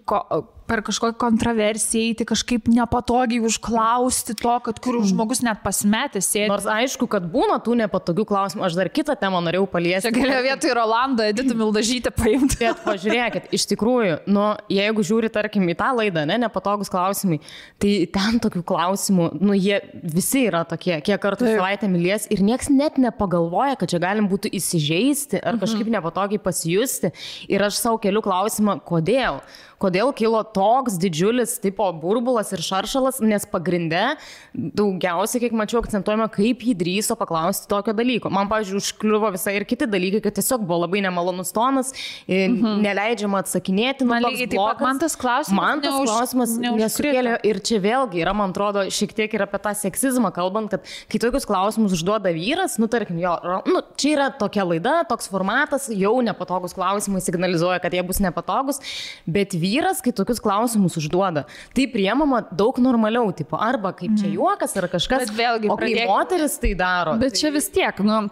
per kažkokią kontroversiją įti, kažkaip nepatogiai užklausti to, kad kur žmogus net pasimetęs sėdi. Nors aišku, kad būna tų nepatogių klausimų, aš dar kitą temą norėjau paliesti. Čia galėjo vietoj Rolandą Editą Mildažytę paimti. Bet pažiūrėkit, iš tikrųjų, nu, jeigu žiūri, tarkim, į tą laidą, nepatogus klausimai, tai ten tokių klausimų, nu, jie visi yra tokie, kiek kartų savaitę mylės ir nieks net nepagalvoja, kad čia galim būtų įsižeisti ar kažkaip nepatogiai pasijusti. Ir aš savo keliu klausimą, kodėl? Kodėl kilo toks didžiulis tipo burbulas ir šaršalas, nes pagrinde daugiausiai, kiek mačiau, akcentuojama, kaip jį drįso paklausti tokio dalyko. Man, pavyzdžiui, užkliuvo visai ir kiti dalykai, kad tiesiog buvo labai nemalonus tonas, neleidžiama atsakinėti. Man lygiai taip pat, man tas klausimas nesukėlė. Ir čia vėlgi yra, man atrodo, šiek tiek ir apie tą seksizmą kalbant, kad kai tokius klausimus užduoda vyras, nu, tarkim, jo, nu, čia yra tokia laida, toks formatas, jau nepatogus klausimai signalizuoja, kad jie bus nepatogus, bet vyras, kai tokius klausimus užduoda, tai priemama daug normaliau, tipo, arba kaip čia juokas, ar kažkas, vėlgi, o kai moteris tai daro. Bet čia vis tiek, nu,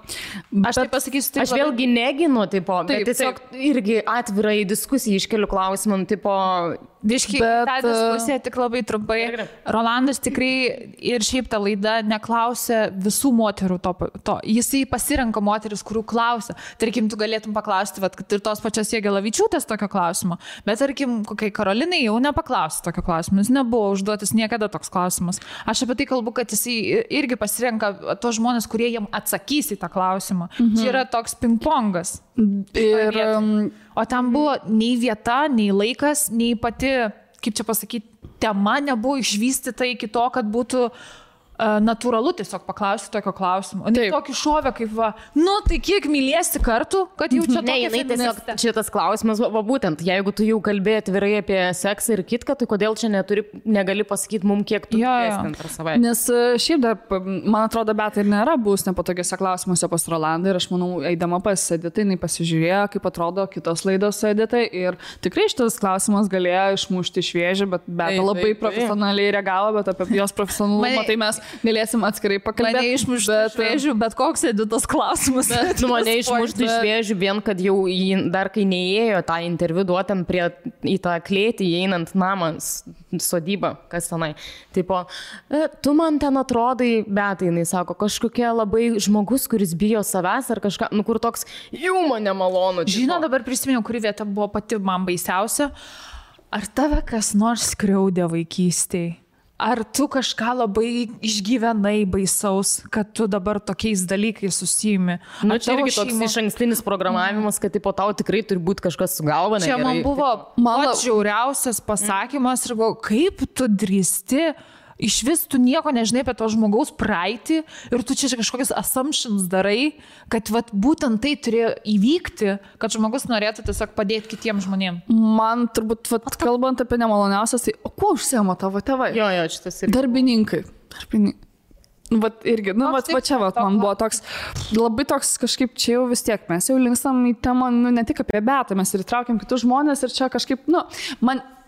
aš tai pasakysiu, aš vėlgi neginu, tipo, bet tiesiog irgi atvirai diskusijai iškeliu klausimam, tipo, Viškai, tą diskusiją tik labai trumpai. Rolandas tikrai ir šiaip ta laida neklausia visų moterų to. Jisai pasirenka moteris, kurių klausia. Tarkim, tu galėtum paklausti, kad ir tos pačios Jagelavičiūtės tokio klausimo. Bet tarkim, kokiai Karolinai jau nepaklausti tokio klausimo. Jis nebuvo užduotas niekada toks klausimas. Aš apie tai kalbu, kad jisai irgi pasirenka tos žmonės, kurie jam atsakys į tą klausimą. Čia yra toks pingpongas. O tam buvo nei vieta, nei laikas, nei pati, kaip čia pasakyti, tema nebuvo išvystyta iki to, kad būtų natūralu tiesiog paklausti tokio klausimo. O ne tokį šovę kaip va, nu tai kiek mylėsi kartų, kad jau čia tokia feministė. Šitas klausimas, va būtent, jeigu tu jau kalbėjai atvirai apie seksą ir kitką, tai kodėl čia negali pasakyti mums, kiek tu mylėsi per savaitę? Nes šiaip dar, man atrodo, bet ir nėra bus nepatogiuose klausimuose pas Rolandą ir aš manau, eidama pas Editai, jinai pasižiūrėjo, kaip atrodo kitos laidos su Editai ir tikrai šitas klausimas galėjo išmušti šviežį, bet labai profesionaliai reagavo, bet apie jos profesionalumą tai mes galėsim atskirai pakalbėti. Mane išmuštų šviežių, bet koks Editos klausimas. Mane išmuštų šviežių, vien kad jau dar kai neėjo tą interviu duotam į tą klėtį, įeinant namą, sodybą, kas tenai. Tipo, tu man ten atrodai, bet jinai sako, kažkokia labai žmogus, kuris bijo savęs ar kažką, nu kur toks jau man nemalonu. Žinau, dabar prisiminiau, kuri vieta buvo pati man baisiausia. Ar tave kas nors skriaudė vaikystėje? Ar tu kažką labai išgyvenai baisaus, kad tu dabar tokiais dalykais susijimi? Nu, čia irgi toks išankstinis programavimas, kad tipo, tau tikrai turi būti kažkas su galva. Čia man buvo pats žiauriausias pasakymas ir galvoju, kaip tu drįsti, iš vis tu nieko nežinai apie to žmogaus praeitį ir tu čia kažkokius assumptions darai, kad vat, būtent tai turėjo įvykti, kad žmogus norėtų tiesiog padėti kitiems žmonėms. Man turbūt, kalbant apie nemaloniausias, tai o kuo užsiema tavo tėvai? Jo, šitas irgi. Darbininkai. Vat irgi, nu, va čia man buvo toks, labai toks kažkaip čia jau vis tiek, mes jau linkstam į temą, nu, ne tik apie Betą, mes ir įtraukiam kitus žmonės ir čia kažkaip, nu,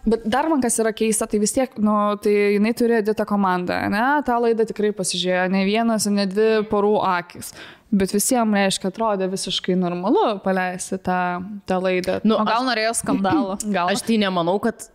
bet dar man kas yra keista, tai vis tiek, nu, tai jinai turi Editą komandą, ne, tą laidą tikrai pasižiūrėjo ne vienas, ne dvi porų akis, bet visiems, reiškia, atrodė visiškai normalu paleisti tą laidą. Nu, o gal norėjo skandalo? Gal. Aš tai nemanau, kad,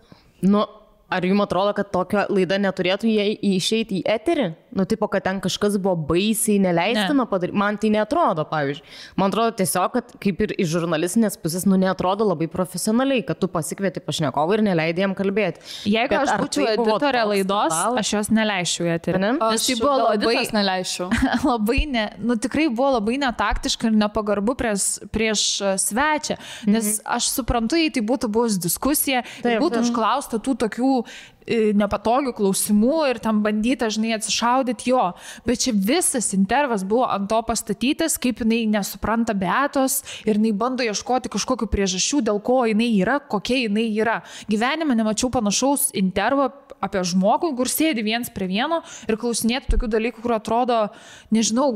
nu, ar jums atrodo, kad tokia laida neturėtų išeiti į eterį? Nu, tipo, kad ten kažkas buvo baisiai neleistina padaryti. Man tai neatrodo, pavyzdžiui. Man atrodo tiesiog, kad kaip ir iš žurnalistinės pusės, nu, neatrodo labai profesionaliai, kad tu pasikvieti pašnekovą ir neleidai jam kalbėti. Jeigu aš būčiau editorė laidos, aš jos neleisčiau į eterį. Nes tai buvo labai, nu, tikrai buvo labai netaktiška ir nepagarbu prieš svečią. Nes aš suprantu, jei tai būtų buvus diskusija, būtų užklausta tų tokių nepatogių klausimų ir tam bandyta, žinai, atsišaudyti jo. Bet čia visas intervas buvo ant to pastatytas, kaip jinai nesupranta Beatos ir jinai bando ieškoti kažkokių priežasčių, dėl ko jinai yra, kokia jinai yra. Gyvenime nemačiau panašaus intervo apie žmogų, kur sėdi viens prie vieno ir klausinėti tokių dalykų, kur atrodo, nežinau,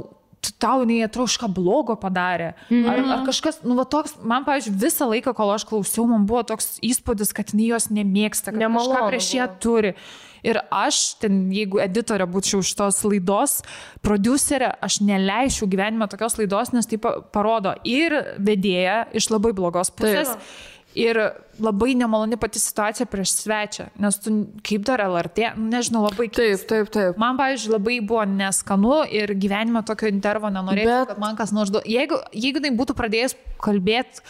tau jinai atrodo kažką blogo padarė. Ar kažkas, nu va toks, man, pavyzdžiui, visą laiką, kol aš klausiau, man buvo toks įspūdis, kad jinai jos nemėgsta, kad kažką prieš ją turi. Ir aš, jeigu editorė būčiau šitos laidos, prodiuserė, aš neleičiau gyvenime tokios laidos, nes tai parodo ir vedėja iš labai blogos pusės. Ir labai nemaloni pati situacija prieš svečią, nes tu kaip dar LRT, nežinau, labai keista. Taip. Man, pavyzdžiui, labai buvo neskanu ir gyvenime tokio intervo nenorėjau, kad man kas nors duotų. Jeigu tai būtų pradėjęs kalbėti,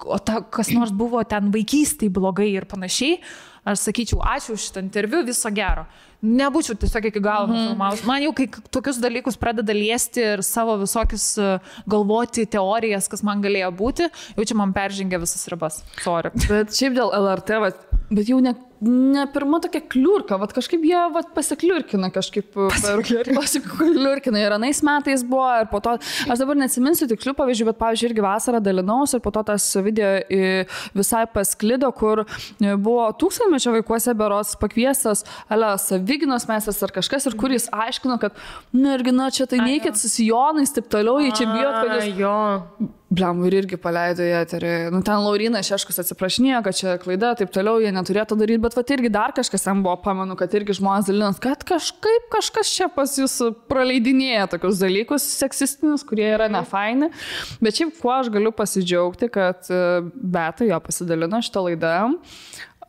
o kas nors buvo ten vaikystėje blogai ir panašiai, aš sakyčiau, ačiū už šitą interviu, viso gero. Nebūčiau tiesiog iki galo nufilmavus. Man jau, kai tokius dalykus pradeda liesti ir savo visokius galvoti teorijas, kas man galėjo būti, jau čia man peržengia visas ribas. Sorry. Bet šiaip dėl LRT, bet jau ne pirma tokia kliurka, kažkaip jie pasikliurkina kažkaip, pasikliurkina ir anais metais buvo ir po to, aš dabar neatsiminsiu tikslių pavyzdžių, bet pavyzdžiui irgi vasarą dalinaus ir po to tas video visai pasklido, kur buvo 1000-mečio vaikuose berods pakviestas Saviginos meistras ar kažkas ir kur jis aiškino, kad irgi, čia tai neikit su sijonais, taip toliau, jie čia bijot, kad jūs... Bliam, ir irgi paleido į eterį. Ten Laurinas Šeškus atsiprašinėjo, kad čia klaida, taip toliau, jie neturėtų daryti, bet irgi dar kažkas ten buvo, pamenu, kad irgi žmonės dalinas, kad kažkas čia pas jūs praleidinėja tokius dalykus seksistinius, kurie yra nefaini. Bet šiaip, kuo aš galiu pasidžiaugti, kad Beta jo pasidalino šitą laidą.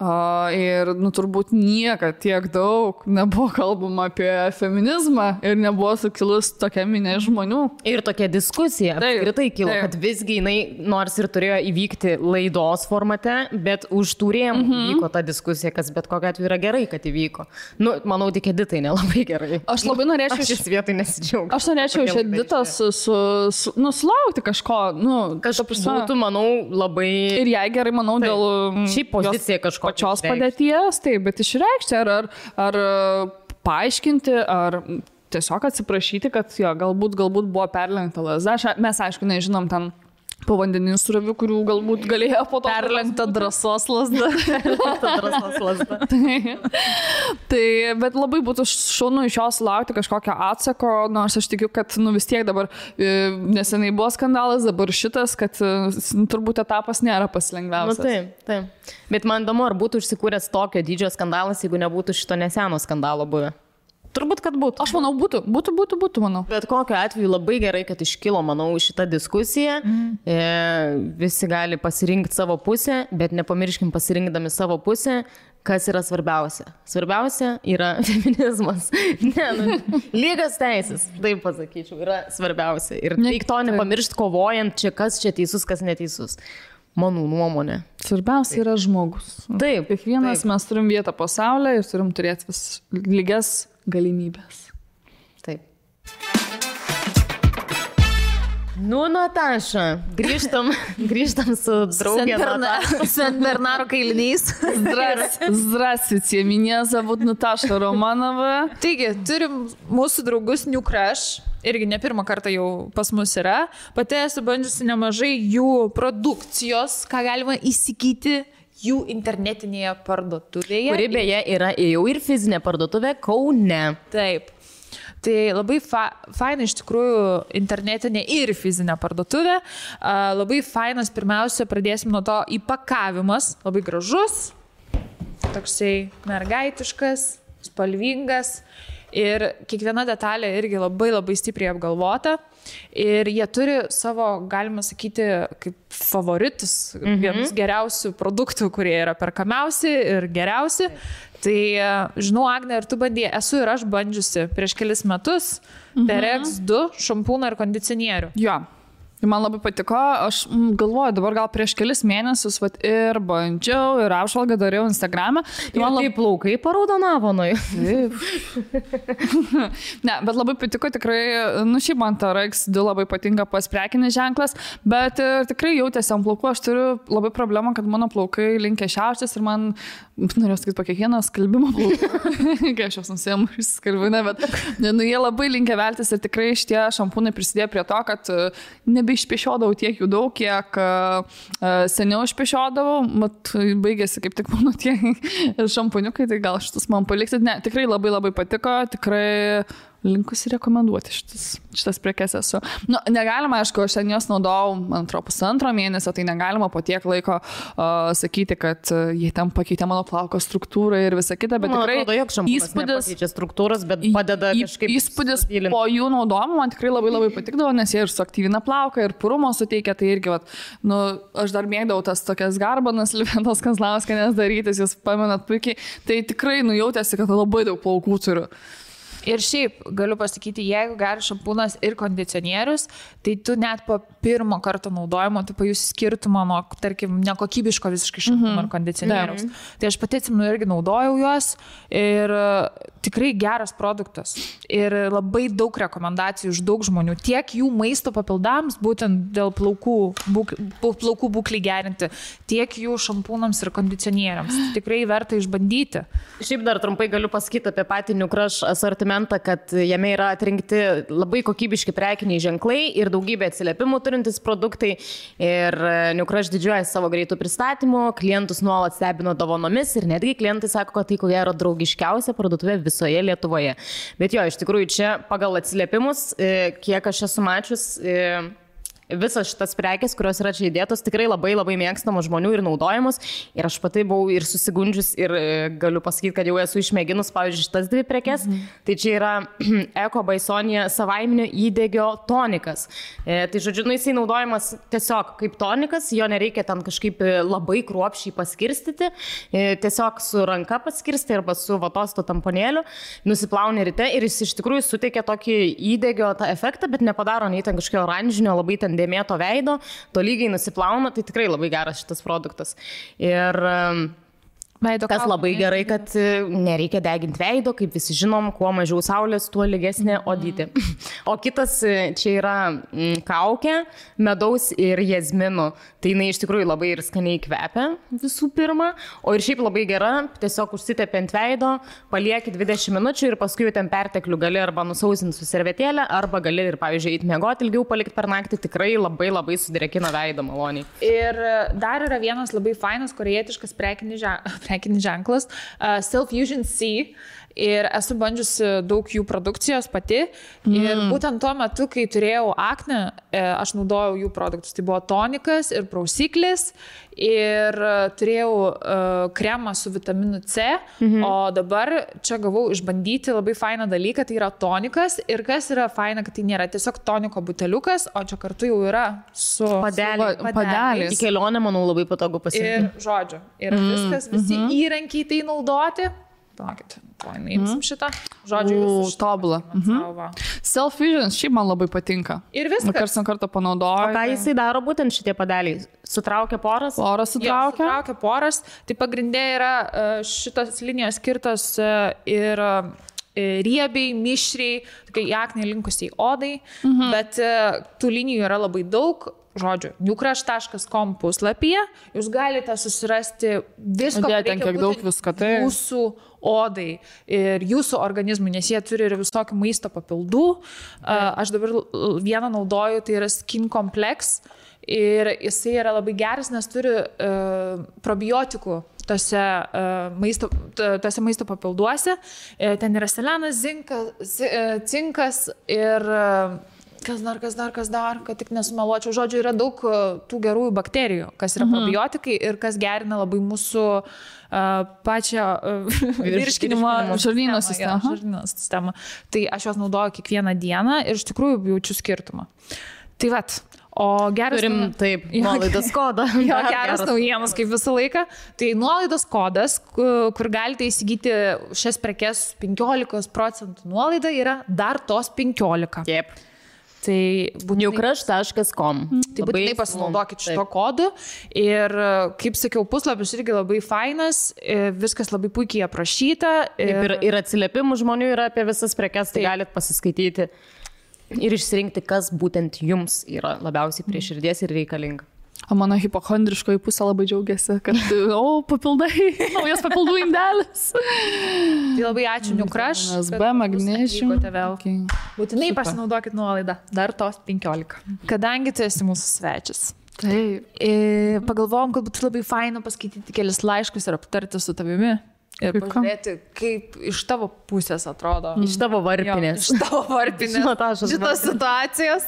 Ir turbūt niekad tiek daug nebuvo kalbama apie feminizmą ir nebuvo sukilus tokia minė žmonių. Ir tokia diskusija apskritai kilo, kad visgi jinai nors ir turėjo įvykti laidos formate, bet už tų rėmų vyko ta diskusija, kas bet kokiu atveju yra gerai, kad įvyko. Manau, tik Editai nelabai gerai. Aš labai norėčiau šis vietoj nesidžiaugti. Aš norėčiau iš Editos sulaukti kažko. Kažkaip būtų, manau, labai... Ir jai gerai, manau, dėl... Šiaip pozicija kažko. Pačios padėties, taip, bet išreikšti ar paaiškinti, ar tiesiog atsiprašyti, kad jo, galbūt buvo perlenkta lazda. Mes, aišku, nežinom ten povandeninių srovių, kurių galbūt galėjo po to perlenkta drąsos lazda. Tai, bet labai būtų šaunu iš jos laukti kažkokio atsako, nors aš tikiu, kad vis tiek dabar neseniai buvo skandalas, dabar šitas, kad turbūt etapas nėra pasilengviausias. Taip. Bet man įdomu, ar būtų užsikūręs tokio dydžio skandalas, jeigu nebūtų šito neseno skandalo buvę. Turbūt, kad būtų. Aš manau, būtų, manau. Bet kokiu atveju labai gerai, kad iškilo, manau, šitą diskusiją. Visi gali pasirinkti savo pusę, bet nepamirškim pasirinkdami savo pusę, kas yra svarbiausia. Svarbiausia yra feminizmas. Lygios teisės, taip pasakyčiau, yra svarbiausia. Ir reik to nepamiršti kovojant, čia kas čia teisus, kas neteisus. Mano nuomonė. Svarbiausia yra žmogus. Taip. Kiekvienas mes turim vietą pasaulyje ir turim turėti lygias galimybės. Taip. Nataša, grįžtam su draugė Nataša. Sen Bernaro kailinys. Здравствуйте, меня зовут Nataša Romanova. Taigi, turim mūsų draugus New Crush. Irgi ne pirmą kartą jau pas mus yra. Pati esu bandžiusi nemažai jų produkcijos, ką galima įsigyti jų internetinėje parduotuvėje. Kuri beje yra jau ir fizinė parduotuvė Kaune. Taip. Tai labai faina iš tikrųjų internetinė ir fizinė parduotuvė. Labai fainas, pirmiausia, pradėsim nuo to įpakavimas. Labai gražus, toksai mergaitiškas, spalvingas. Ir kiekviena detalė irgi labai stipriai apgalvota. Ir jie turi savo, galima sakyti, kaip favoritus, vienus geriausių produktų, kurie yra perkamiausi ir geriausi. Tai, žinau, Agne, ir tu bandėjai, esu ir aš bandžiusi prieš kelis metus Perex 2 šampūną ir kondicionierių. Jo. Man labai patiko, aš galvoju, dabar gal prieš kelis mėnesius ir bandžiau, ir apžvalgą dariau Instagram'e. Ir taip plaukai paraudonavo nuo jų. Ne, bet labai patiko tikrai, šiaip man ta RX2 labai patinka pas prekinis ženklas, bet tikrai jautėsi ant plaukų, aš turiu labai problemą, kad mano plaukai linkia šiauštis ir man, norėjau sakyti, po kiekvieną skalbimo plaukų, kai aš jos nusiemu iš skalbinę, bet jie labai linkia veltis ir tikrai šitie šampūnai prisidėjo prie to, kad išpešiodavau tiek jų daug, kiek seniau išpešiodavau, mat baigėsi kaip tik mano tie šampuniukai, tai gal šitus man paliksit. Ne, tikrai labai patiko, tikrai linkusi rekomenduoti šitas prekes esu. Nu, negalima, aišku, aš ten jos naudojau, man atrodo, pusantro mėnesio, tai negalima po tiek laiko sakyti, kad jie ten pakeitė mano plauko struktūrą ir visą kitą, bet tikrai įspūdis struktūros, bet padeda kažkaip įspūdis po jų naudojimo man tikrai labai labai patikdavo, nes jie ir suaktyvina plauką, ir purumo suteikia, tai irgi, vat, nu, aš dar mėgdavau tas tokias garbanas, Liventos Kazlauskienės darytis, jūs pamenat puikiai, tai tikrai nujautėsi, kad labai daug plaukų turiu. Ir šiaip, galiu pasakyti, jeigu geras šampūnas ir kondicionierius, tai tu net po pirmo karto naudojimo, tu pajusi skirtumą nuo, tarkim, nekokybiško visiškai šampūno ar kondicionieriaus. Tai aš pati atsimenu irgi naudojau juos ir tikrai geras produktas. Ir labai daug rekomendacijų iš daug žmonių. Tiek jų maisto papildams, būtent dėl plaukų būklį gerinti, tiek jų šampūnams ir kondicionieriams. Tikrai verta išbandyti. Šiaip dar trumpai galiu pasakyti apie patį New Crush asortimentą, kad jame yra atrinkti labai kokybiški prekiniai ženklai ir daugybė atsiliepimų turintis produktai. Ir New Crush didžiuojasi savo greitų pristatymų, klientus nuolat stebino dovanomis ir netgi klientai sako, kad tai ko gero draugiškiausia parduotuvė visoje Lietuvoje. Bet jo, iš tikrųjų čia pagal atsiliepimus, kiek aš esu mačius, visas šitas prekės, kurios yra čia įdėtos, tikrai labai labai mėgstamos žmonių ir naudojamos. Ir aš pati buvau ir susigundžius ir galiu pasakyti, kad jau esu išmėginus, pavyzdžiui, šitas dvi prekės. Tai čia yra Eko Baisonija savaiminio įdegio tonikas. Tai žodžiu, jisai naudojamas tiesiog kaip tonikas, jo nereikia ten kažkaip labai kruopščiai paskirstyti. Tiesiog su ranka paskirsti arba su vatosto tamponėliu, nusiplauni ryte ir jis iš tikrųjų suteikia tokį įdegio tą efektą, bet nepadaro nei ten kažkokio oranžinio, labai ten dėmėto veido, tolygiai nusiplauna, tai tikrai labai geras šitas produktas. Ir kas labai gerai, kad nereikia deginti veido, kaip visi žinom, kuo mažiau saulės, tuo lygesnė odytė. O kitas čia yra kaukė, medaus ir jazminų. Tai jinai iš tikrųjų labai ir skaniai kvepia visų pirma, o ir šiaip labai gera, tiesiog užsitepi ant veido, palieki 20 minučių ir paskui jau ten perteklių gali arba nusausinti su servetėlė, arba gali ir, pavyzdžiui, eiti miegoti ilgiau palikti per naktį, tikrai labai labai sudrėkina veidą maloniai. Ir dar yra vienas labai fainas korėjietiškas prekinis ženklas, Self-Fusion C. Ir esu bandžiusi daug jų produkcijos pati. Ir būtent tuo metu, kai turėjau aknę, aš naudojau jų produktus. Tai buvo tonikas ir prausiklis. Ir turėjau kremą su vitaminu C. O dabar čia gavau išbandyti labai fainą dalyką. Tai yra tonikas. Ir kas yra faina, kad tai nėra tiesiog toniko buteliukas, o čia kartu jau yra su padeliais. Į kelionę, manau, labai patogu pasiimti. Ir žodžiu. Ir viskas, visi įrankiai tai naudoti. Palaukit, paimsim šitą. Žodžiu, tobulą. Self-Fusion šiaip man labai patinka. Ir viskas. Karts nuo karto panaudoju. O ką jisai daro būtent šitie padeliai? Sutraukia poras? Poras sutraukia. Sutraukia poras. Tai pagrindė yra šitos linijos skirtos ir riebiai, mišriai, tokiai aknei linkusiai odai, bet tų linijų yra labai daug. Žodžiu, newcrush.com puslapyje jūs galite susirasti visko, jūsų odai ir jūsų organizmui, nes jie turi ir visokių maisto papildų. Aš dabar vieną naudoju, tai yra Skin Complex ir jisai yra labai geras, nes turi probiotikų tose maisto papilduose. Ten yra selenas, cinkas ir kas dar, kad tik nesumeluočiau. Žodžiu, yra daug tų gerųjų bakterijų, kas yra probiotikai ir kas gerina labai mūsų pačią virškinimo žarnyno sistemą. Tai aš juos naudoju kiekvieną dieną ir iš tikrųjų jaučiu skirtumą. Tai vat. O geras... Turim, taip, nuolaidos kodą. Jo, geras naujienas, kaip visą laiką. Tai nuolaidos kodas, kur galite įsigyti šias prekes 15% nuolaida, yra dar tos 15. Taip. Tai newcrush.com. Tai būtinai pasinaudokit šito kodu. Ir, kaip sakiau, puslapis irgi labai fainas, viskas labai puikiai aprašyta. Ir atsiliepimų žmonių yra apie visas prekes, tai galit pasiskaityti ir išsirinkti, kas būtent jums yra labiausiai prie širdies ir reikalinga. O mano hipochondriškoji pusė labai džiaugiasi, kad, papildai, naujas papildų indelis. Tai labai ačiū, New Crush. SB, Magnesium. Būtinai pasinaudokit nuolaidą, dar tos 15. Kadangi tu esi mūsų svečias. Taip. Pagalvojom, kad būtų labai faina paskaityti kelias laiškus ir aptarti su tavimi. Ir pažiūrėti, kaip iš tavo pusės atrodo. Iš tavo varpinės. Jo, iš tavo varpinės. Šitos situacijos.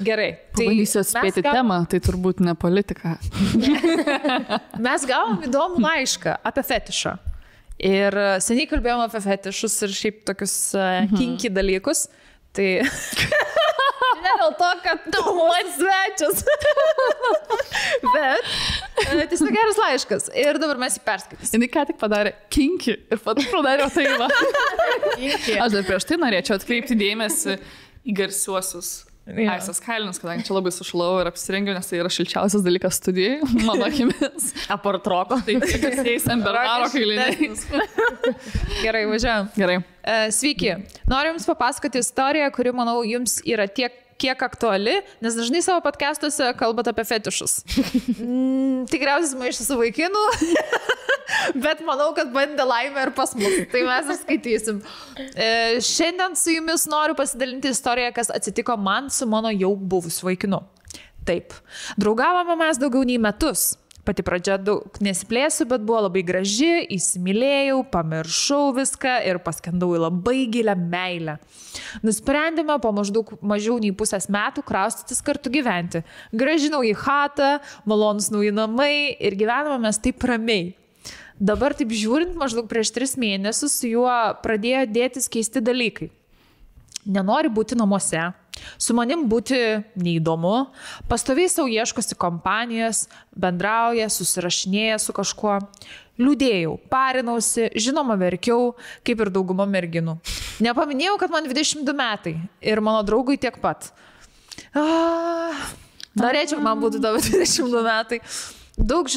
Gerai. Pabandysiu atspėti temą, tai turbūt ne politika. Mes gavom įdomų laišką apie fetišą. Ir seniai kalbėjom apie fetišus ir šiaip tokius kinky dalykus. Tai ne dėl to, kad tu man svečias. Bet tiesiog geras laiškas. Ir dabar mes jį perskaitysim. Jis ką tik padarė kinky ir pat padarė tai va. Aš dar prieš tai norėčiau atkreipti dėmesį į garsiuosius Aisas kailinius, kadangi čia labai sušlau ir apsirengiau, nes tai yra šilčiausias dalykas studijai, mano akimis. Apartroko. Tai garsiais Bernaro kailiniais. Gerai, važiuojam. Gerai. Sveiki. Noriu Jums papasakoti istoriją, kuri, manau, Jums yra kiek aktuali, nes dažnai savo podcastuose kalbat apie fetišus. Tikriausiai maišą su vaikinu, bet manau, kad bandė laimę ir pas mus. Tai mes ir skaitysim. Šiandien su Jumis noriu pasidalinti istoriją, kas atsitiko man su mano jau buvusiu vaikinu. Taip. Draugavome mes daugiau nei metus. Pati pradžia daug nesiplėsiu, bet buvo labai graži, įsimylėjau, pamiršau viską ir paskendau į labai gilę meilę. Nusprendėme po maždaug mažiau nei pusės metų kraustytis kartu gyventi. Grąžinau į chatą, malonus nauji namai ir gyvename mes taip ramiai. Dabar taip žiūrint, maždaug prieš 3 mėnesius su juo pradėjo dėtis keisti dalykai. Nenori būti namuose, su manim būti neįdomu, pastoviai savo ieškosi kompanijos, bendrauja, susirašinėja su kažkuo. Liūdėjau, parinausi, žinoma verkiau, kaip ir dauguma merginų. Nepaminėjau, kad man 22 metai ir mano draugui tiek pat. Norėčiau, man būtų tavo 22 metai. Daug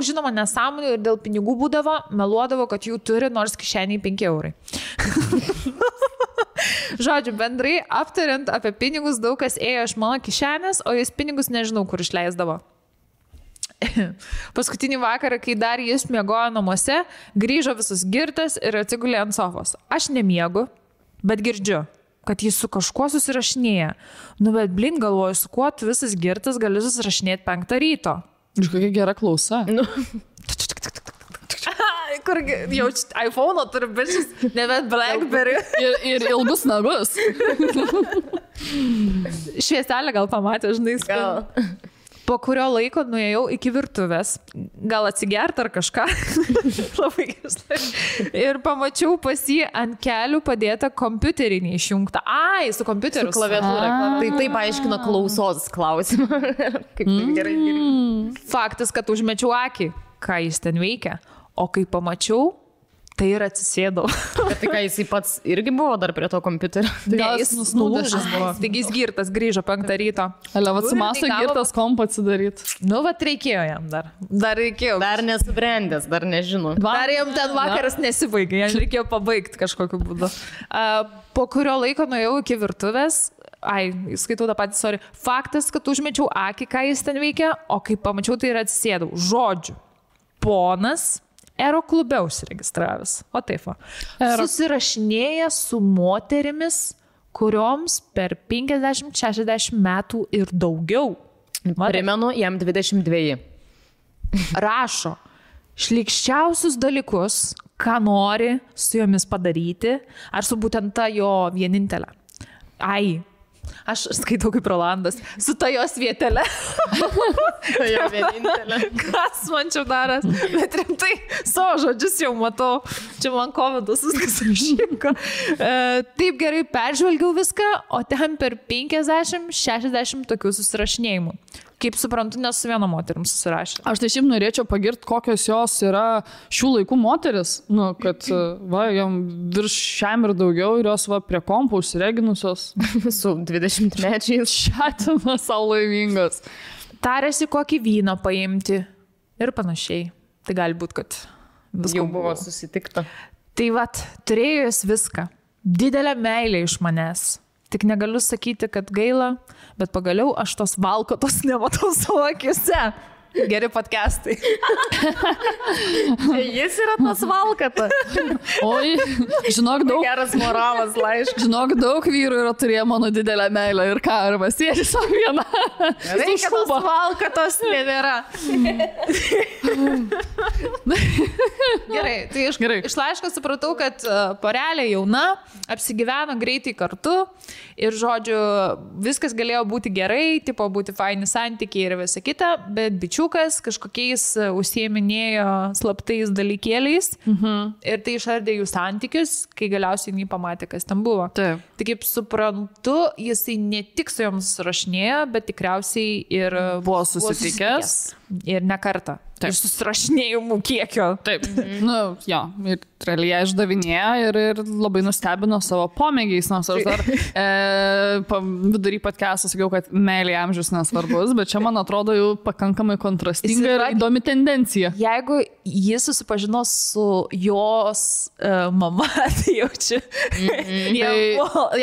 žinoma nesąmonių ir dėl pinigų būdavo, meluodavo, kad jų turi, nors kišeniai 5 eurai. Žodžiu, bendrai aptariant apie pinigus, daug kas ėjo iš mano kišenės, o jis pinigus nežinau, kur išleisdavo. Paskutinį vakarą, kai dar jis miegojo namuose, grįžo visus girtas ir atsigulė ant sofos. Aš nemiegu, bet girdžiu, kad jis su kažkuo susirašinėja. Nu, bet blin, galvoju, su kuo tu visas girtas gali susirašinėti 5 ryto. Iš kokia gera klausa. Nu. Kur jau iPhone'o turi bišis, nebent Blackberry. Ir ilgus nagus. Švieselę gal pamatė, žinai, Gal. Po kurio laiko nuėjau iki virtuvės, gal atsigert ar kažką. Labai gerai. Ir pamačiau pas jį ant kelių padėtą kompiuterį neišjungtą. Ai, su kompiuteriu. Su klaviatūra. Tai taip aiškino klausos klausimą. Kaip tai gerai. Faktas, kad užmečiau akį, ką jis ten veikia. O kai pamačiau, tai ir atsisėdau. Bet tai ką, jisai pats irgi buvo dar prie to kompiuterio? Ne, jis nulūžęs buvo. Taigi jis girtas, grįžo 5 ryto. Vat su maso girtas kompą atsidaryti. Nu, vat reikėjo jam dar. Dar reikėjo. Dar nesubrendęs, dar nežino. Dar jam ten vakaras nesibaigė, jam reikėjo pabaigti kažkokiu būdu. Po kurio laiko nuėjau iki virtuvės. Skaitau tą patį, sorry. Faktas, kad užmečiau akį, ką jis ten veikia, o kai pamačiau, tai ir atsisėdau. Žodžiu. Ponas Ero klube užsiregistravęs. O taip va. Susirašinėja su moterimis, kurioms per 50-60 metų ir daugiau. Primenu, jam 22. Rašo šlykščiausius dalykus, ką nori su jomis padaryti, ar su būtent ta jo vienintelė. Aš skaitau kaip Rolandas, su ta jos vietelė. Tai jo vienintelė. Kas man čia daras? Bet rimtai, savo žodžius jau matau. Čia man covidas viskas išrinko. Taip gerai peržvelgiau viską, o ten per 50-60 tokių susirašinėjimų. Kaip suprantu, nes su viena moterim susirašė. Aš tai šiaip norėčiau pagirti, kokios jos yra šių laikų moteris. Nu, kad jam virš šiam ir daugiau ir jos prie kompų užsireginusios. Su 20 mečiais. Šatina savo laimingos. Tarėsi kokį vyną paimti ir panašiai. Tai gali būti, kad viskas jau buvo susitikta. Tai turėjo jis viską. Didelę meilę iš manęs. Tik negaliu sakyti, kad gaila, bet pagaliau aš tos valkotos nematau savo akiuose. Geri podcastai. Jis yra tas valkata. Oi, žinok, daug. Geras moralas, laiškas. Žinok, daug vyrų yra turėję mano didelę meilę ir ką, arba sėdi savo vieną. Reikia tos valkatos nebėra. Gerai, tai iš laiško supratau, kad porelė jauna, apsigyveno greitai kartu ir, žodžiu, viskas galėjo būti gerai, tipo būti faini santykiai ir visa kita, bet bičiukas kažkokiais užsieminėjo slaptais dalykėliais ir tai išardė jų santykius, kai galiausiai jį pamatė, kas ten buvo. Taip. Tai kaip suprantu, jisai ne tik su joms rašinėjo, bet tikriausiai ir buvo susitikęs. Ir ne kartą. Taip. Ir susirašinėjimų kiekio. Taip. Nu, jo, ir realiai išdavinėjo ir labai nustebino savo pomėgiais, nors aš dar vidury podcast'o sakiau, kad meilė amžius nesvarbus, bet čia man atrodo jau pakankamai kontrastinga ir įdomi tendencija. Jeigu jis susipažino su jos mama, tai jaučiu,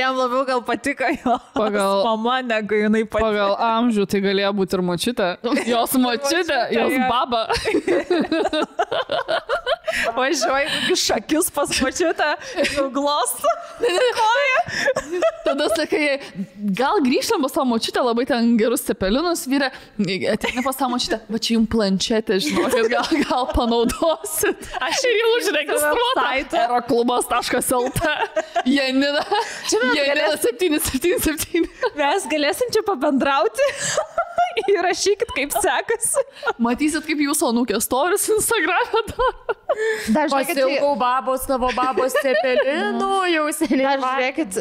jam labiau gal patiko jos mama, negu jinai patiko. Pagal amžių tai galėjo būti ir močiutė. Jos močiutė, jos baba. Važiuoju kokius šakius pas močiutę, glosto koją. Tada sakai, gal grįžtam pas savo močiutę, labai ten gerus cepelinus vyrė, ateina pas savo močiutę, va čia jums planšetė, žinokit, gal panaudosit. Aš ir jau užregistruota. Aeroklubas.lt Janina 777. Mes galėsim čia pabendrauti. Įrašykit, kaip sekasi. Matysit, kaip jūsų anūkė storis Instagram'e daro. Pasilgau babos, savo babos cepelinų, jau seniai. Dar žiūrėkit,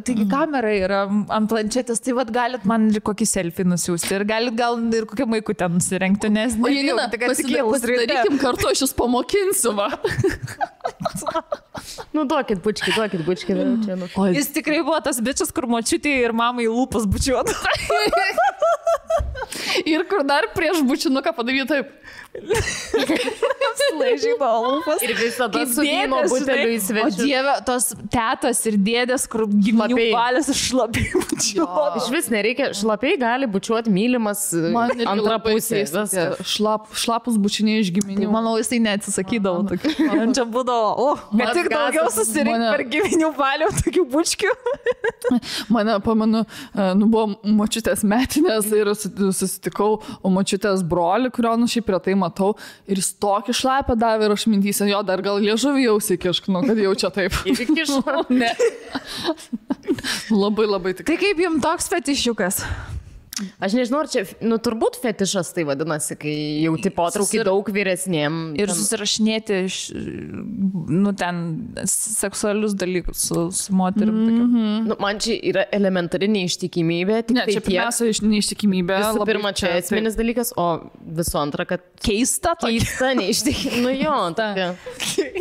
taigi kamera yra ant planšetės, tai vat galit man ir kokį selfie nusiųsti ir galit gal ir kokią maikutę nusirengti, nes... O Janina, pasidarykim kartu, aš jūs pamokinsiu, va. Nu, duokit bučkį. Jis tikrai buvo tas bičias, kur močiutė ir mamai lūpas bučiuotų. Ir kur dar prieš bučinuką padaryti taip. Laižybo lūpas. Ir visada su vyno buteliu į svečius. O Dieve, tos tetos ir dėdės, kur giminių balės šlapiai bučiuotų. Iš vis nereikia, šlapiai gali bučiuoti mylimas antrą pusę. Šlapus bučiniai iš giminių. Tai, manau, jisai neatsisakydavo tokių. Man čia būdavo, kad tik daugiau susirinkti per giminių balių tokių bučkių. Mane, pamenu, buvo močiutės metinės ir susitikau močiutės brolį, kurio šiaip retai matau, ir jis tokį šlapę davė ir aš mintysiu, jo, dar gal liežuvį jau įkiškinu, kad jau čia taip. Įkiškinu? Ne. Labai tikrai. Tai kaip jums toks fetišiukas? Aš nežinau, ar čia, turbūt fetišas tai vadinasi, kai jauti potraukį daug vyresniem. Ir susirašinėti, ten seksualius dalykus su moterim. Man čia yra elementari neištikimybė. Ne, čia pirmiausia neištikimybė. Visų pirma, čia esminis dalykas, o visų antra, kad keista neištikimybė. Nu jo, tokia.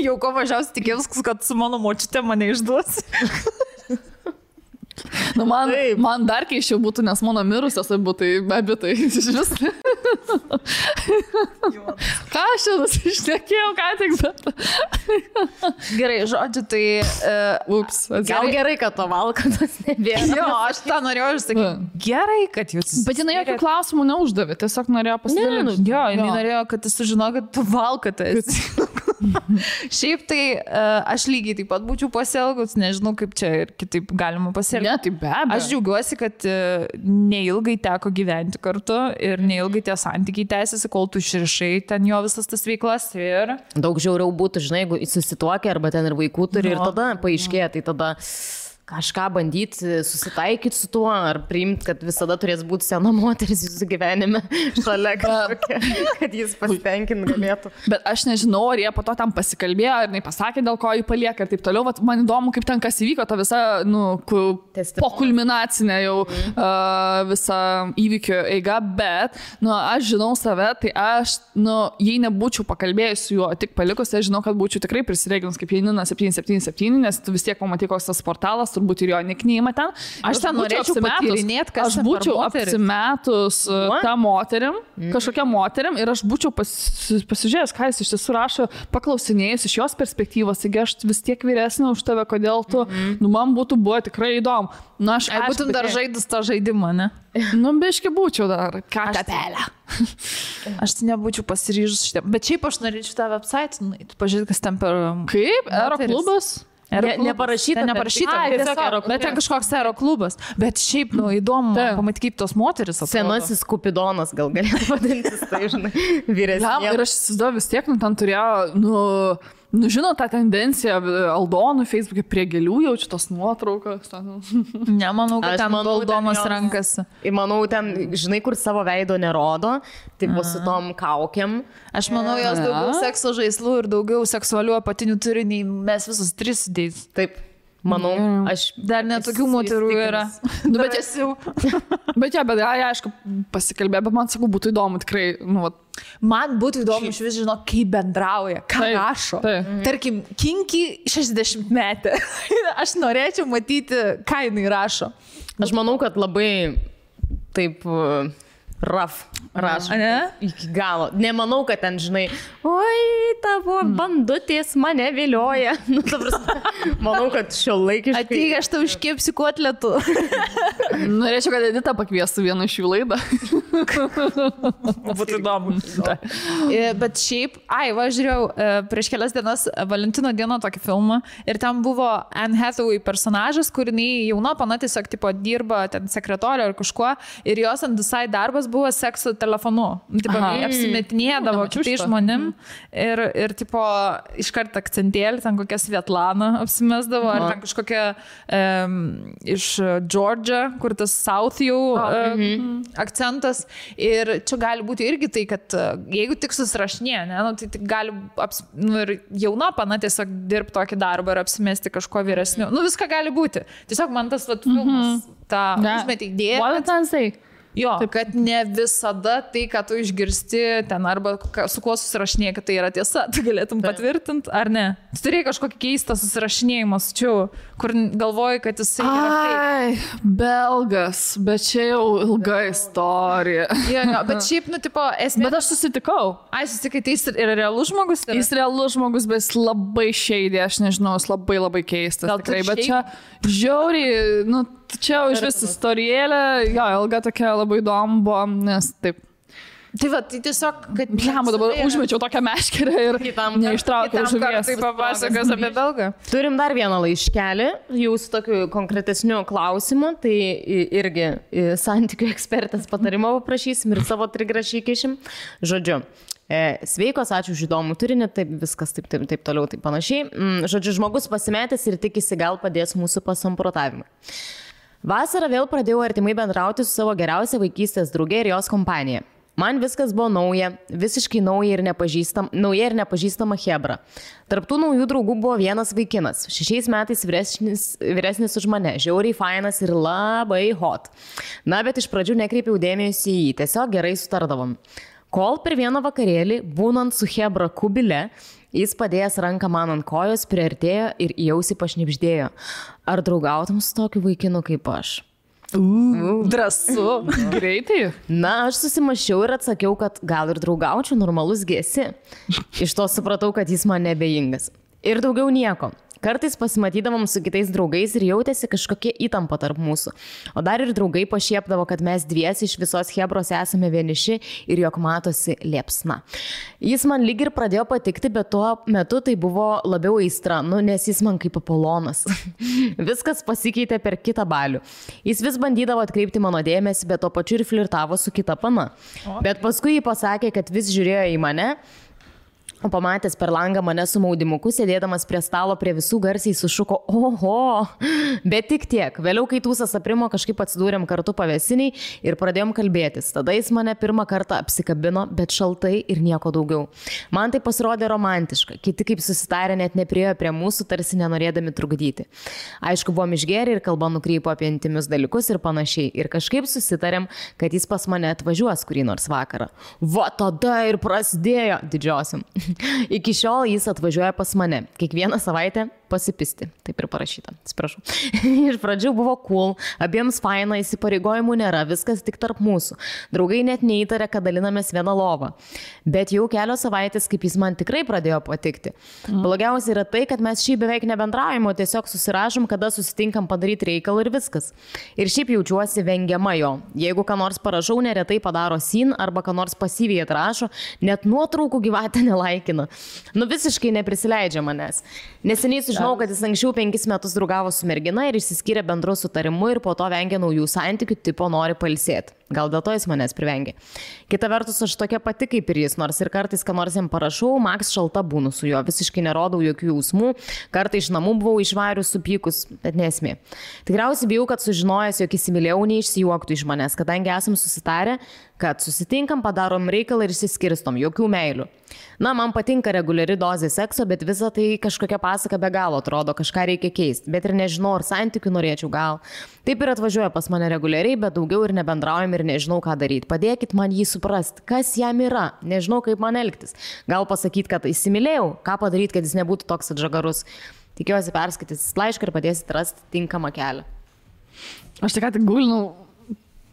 Jau ko mažiausiai tikėjus, kad su mano močiute mane išduos. Nu, man dar keiščiau būtų, nes mano mirusios būtų abitai iš vis. Ką aš čia nusišnekėjau, ką tik, bet... Gerai, žodžiu, tai... Gal gerai, kad to valkatas nebėra. Jo, aš tą norėjau išsakyti. Gerai, kad jūs... Bet jinai jokių klausimų neuždavė, tiesiog norėjo pasidalinti. Jo, jinai norėjo, kad jis sužino, kad tu valkatas. Šiaip tai aš lygiai taip pat būčiau pasielgus, nežinau, kaip čia ir kitaip galima pasielgti. Ne, tai be abejo. Aš džiaugiuosi, kad neilgai teko gyventi kartu ir neilgai tie santykiai tęsiasi, kol tu išrišai ten jo visas tas veiklas ir... Daug žiauriau būtų, žinai, jeigu susituokia arba ten ir vaikų turi ir tada paaiškėja, tai tada... kažką bandyti susitaikyti su tuo, ar priimti, kad visada turės būti sena moteris jūsų gyvenime šalia kažkokia, kad jis pasitenkint galėtų. Bet aš nežinau, ar jie po to tam pasikalbėjo, ar nepasakė, dėl ko jį palieka ir taip toliau. Vat man įdomu, kaip ten kas įvyko, ta visa, pokulminacinė jau visa įvykio eiga, bet, aš žinau save, tai aš, jei nebūčiau pakalbėjus su juo, tik palikus, aš žinau, kad būčiau tikrai prisireginus kaip Janina 777, nes tu vis tiek pamatai, koks tas portalas, turbūt ir jo nikneimą ten. Aš ten norėčiau patyrinėti, kas aš būčiau apsimetus tą moterim, kažkokią moterim ir aš būčiau pasižiūrėjęs, ką jis iš tiesų rašo, paklausinėjus iš jos perspektyvos, taigi aš vis tiek vyresnė už tave, kodėl tu, man būtų buvo tikrai įdomu. Aš būtum dar žaidus tą žaidimą, ne? Biški būčiau dar. Katepelę. Aš tai nebūčiau pasiryžus šitą. Bet šiaip aš norėčiau tą website, pažiūrėti, kas ten per... Kaip? Aeroklubas? Neparašyta. Bet ten kažkoks aeroklubas. Bet šiaip, įdomu pamatyti, kaip tos moteris atrodo. Senasis Kupidonas gal galėtų vadintis, tai žinai, vyresnė. Ir aš įsivaizduoju vis tiek, ten turėjo, žinot, tą tendenciją Aldonų Facebook'e prie gėlių jaučiu tos nuotraukas. Nemanau, kad ten Aldonos rankasi. Manau, ten, žinai, kur savo veido nerodo, tai bus su tom kaukiam. Aš manau, jos daugiau sekso žaislų ir daugiau seksualių apatinių turi, nei mes visus tris sudėjus. Taip. Manau, aš dar netokių moterų yra. Bet esi jau. Bet aišku, pasikalbė, bet man sakau, būtų įdomu tikrai. Man būtų įdomu iš vis žinot, kaip bendrauja, ką rašo. Tarkim, kinki 60 metę. Aš norėčiau matyti, ką jinai rašo. Aš manau, kad labai taip... Raf rašo. Iki galo. Nemanau, kad ten, žinai, oi, tavo bandutės mane vilioja. Manau, kad šiuolaikiškai. Ateik, aš tau iškepsiu kotletų. Norėčiau, kad Edita pakviestų vieną iš jų laidą. Būtų įdomu. Bet šiaip, žiūrėjau, prieš kelias dienas Valentino dieną tokį filmą ir ten buvo Anne Hathaway personažas, kur jinai jauna pana tiesiog tipo dirba ten sekretorė ar kažkuo ir jos ant visai darbas buvo sekso telefonu. Apsimetinėdavo kitais žmonėm ir tipo iškart akcentėlį, ten kokia Svetlana apsimesdavo, ar ten kažkokia iš Georgia, kur tas South jau akcentas. Ir čia gali būti irgi tai, kad jeigu tik susirašinė, tai tik gali ir jauna pana tiesiog dirbti tokį darbą ir apsimesti kažko vyresniu. Viską gali būti. Tiesiog man tas filmas tą užmetė idėją. Jo, kad ne visada tai, ką tu išgirsti ten arba su kuo susirašinėjai, kad tai yra tiesa, tu galėtum patvirtinti, ar ne? Tu turėjai kažkokį keistą susirašinėjimą su čia, kur galvoji, kad jisai yra belgas, bet čia jau ilga istorija. Bet šiaip, esmė... Bet aš susitikau. Susitikai, tai jis yra realus žmogus? Jis realus žmogus, bet jis labai šeidė, aš nežinau, jis labai keistas. Tikrai, bet čia žiauriai, čia iš vis istorijėlė, ilga tokia labai įdomu buvo, nes taip. Tai tai tiesiog, kad... Dabar užmečiau tokią meškerę ir neištraukiau žuvies. Tai papasakos apie belgą. Turim dar vieną laiškelį, jūsų tokiu konkretesniu klausimu, tai irgi santykių ekspertės patarimo paprašysim ir savo trigrašį įkišim. Žodžiu. Sveikos, ačiū už įdomų turinį, taip viskas taip toliau, taip panašiai. Žodžiu, žmogus pasimetęs ir tikisi gal padės mūsų pasamprotavimui. Vasarą vėl pradėjau artimai bendrauti su savo geriausia vaikystės draugė ir jos kompanija. Man viskas buvo nauja, visiškai nauja ir nepažįstama chebra. Tarptų naujų draugų buvo vienas vaikinas, 6 metais vyresnis už mane, žiauriai fainas ir labai hot. Bet iš pradžių nekreipiau dėmesį į jį, tiesiog gerai sutardavom. Kol per vieną vakarėlį, būnant su chebra kubile, jis padėjęs ranką man ant kojos, priartėjo ir į ausį pašnibždėjo. Ar draugautum su tokiu vaikinu kaip aš? Drąsu. Greitai. Aš susimašiau ir atsakiau, kad gal ir draugaučiau, normalus gėsi. Iš to supratau, kad jis man nebejingas. Ir daugiau nieko. Kartais pasimatydavom su kitais draugais ir jautėsi kažkokie įtampa tarp mūsų. O dar ir draugai pašiepdavo, kad mes dviesi iš visos chebros esame vieniši ir jog matosi liepsna. Jis man lyg ir pradėjo patikti, bet tuo metu tai buvo labiau aistra, nes jis man kaip Apolonas. Viskas pasikeitė per kitą balių. Jis vis bandydavo atkreipti mano dėmesį, bet tuo pačiu ir flirtavo su kita pana. Bet paskui jį pasakė, kad vis žiūrėjo į mane. O pamatęs per langą mane su maudimuku, sėdėdamas prie stalo prie visų garsiai sušuko, oho, bet tik tiek. Vėliau, kai tūsas aprimo, kažkaip atsidūrėm kartu pavėsiniai ir pradėjom kalbėtis. Tada jis mane pirmą kartą apsikabino, bet šaltai ir nieko daugiau. Man tai pasirodė romantiška. Kiti kaip susitarė net nepriėjo prie mūsų, tarsi nenorėdami trukdyti. Aišku, buvom išgėrę ir kalba nukrypo apie intimius dalykus ir panašiai. Ir kažkaip susitarėm, kad jis pas mane atvažiuos kurį nors vakarą. Va tada ir prasidėjo didžiosiam. Iki šiol jis atvažiuoja pas mane. Kiekvieną savaitę pasipisti. Taip ir parašyta. Atsiprašau. Iš pradžių buvo cool, abiems faina, įsipareigojimų nėra, viskas tik tarp mūsų. Draugai net neįtarė, kad dalinamės vieną lovą. Bet jau kelios savaitės, kaip jis man tikrai pradėjo patikti. Blogiausia yra tai, kad mes šiaip beveik nebendraujame, o tiesiog susirašom, kada susitinkam padaryti reikalą ir viskas. Ir šiaip jaučiuosi vengiama jo. Jeigu ką nors parašau, neretai padaro sin arba ką nors pasyviai atrašo, net nuotraukų gyvatę nelaikina. Visiškai neprisileidžia manęs. Neseniai sužinau, kad jis anksčiau 5 metus draugavo su mergina ir išsiskyrė bendru sutarimu ir po to vengia naujų santykių, tipo nori pailsėti. Gal dėl to jis manęs privengia. Kita vertus, aš tokia pati kaip ir jis, nors ir kartais, ką nors jam parašau, maks šalta būnu su juo, visiškai nerodau jokių jausmų, kartais iš namų buvau išvarius supykus, bet nesmė. Tikriausiai bijau, kad sužinojęs, jog įsimylėjau, neišsijuoktų iš manęs, kadangi esam susitarę, kad susitinkam, padarom reikalą ir išsiskirstom, jokių meilių. Man patinka reguliari dozė sekso, bet visa tai kažkokia pasaka be galo atrodo, kažką reikia keisti, bet ir nežinau, ar santykių norėčiau gal. Taip ir atvažiuoja pas mane reguliariai, bet daugiau ir nebendraujam ir nežinau, ką daryti. Padėkit man jį suprasti, kas jam yra, nežinau, kaip man elgtis. Gal pasakyti, kad įsimylėjau, ką padaryti, kad jis nebūtų toks atžagarus. Tikiuosi perskaitysit laišką ir padėsit rasti tinkamą kelią. Aš tik gūlinau,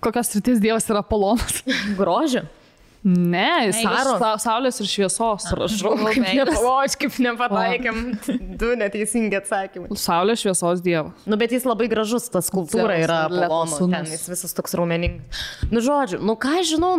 kokios srities dievas yra Apolonas. Grožio? Ne, jis saulės ir šviesos. Prašau, kaip nepataikėm. Du neteisingi atsakymai. Saulės šviesos dievas. Bet jis labai gražus, ta skulptūra yra Apolono, ten jis visas toks raumeningas. Žodžiu, ką žinau,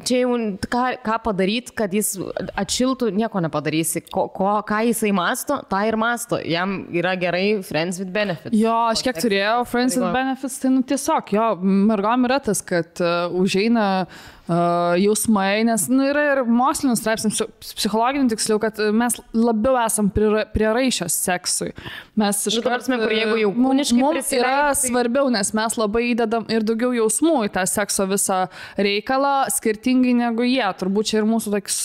čia jau ką padaryti, kad jis atšiltų, nieko nepadarysi. Ką jisai masto, tą ir masto. Jam yra gerai Friends with Benefits. Jo, aš kiek turėjau Friends with Benefits, tai tiesiog, jo, mergom yra tas, kad užeina jausmai, nes yra ir mokslinis straipsnis, psichologinių tiksliau, kad mes labiau esam prieraišios seksui. Mes jeigu jau kūniškai mums yra svarbiau, nes mes labai įdedam ir daugiau jausmų į tą sekso visą reikalą, skirtingai negu jie. Turbūt čia ir mūsų toks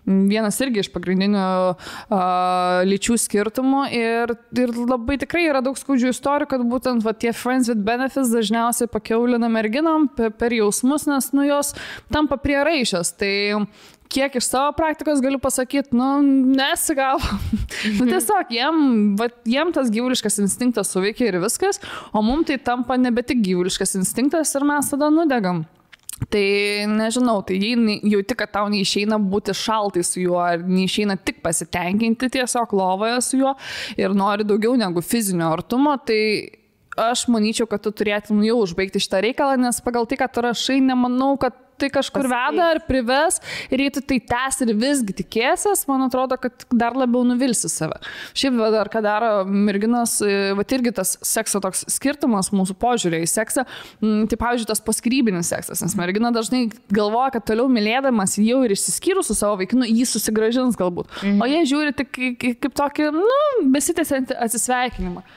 vienas irgi iš pagrindinių lyčių skirtumų ir labai tikrai yra daug skaudžių istorijų, kad būtent tie Friends with Benefits dažniausiai pakiaulina merginom per jausmus, nes jos tampa prieraišios. Tai kiek iš savo praktikos galiu pasakyti, nesigavo. Tiesiog jiem tas gyvuliškas instinktas suveikia ir viskas, o mums tai tampa nebe tik gyvuliškas instinktas ir mes tada nudegam. Tai nežinau, tai jei jauti, kad tau neišeina būti šaltai su juo, ar neišeina tik pasitenkinti tiesiog lovoje su juo ir nori daugiau negu fizinio artumo, tai aš manyčiau, kad tu turėtum jau užbaigti šitą reikalą, nes pagal tai, kad tu rašai, nemanau, kad tai kažkur veda ar prives ir jei tu tai tęs ir visgi tikėsies, man atrodo, kad dar labiau nuvilsi save. Šiaip dar ką daro merginos, irgi tas sekso toks skirtumas mūsų požiūrė į seksą, tai pavyzdžiui tas paskrybinis seksas, nes mergina dažnai galvoja, kad toliau mylėdamas jau ir išsiskyrus su savo vaikinu, jį susigrąžins galbūt, o jie žiūri tik kaip tokį, besitęsiantį atsisveikinimą.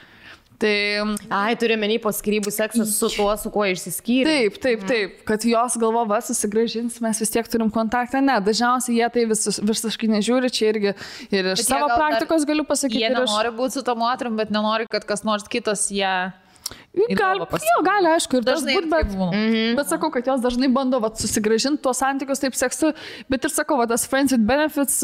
Turi menį po skyrybų seksas su tuo, su kuo išsiskyrė. Taip, kad jos galvo, susigrąžins, mes vis tiek turim kontaktą. Ne, dažniausiai jie tai visiškai nežiūri, čia irgi ir iš savo praktikos galiu pasakyti. Jie nenori būti su to moterim, bet nenori, kad kas nors kitas ją... Gali, aišku, ir dažnai būt, bet sakau, kad jos dažnai bando susigrąžinti tuos santykius taip seksu, bet ir sakau, tas Friends with Benefits,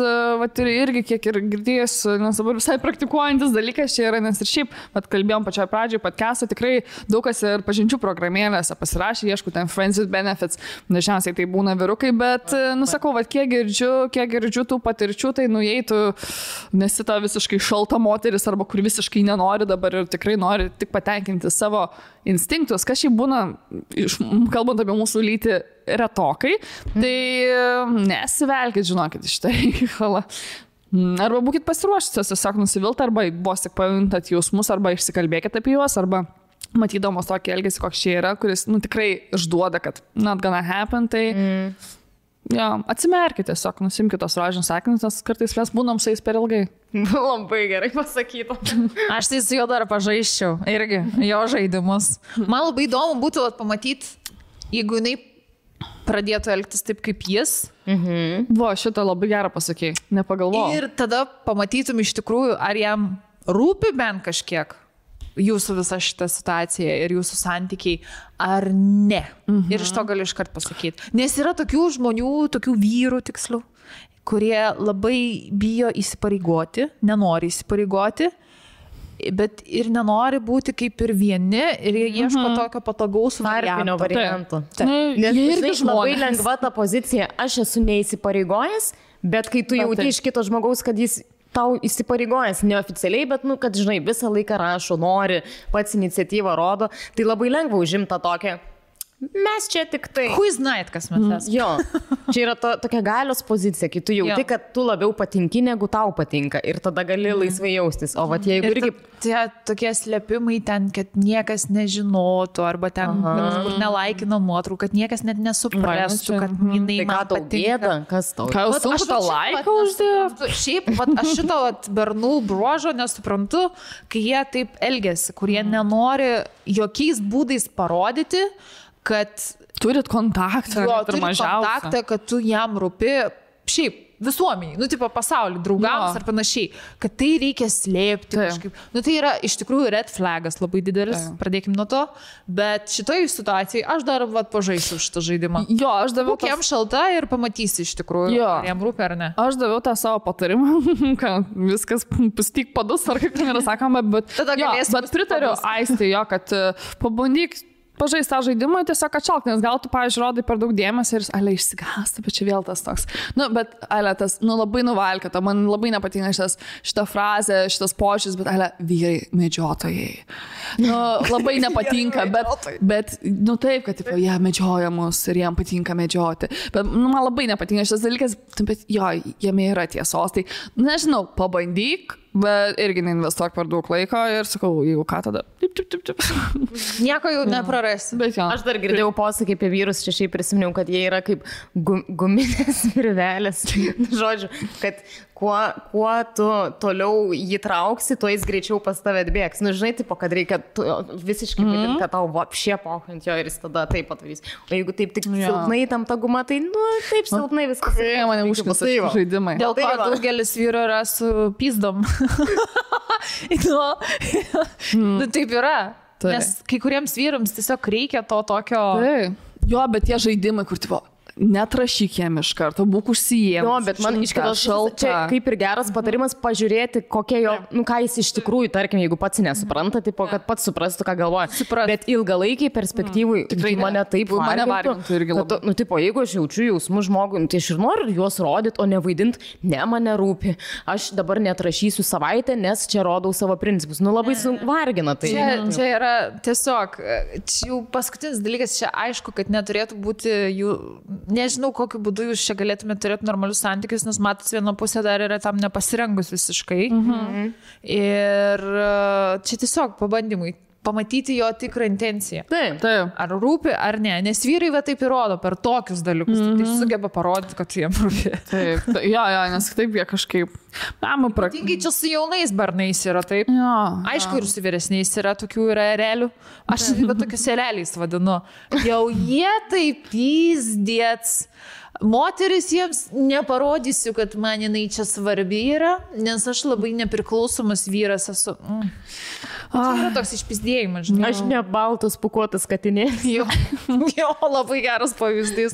irgi kiek ir girdėjus, nes dabar visai praktikuojantis dalykas čia yra, nes ir šiaip, kalbėjom pačioje pradžioje podcast'o, tikrai daug kas ir pažinčių programėlėse pasirašė, ieškau ten Friends with Benefits, dažniausiai tai būna vyrukai, bet, sakau, kiek girdžiu tų patirčių, tai jei tu nesi ta visiškai šalta moteris arba kur visiškai nenori dabar ir tikrai nori tik patenkinti savo instinktus, kas šiaip būna, kalbant apie mūsų lytį, retokai, tai nesivelkit, žinokit, iš tai reikalą. Arba būkit pasiruošusios, tiesiog nusivilti, arba vos tik pajuntat jausmus, arba išsikalbėkit apie juos, arba matydamos tokį elgesį, koks čia yra, kuris tikrai išduoda, kad not gonna happen, tai atsimerkite tiesiog, nusimkite tos rožinius sakinius, nes kartais mes būnam su jais per ilgai. Labai gerai pasakyta. Aš tai su juo dar pažaisčiau irgi, jo žaidimus. Man labai įdomu būtų pamatyti, jeigu jinai pradėtų elgtis taip kaip jis. Šitą labai gerą pasakėjai, nepagalvojau. Ir tada pamatytum iš tikrųjų, ar jam rūpi bent kažkiek jūsų visa šita situacija ir jūsų santykiai, ar ne. Ir iš to galiu iškart pasakyti. Nes yra tokių žmonių, tokių vyrų tiksliau, kurie labai bijo įsipareigoti, nenori įsipareigoti bet ir nenori būti kaip ir vieni ir jie ieško tokio patogaus tarpinio varianto. Nes irgi labai lengva ta pozicija, aš esu neįsipareigojęs, bet kai tu jauti iš kito žmogaus, kad jis tau įsipareigojęs neoficialiai, bet, kad, žinai, visą laiką rašo, nori, pats iniciatyvą rodo, tai labai lengva užimta tokia. Mes čia tik tai. Who's night, kas mes esame. Jo, čia yra tokia galios pozicija, kai tu jauti, kad tu labiau patinki, negu tau patinka ir tada gali laisvai jaustis. O vat jeigu irgi... Tie tokie slėpimai ten, kad niekas nežinotų, arba ten, kur nelaikino nuotraukų, kad niekas net nesuprastų, kad jinai man patinka. Kas tau? Ką jūs sunku tą laiką uždėti? Šiaip, aš šito bernų bruožo nesuprantu, kai jie taip elgiasi, kurie nenori jokiais būdais parodyti, kad turit kontaktą, kontaktą, kad tu jam rūpi, šiaip visuomeniai, tipo pasaulį, draugams ar panašiai, kad tai reikia slėpti kažkaip. Tai yra iš tikrųjų red flagas labai didelis, pradėkim nuo to, bet šitoje situacijoje aš dar pažaisiu šitą žaidimą. Jo, aš daviau... Būk jam šalta ir pamatysi iš tikrųjų, ar jam rūpi ar ne. Aš daviau tą savo patarimą, kad viskas pustyk padus, ar kaip ten yra sakoma, bet pritariu Aistei jo, kad pabandyk pažaisti tą žaidimą, tiesiog atšalk, nes gal tu, pavyzdžiui, rodai per daug dėmesio ir ale išsigąsta, bet čia vėl tas toks. Bet ale tas, labai nuvalkata, man labai nepatinka šita frazė, šitas požiūris, bet ale vyrai medžiotojai. Labai nepatinka, bet taip, kad jie medžioja mus ir jiem patinka medžioti. Bet man labai nepatinka šitas dalykas, bet jo, jame yra tiesos. Tai, nežinau, pabandyk, bet irgi neinvestuok per daug laiko ir sakau, jeigu ką tada. Nieko jau neprarasi. Aš dar girdėjau posakį apie vyrus, čia šiaip prisiminiau, kad jie yra kaip guminės virvelės. Žodžiu, kad kuo tu toliau jį trauksi, tuo jis greičiau pas tave atbėgs. Žinai, tipo, kad reikia visiškai vidinti, kad tau vapšė pohant jo ir jis tada taip patarys. O jeigu taip tik silpnai tam ta guma, tai taip silpnai viskas. Mane užknisa žaidimai. Dėl ko daugelis vyrų yra su pyzdom. Taip yra. Nes kai kuriems vyrams tiesiog reikia to tokio... Jo, bet tie žaidimai, kur tipo... Netrašyk jam iš karto, būk užsijėmus. Jo, bet man iš kitos čia kaip ir geras patarimas pažiūrėti, kokie jo, ką jis iš tikrųjų, tarkim, jeigu pats nesupranta, tipo, kad pats suprastų, ką galvoja. Bet ilgalaikiai perspektyvai mane taip vargintų irgi labai. Tipo, jeigu aš jaučiu jausmų žmogui, tai aš ir noriu juos rodyti, o ne vaidinti, ne mane rūpi. Aš dabar netrašysiu savaitę, nes čia rodau savo principus. Labai vargina tai. Čia yra tiesiog, jau paskutinis dalykas, čia aišku, kad neturėtų būti jų... Nežinau, kokiu būdu jūs čia galėtumėte turėti normalius santykius, nes matas viena pusė dar yra tam nepasirengus visiškai. Ir čia tiesiog pabandymui pamatyti jo tikrą intenciją. Taip. Ar rūpi, ar ne. Nes vyrai va taip įrodo per tokius dalykus. Tai sugeba parodyti, kad jiem rūpi. Taip. Jo, nes taip jie kažkaip... Tingai čia su jaunais barnais yra taip. Aišku, ir su vyresniais yra tokių yra erelių. Aš tokius ereliais vadinu. Jau jie taip pyzdėts. Moteris jiems neparodysiu, kad man jinai čia svarbi yra, nes aš labai nepriklausomas vyras esu. Tai yra toks išpizdėjimas, žinai. Aš ne baltas pukuotas katinės. Jo, labai geras pavyzdys.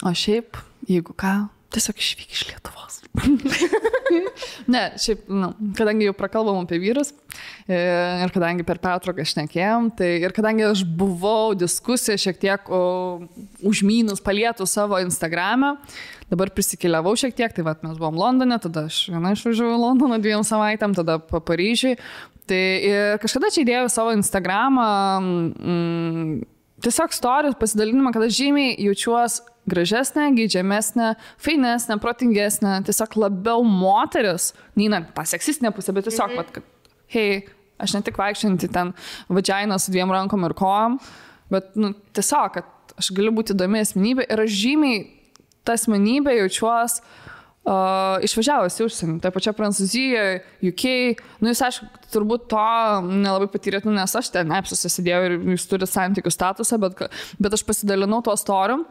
O šiaip, jeigu ką, tiesiog išvyk iš Lietuvos. Ne, šiaip, kadangi jau prakalbam apie vyrus ir kadangi per pertrauką šnekėjom, tai ir kadangi aš buvau diskusiją šiek tiek užmynus palietų savo Instagram'e, dabar prisikeliavau šiek tiek, tai mes buvom Londone, tada aš viena išvažiavau į Londoną 2 savaitėm, tada Paryžiui. Tai ir kažkada čia įdėjau savo Instagram'ą tiesiog stories pasidalinimą, kad aš žymiai jaučiuos gražesnė, geidžiamesnė, fainesnė, protingesnė, tiesiog labiau moteris, neina tą seksistinę pusę, bet tiesiog, kad, hei, aš ne tik vaikščianti ten vagina su 2 rankom ir kojom, bet tiesiog, kad aš galiu būti įdomi asmenybė ir aš žymiai tą asmenybę jaučiuos išvažiavus į užsienį, tai pačia Prancūzijoje, UK, jūs aišku, turbūt to nelabai patyrėt, nes aš ten apsusisidėjau ir jūs turite santykių statusą, bet aš pasidalinau tuo storim.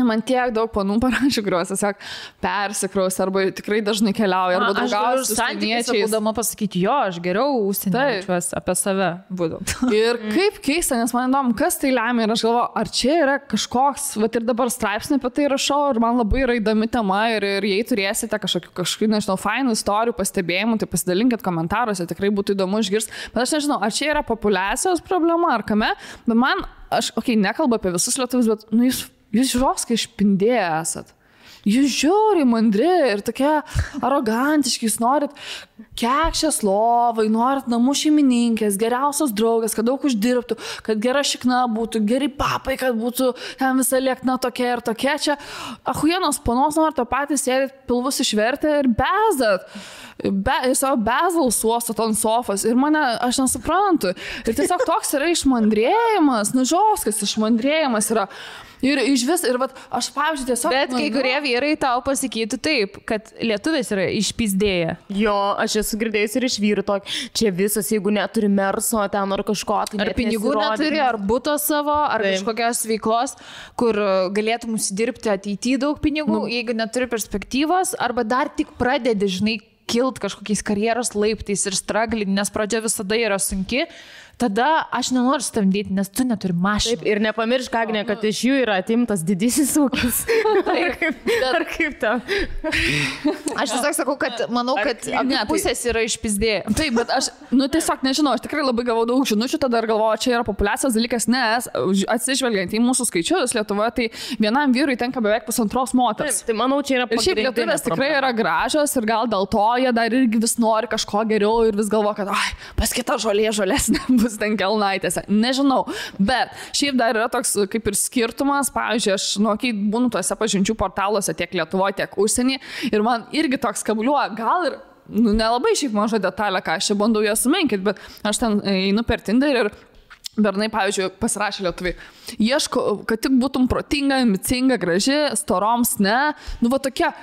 Man tiek daug panų parašė, kuriuos tiesiog persikraus arba tikrai dažnai keliauja, arba draugauja su užsieniečiais. Būdama pasakyti, jo, aš geriau užsieniečiuos apie save būdų. Ir kaip keista, nes man įdomu, kas tai lemia ir aš galvoju, ar čia yra kažkoks, ir dabar straipsnį apie tai rašau ir man labai yra įdomi tema ir jei turėsite kažkokių, nežinau, fainų istorijų, pastebėjimų, tai pasidalinkit komentaruose, tikrai būtų įdomu išgirsti. Bet aš nežinau, ar čia yra populiacijos problema ar kame, bet man, aš, nekalbu apie visus lietuvius, bet, jūs žiūrovskai išpindėję esat. Jūs žiūri mandri ir tokie arogantiški, jūs norit kekšės lovai, norit namų šeimininkės, geriausios draugės, kad daug uždirbtų, kad gera šikna būtų, geri papai, kad būtų ten visa liekna tokia ir tokia. Čia ahujienos panos norit, to patys sėdit, pilvus išvertę ir bezdat. Ir savo bezalus uostot ant sofos ir aš nesuprantu. Ir tiesiog toks yra išmandrėjimas, žoskas išmandrėjimas yra. Ir iš vis, ir aš, pavyzdžiui, tiesiog... Bet kai kurie vyrai tau pasakytų taip, kad lietuvis yra išpizdėję. Jo, aš esu girdėjus ir iš vyrų tokį, čia visas, jeigu neturi merso, ten ar kažko, tai ar pinigų neturi, ar buto savo, ar kažkokios veiklos, kur galėtum užsidirbti ateityje daug pinigų, jeigu neturi perspektyvos, arba dar tik pradedi, žinai, kilt kažkokiais karjeros laiptais ir straglinti, nes pradžia visada yra sunki. Tada aš nenoriu stamdyti, nes tu neturi mašiną. Taip, ir nepamiršk, Agnė, kad iš jų yra atimtas didysis ūkis. Ar kaip tau? Aš tiesiog sakau, kad manau, kad pusės yra išpizdėję. Taip, bet aš, tiesiog nežinau, aš tikrai labai gavau daug žinučių, tada ir galvoju, čia yra populiacijos dalykas, nes atsižvelgiant į mūsų skaičius Lietuvoje, tai vienam vyrui tenka beveik 1,5 moters. Taip, tai manau, čia yra pagrindinė. Ir šiaip lietuvės tikrai yra gražios ir gal dėl to jie dar irgi vis nori kažko geriau ir vis galvo, kad pas kitą žolesnė bus ten kelnaitėse, nežinau, bet šiaip dar yra toks kaip ir skirtumas, pavyzdžiui, aš, kai būnu tuose pažinčių portaluose tiek Lietuvoje, tiek užsienį ir man irgi toks kabliuoja, gal ir, nelabai šiaip maža detalė, ką aš čia bandau ją sumenkyti, bet aš ten einu per Tinder ir bernai, pavyzdžiui, pasirašė lietuviai. Ieško, kad tik būtum protinga, ambicinga, graži, storoms, ne, tokia,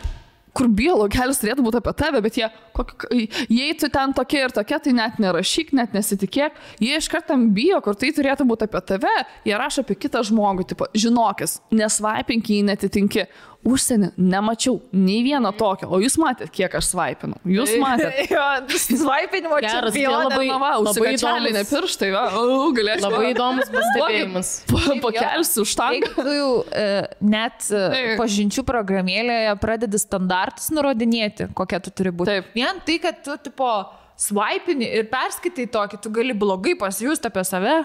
kur biologelis turėtų būti apie tave, bet jei tu ten tokia ir tokia, tai net nerašyk, net nesitikėk. Jie iš karto bijo, kur tai turėtų būti apie tave, jie rašo apie kitą žmogų, tipo, žinokis, nesvaipink, jei netitinki. Užsienį nemačiau nei vieno tokio, o jūs matėt, kiek aš svaipinau. Jūs matėt. Jo, svaipinimo čempionė. Labai įdomus. Ne pirštai, galėčiau. Labai įdomus pastebėjimas. Pakelsiu už tą. Tu jau net pažinčių programėlėje pradedi standartus nurodinėti, kokia tu turi būti. Taip. Vien tai, kad tu tipo svaipini ir perskaitai tokį, tu gali blogai pasijusti apie save.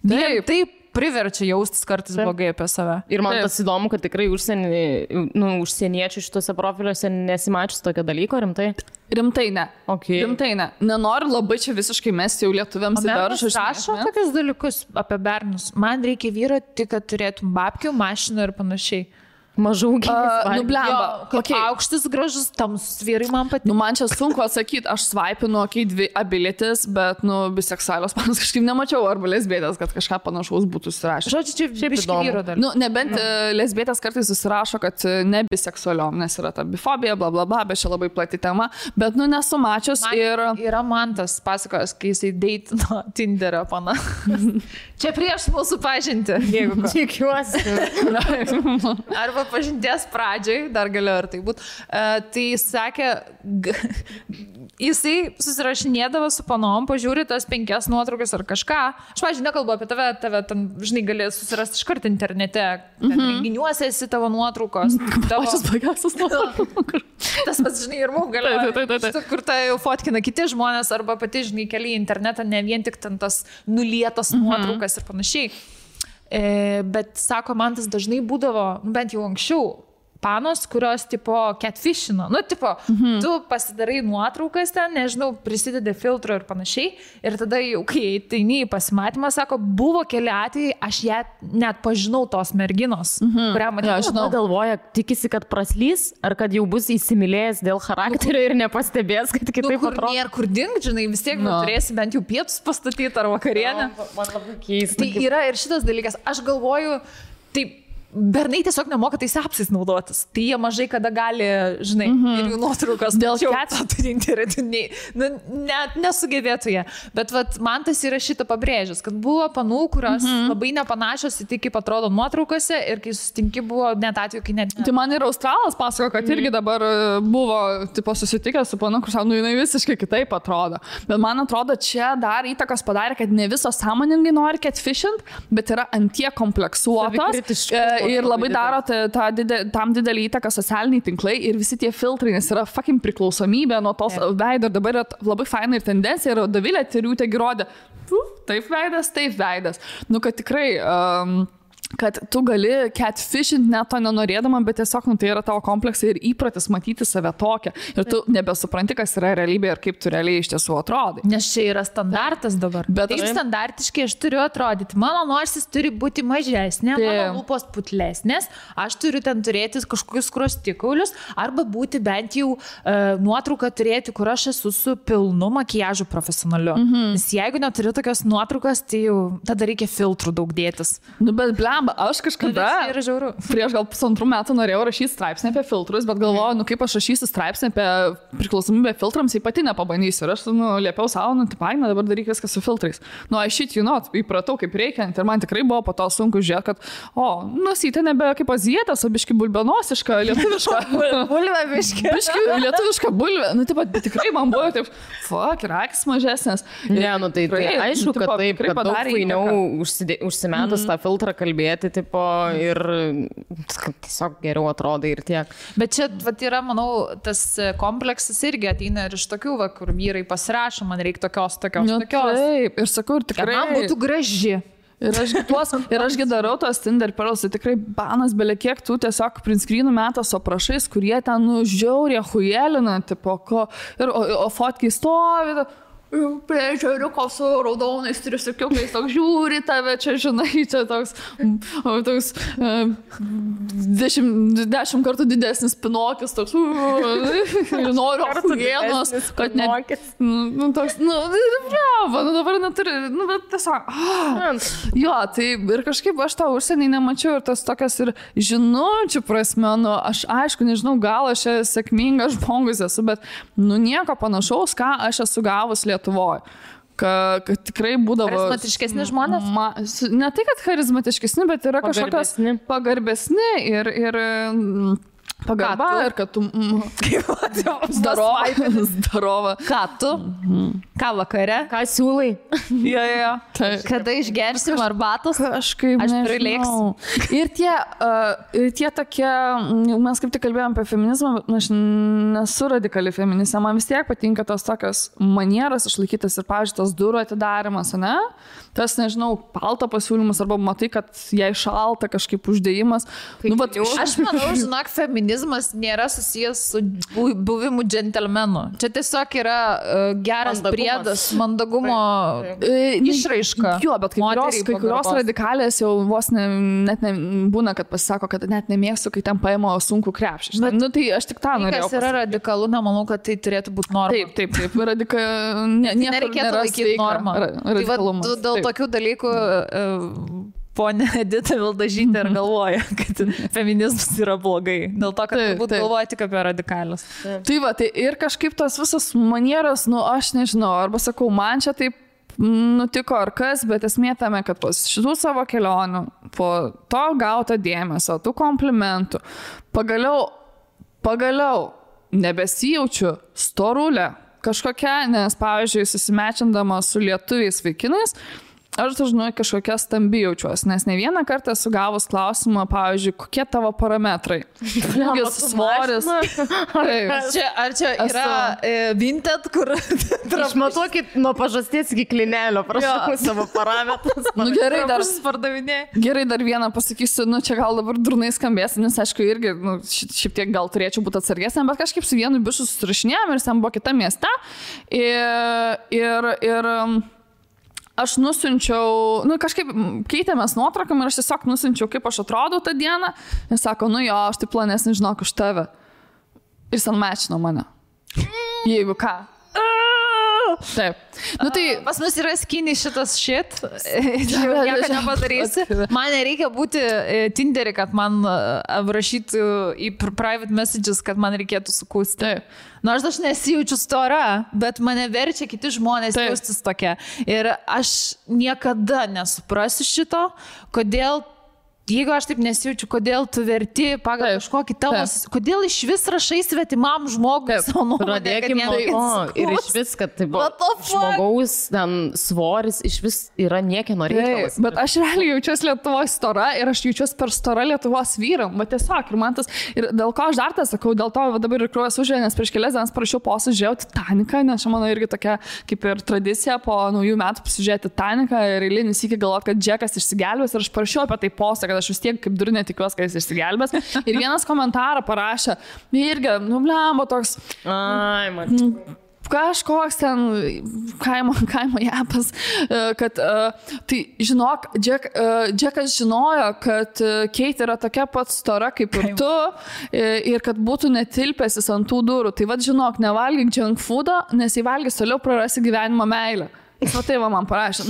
Taip priverčia jaustis kartais blogai apie save. Ir man tas įdomu, kad tikrai užsieniečių šituose profiliuose nesimačius tokio dalyko, rimtai? Rimtai ne. Okay. Rimtai ne. Nenoriu labai čia visiškai mesti jau lietuviams į daržą. Aš rašau tokius dalykus apie bernus. Man reikia vyro tik, kad turėtum babkių, mašiną ir panašiai. Mažų gyvas. Nublemba. Aukštas, gražus, tamsus vyrai man patinka. Man čia sunku atsakyti, aš svaipinu, dvi abilitis, bet, biseksualios panas kažkaip nemačiau, arba lesbietės, kad kažką panašaus būtų susirašę. Žodžiu, čia biški vyro dar. Nebent lesbietės kartais susirašo, kad ne biseksualiom, nes yra ta bifobija, bla bla bla, bet čia labai plati tema, bet, nesu mačius ir... Yra man tas pasakojęs, kai jisai deitino Tinderio pana. Čia prieš mūsų pažinti, jeigu ko. Tikiuosi. Arba pažinties pradžiai, dar galėjo ir tai būt, tai sakė, jisai susirašinėdavo su panom, pažiūri tas 5 nuotraukas ar kažką. Aš, pavyzdžiui, nekalbu apie tave ten, žinai, gali susirasti iškart internete, renginiuose esi tavo nuotraukos. Pačias blogiausias nuotraukos. Tas pats, žinai, ir mums galėjo, kur tai jau fotkina kiti žmonės, arba pati, žinai, keli į internetą, ne vien tik ten tas nulietas nuotraukas ir panašiai. Bet, sako, man tas dažnai būdavo, bent jau anksčiau, panos, kurios, tipo, catfishino. Tu pasidarai nuotraukas ten, nežinau, prisidedi filtro ir panašiai. Ir tada jau, kai ateini į pasimatymą, sako, buvo keli atvejai, aš ją net pažinau tos merginos, kurią matėjau. Žinau, galvoja, tikisi, kad praslys, ar kad jau bus įsimylėjęs dėl charakterio ir nepastebės, kad kitaip atrodo. Kur dink, žinai, vis tiek turėsi bent jau pietus pastatyti ar vakarienę. Man labai keista. Tai yra ir šitas dalykas. Aš galvoju, taip, bernai tiesiog nemoka tais apsais naudotis. Tai jie mažai kada gali, žinai, ir jų nuotraukas dėl turinti ir nesugebėtų jie. Bet vat, man tas yra šitą pabrėžęs, kad buvo panų, kurios labai nepanašios į tai, kaip atrodo nuotraukose ir kai susitinki buvo net atveju, kai net... Tai man ir Australas pasako, kad irgi dabar buvo tipo, susitikęs su panu, kur sako, jinai visiškai kitaip atrodo. Bet man atrodo, čia dar įtakos padarė, kad ne visos sąmoningai nori catfishint, bet yra antie kompleksuotos. Ir labai daro tam didelį įtaką socialiniai tinklai ir visi tie filtrai, nes yra fucking priklausomybė nuo tos veido. Ir dabar yra labai faina ir tendencija, ir Dovilė Tiriūtė girodė, taip veidas. Nu, kad tikrai... kad tu gali catfishint net to nenorėdama, bet tiesiog tai yra tavo kompleksai ir įpratis matyti save tokią. Ir tu nebesupranti, kas yra realybė ir kaip tu realiai iš tiesų atrodai. Nes čia yra standartas dabar. Bet taip standartiškai aš turiu atrodyti. Mano nosis turi būti mažesnė, mano lūpos putlesnės, aš turiu ten turėti kažkokius skruostikaulius arba būti bent jau nuotrauką turėti, kur aš esu su pilnu makiažu profesionaliu. Nes jeigu neturiu tokios nuotraukos, tai jau tada reikia filtrų daug dėtis. Nu, bet aš kažkada prieš gal 1,5 metų norėjau rašyti straipsnį apie filtrus, bet galvoju, nu kaip aš rašysiu straipsnį apie priklausomybę filtrams, tai pati nepabandysiu. Ir aš liepiau savo, dabar daryk viską su filtrais. I įpratau kaip reikiant ir man tikrai buvo po to sunku žiūrėti, kad nosytė nebe kaip azietės, o biški bulbenosiška, lietuviška. Bulvė biški. Lietuviška bulvė. Nu, taip, tikrai man buvo taip, ir akis mažesnės. Ne, tai aišku, kad taip, kad daug fainiau užsimetus tą filtrą kalbėti, tipo, ir tiesiog geriau atrodai ir tiek. Bet čia yra, manau, tas kompleksas irgi ateina ir iš tokių, kur vyrai pasirašo, man reikia tokios. Taip, ir sakau, ir tikrai. Man būtų graži. Ir ašgi darau tos Tinder Pearls, tai tikrai banas belia kiek tu tiesiog printscreenų metas aprašais, kurie ten žiauriai hujelina, tipo, o fotkiai stovi, prie žiauriuko su raudonais triusikiukais, toks žiūri tave, čia žinai, čia toks 10 kartų didesnis Pinokis, toks noriu apujėnos, kad ne... Toks, dabar neturi, bet tiesiog... Jo, tai ir kažkaip aš tą užsienį nemačiau ir tas tokias ir žinučių prasme, aš aišku, nežinau, gal aš sėkmingas žmogus esu, bet nieko panašaus, ką aš esu gavus Lietuvoje. Kad tikrai būdavo... Charizmatiškesni žmonės? Ne tai, kad charizmatiškesni, bet yra kažkokios pagarbesni ir pagarba ir kad tu... Zdarova. Ką tu? Ką vakare? Ką siūlai? Jo. Kada išgersim arbatos? Kažkaip aš prilėksiu. Ir tie tokie, mes kaip tik kalbėjom apie feminizmą, aš nesu radikali feministė, man vis tiek patinka tos tokios manieros išlaikytas ir, pavyzdžiui, tas durų atidarimas, ne? Tas, nežinau, palto pasiūlymas arba matai, kad jai šalta kažkaip uždėjimas. Aš manau, žinok, feminizmas nėra susijęs su buvimu džentelmenu. Čia tiesiog yra geras priedas, mandagumo išraiška. Jo, bet kai kurios radikalės jau vos net būna, kad pasisako, kad net nemėgstu, kai ten paima sunkų krepšį. Tai aš tik tą norėjau. Kas yra radikalu, nemanau, kad tai turėtų būti norma. Taip. Nereikėtų laikyti normą. Dėl tokių dalykų ponė Edita Vildažytė ir galvoja, kad feminizmas yra blogai. Dėl to, kad turbūt galvoja tik apie radikalius. Tai ir kažkaip tos visos manieros, aš nežinau, arba sakau, man čia taip nutiko ar kas, bet esmė tame, kad po šitų savo kelionių, po to gauto dėmesio, tų komplimentų, pagaliau nebesijaučiu storulę kažkokia, nes, pavyzdžiui, susimečindama su lietuviais vaikinais, aš dažnai kažkokia stambi jaučiuosi, nes ne vieną kartą esu gavus klausimą, pavyzdžiui, kokie tavo parametrai. Ūgis, svoris. Ar čia yra Vinted, kur... Išmatuokit nuo pažasties iki klinelio, prašau savo parametrus. Gerai, dar vieną pasakysiu, čia gal dabar durnai skambės, nes aišku irgi, šiek tiek gal turėčiau būti atsargesnė, bet kažkaip su vienu bišu susirašinėjom ir ten buvo kita mieste. Ir aš nusiunčiau, kažkaip keitėmės nuotraukom ir aš tiesiog nusiunčiau, kaip aš atrodau tą dieną. Jis sako, aš tai planesnį žinok už tave. Ir jis unmatchino mane. Jeigu ką. Taip. Nu, tai pas mus yra skinny šitas shit. Jau nieko nepadarysi. Man nereikia būti Tinderį, kad man rašytų į private messages, kad man reikėtų sukūsti. Nors aš nesijaučiu stora, bet mane verčia kiti žmonės jaustis tokia. Ir aš niekada nesuprasiu šito, kodėl. Jeigu aš taip nesijaučiu, kodėl tu verti pagal kažkokį tavo, kodėl iš vis rašai svetimam žmogui savo nuomonę. Pradėkime nuo to ir iš vis, kad tai žmogaus svoris iš vis yra niekieno reikalas. Bet aš realiai jaučiuosi Lietuvos stora ir aš jaučiuosi per stora Lietuvos vyram. Bet tiesiog, ir man tas, ir dėl ko aš dar tą sakau, dėl to dabar ir kraujas užėjo, nes prieš kelias dienas parašiau postą, žiūrėjau Titaniką, nes čia mano irgi tokia kaip ir tradicija po naujų metų pasižiūrėti Titaniką ir eilinį sykį galvoti, kad Džekas išsigelbės ir aš parašiau apie tai postą, kad aš vis tiek kaip durne tikiuosi, kad jis išsigelbės. Ir vienas komentarą parašė, irgi, blemba toks, kažkoks ten kaimo japas, kad tai žinok, Džekas žinojo, kad Kate yra tokia pat stora kaip ir tu ir kad būtų netilpęsis ant tų durų. Tai vad žinok, nevalgyk junk foodo, nes jei valgys toliau prarasi gyvenimo meilę. O tai va man parašė.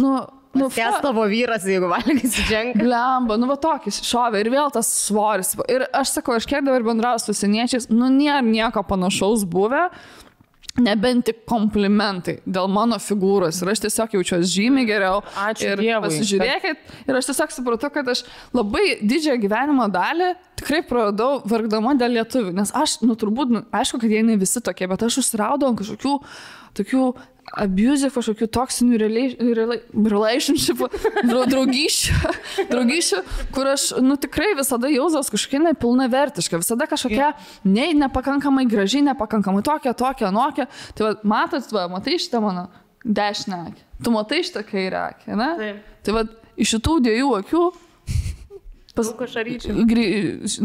Kes tavo vyras, jeigu valgysi dženką. Blemba, va tokis šovė ir vėl tas svoris. Ir aš sakau, aš kiek dabar bendrauju su seniečiais, nėra nieko panašaus buvę, nebent tik komplimentai dėl mano figūros. Ir aš tiesiog jaučiuosi žymiai geriau. Ačiū ir Dievui. Pasižiūrėkit. Ir aš tiesiog supratau, kad aš labai didžiąją gyvenimo dalį tikrai praradau vargdama dėl lietuvių. Nes aš, turbūt, aišku, kad jie ne visi tokie, bet aš užsiraudau kažkokių tokių abusive, kažkokių toksinių relationshipų, draugysčių, kur aš, tikrai visada jausdavos kažkokia nepilnavertiška, visada kažkokia nepakankamai gražiai, nepakankamai tokia, anokia. Tai matai šitą mano dešinę akį, tu matai šitą kairę akį, ne? Taip. Tai iš šitų dviejų akių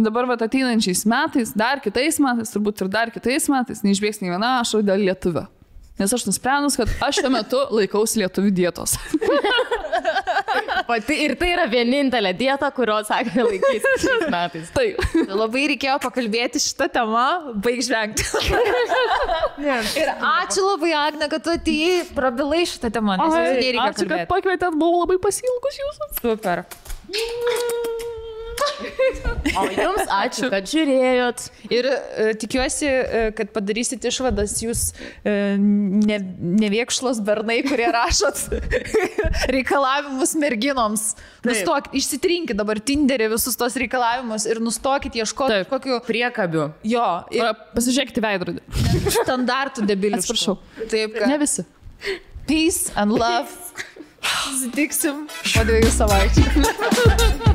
dabar ateinančiais metais, dar kitais metais, turbūt ir dar kitais metais, neišbėgs nei viena ašara dėl lietuvio. Nes aš nusprendus, kad aš šiuo metu laikausi lietuvių dietos. Ir tai yra vienintelė dieta, kurios sakė laikysi šiais metais. Taip. Labai reikėjo pakalbėti šitą temą, baig žvengti. Ir ačiū labai, Agne, kad tu atėjai, prabilai šitą temą. Ačiū, kad pakvietėt, buvau labai pasiilgus jūsų. Super. O jums ačiū, kad žiūrėjot. Ir tikiuosi, kad padarysit išvadas jūs neviekšlos bernai, kurie rašot reikalavimus merginoms. Nustokit, išsitrinkit dabar Tinderį visus tos reikalavimus ir nustokit ieškoti kokių priekabių. Jo. Ir pasižiūrėkite veidrodį. Standartų debiliškų. Atsiprašau. Taip, ne visi. Peace and love. Susitiksim po 2 savaičių.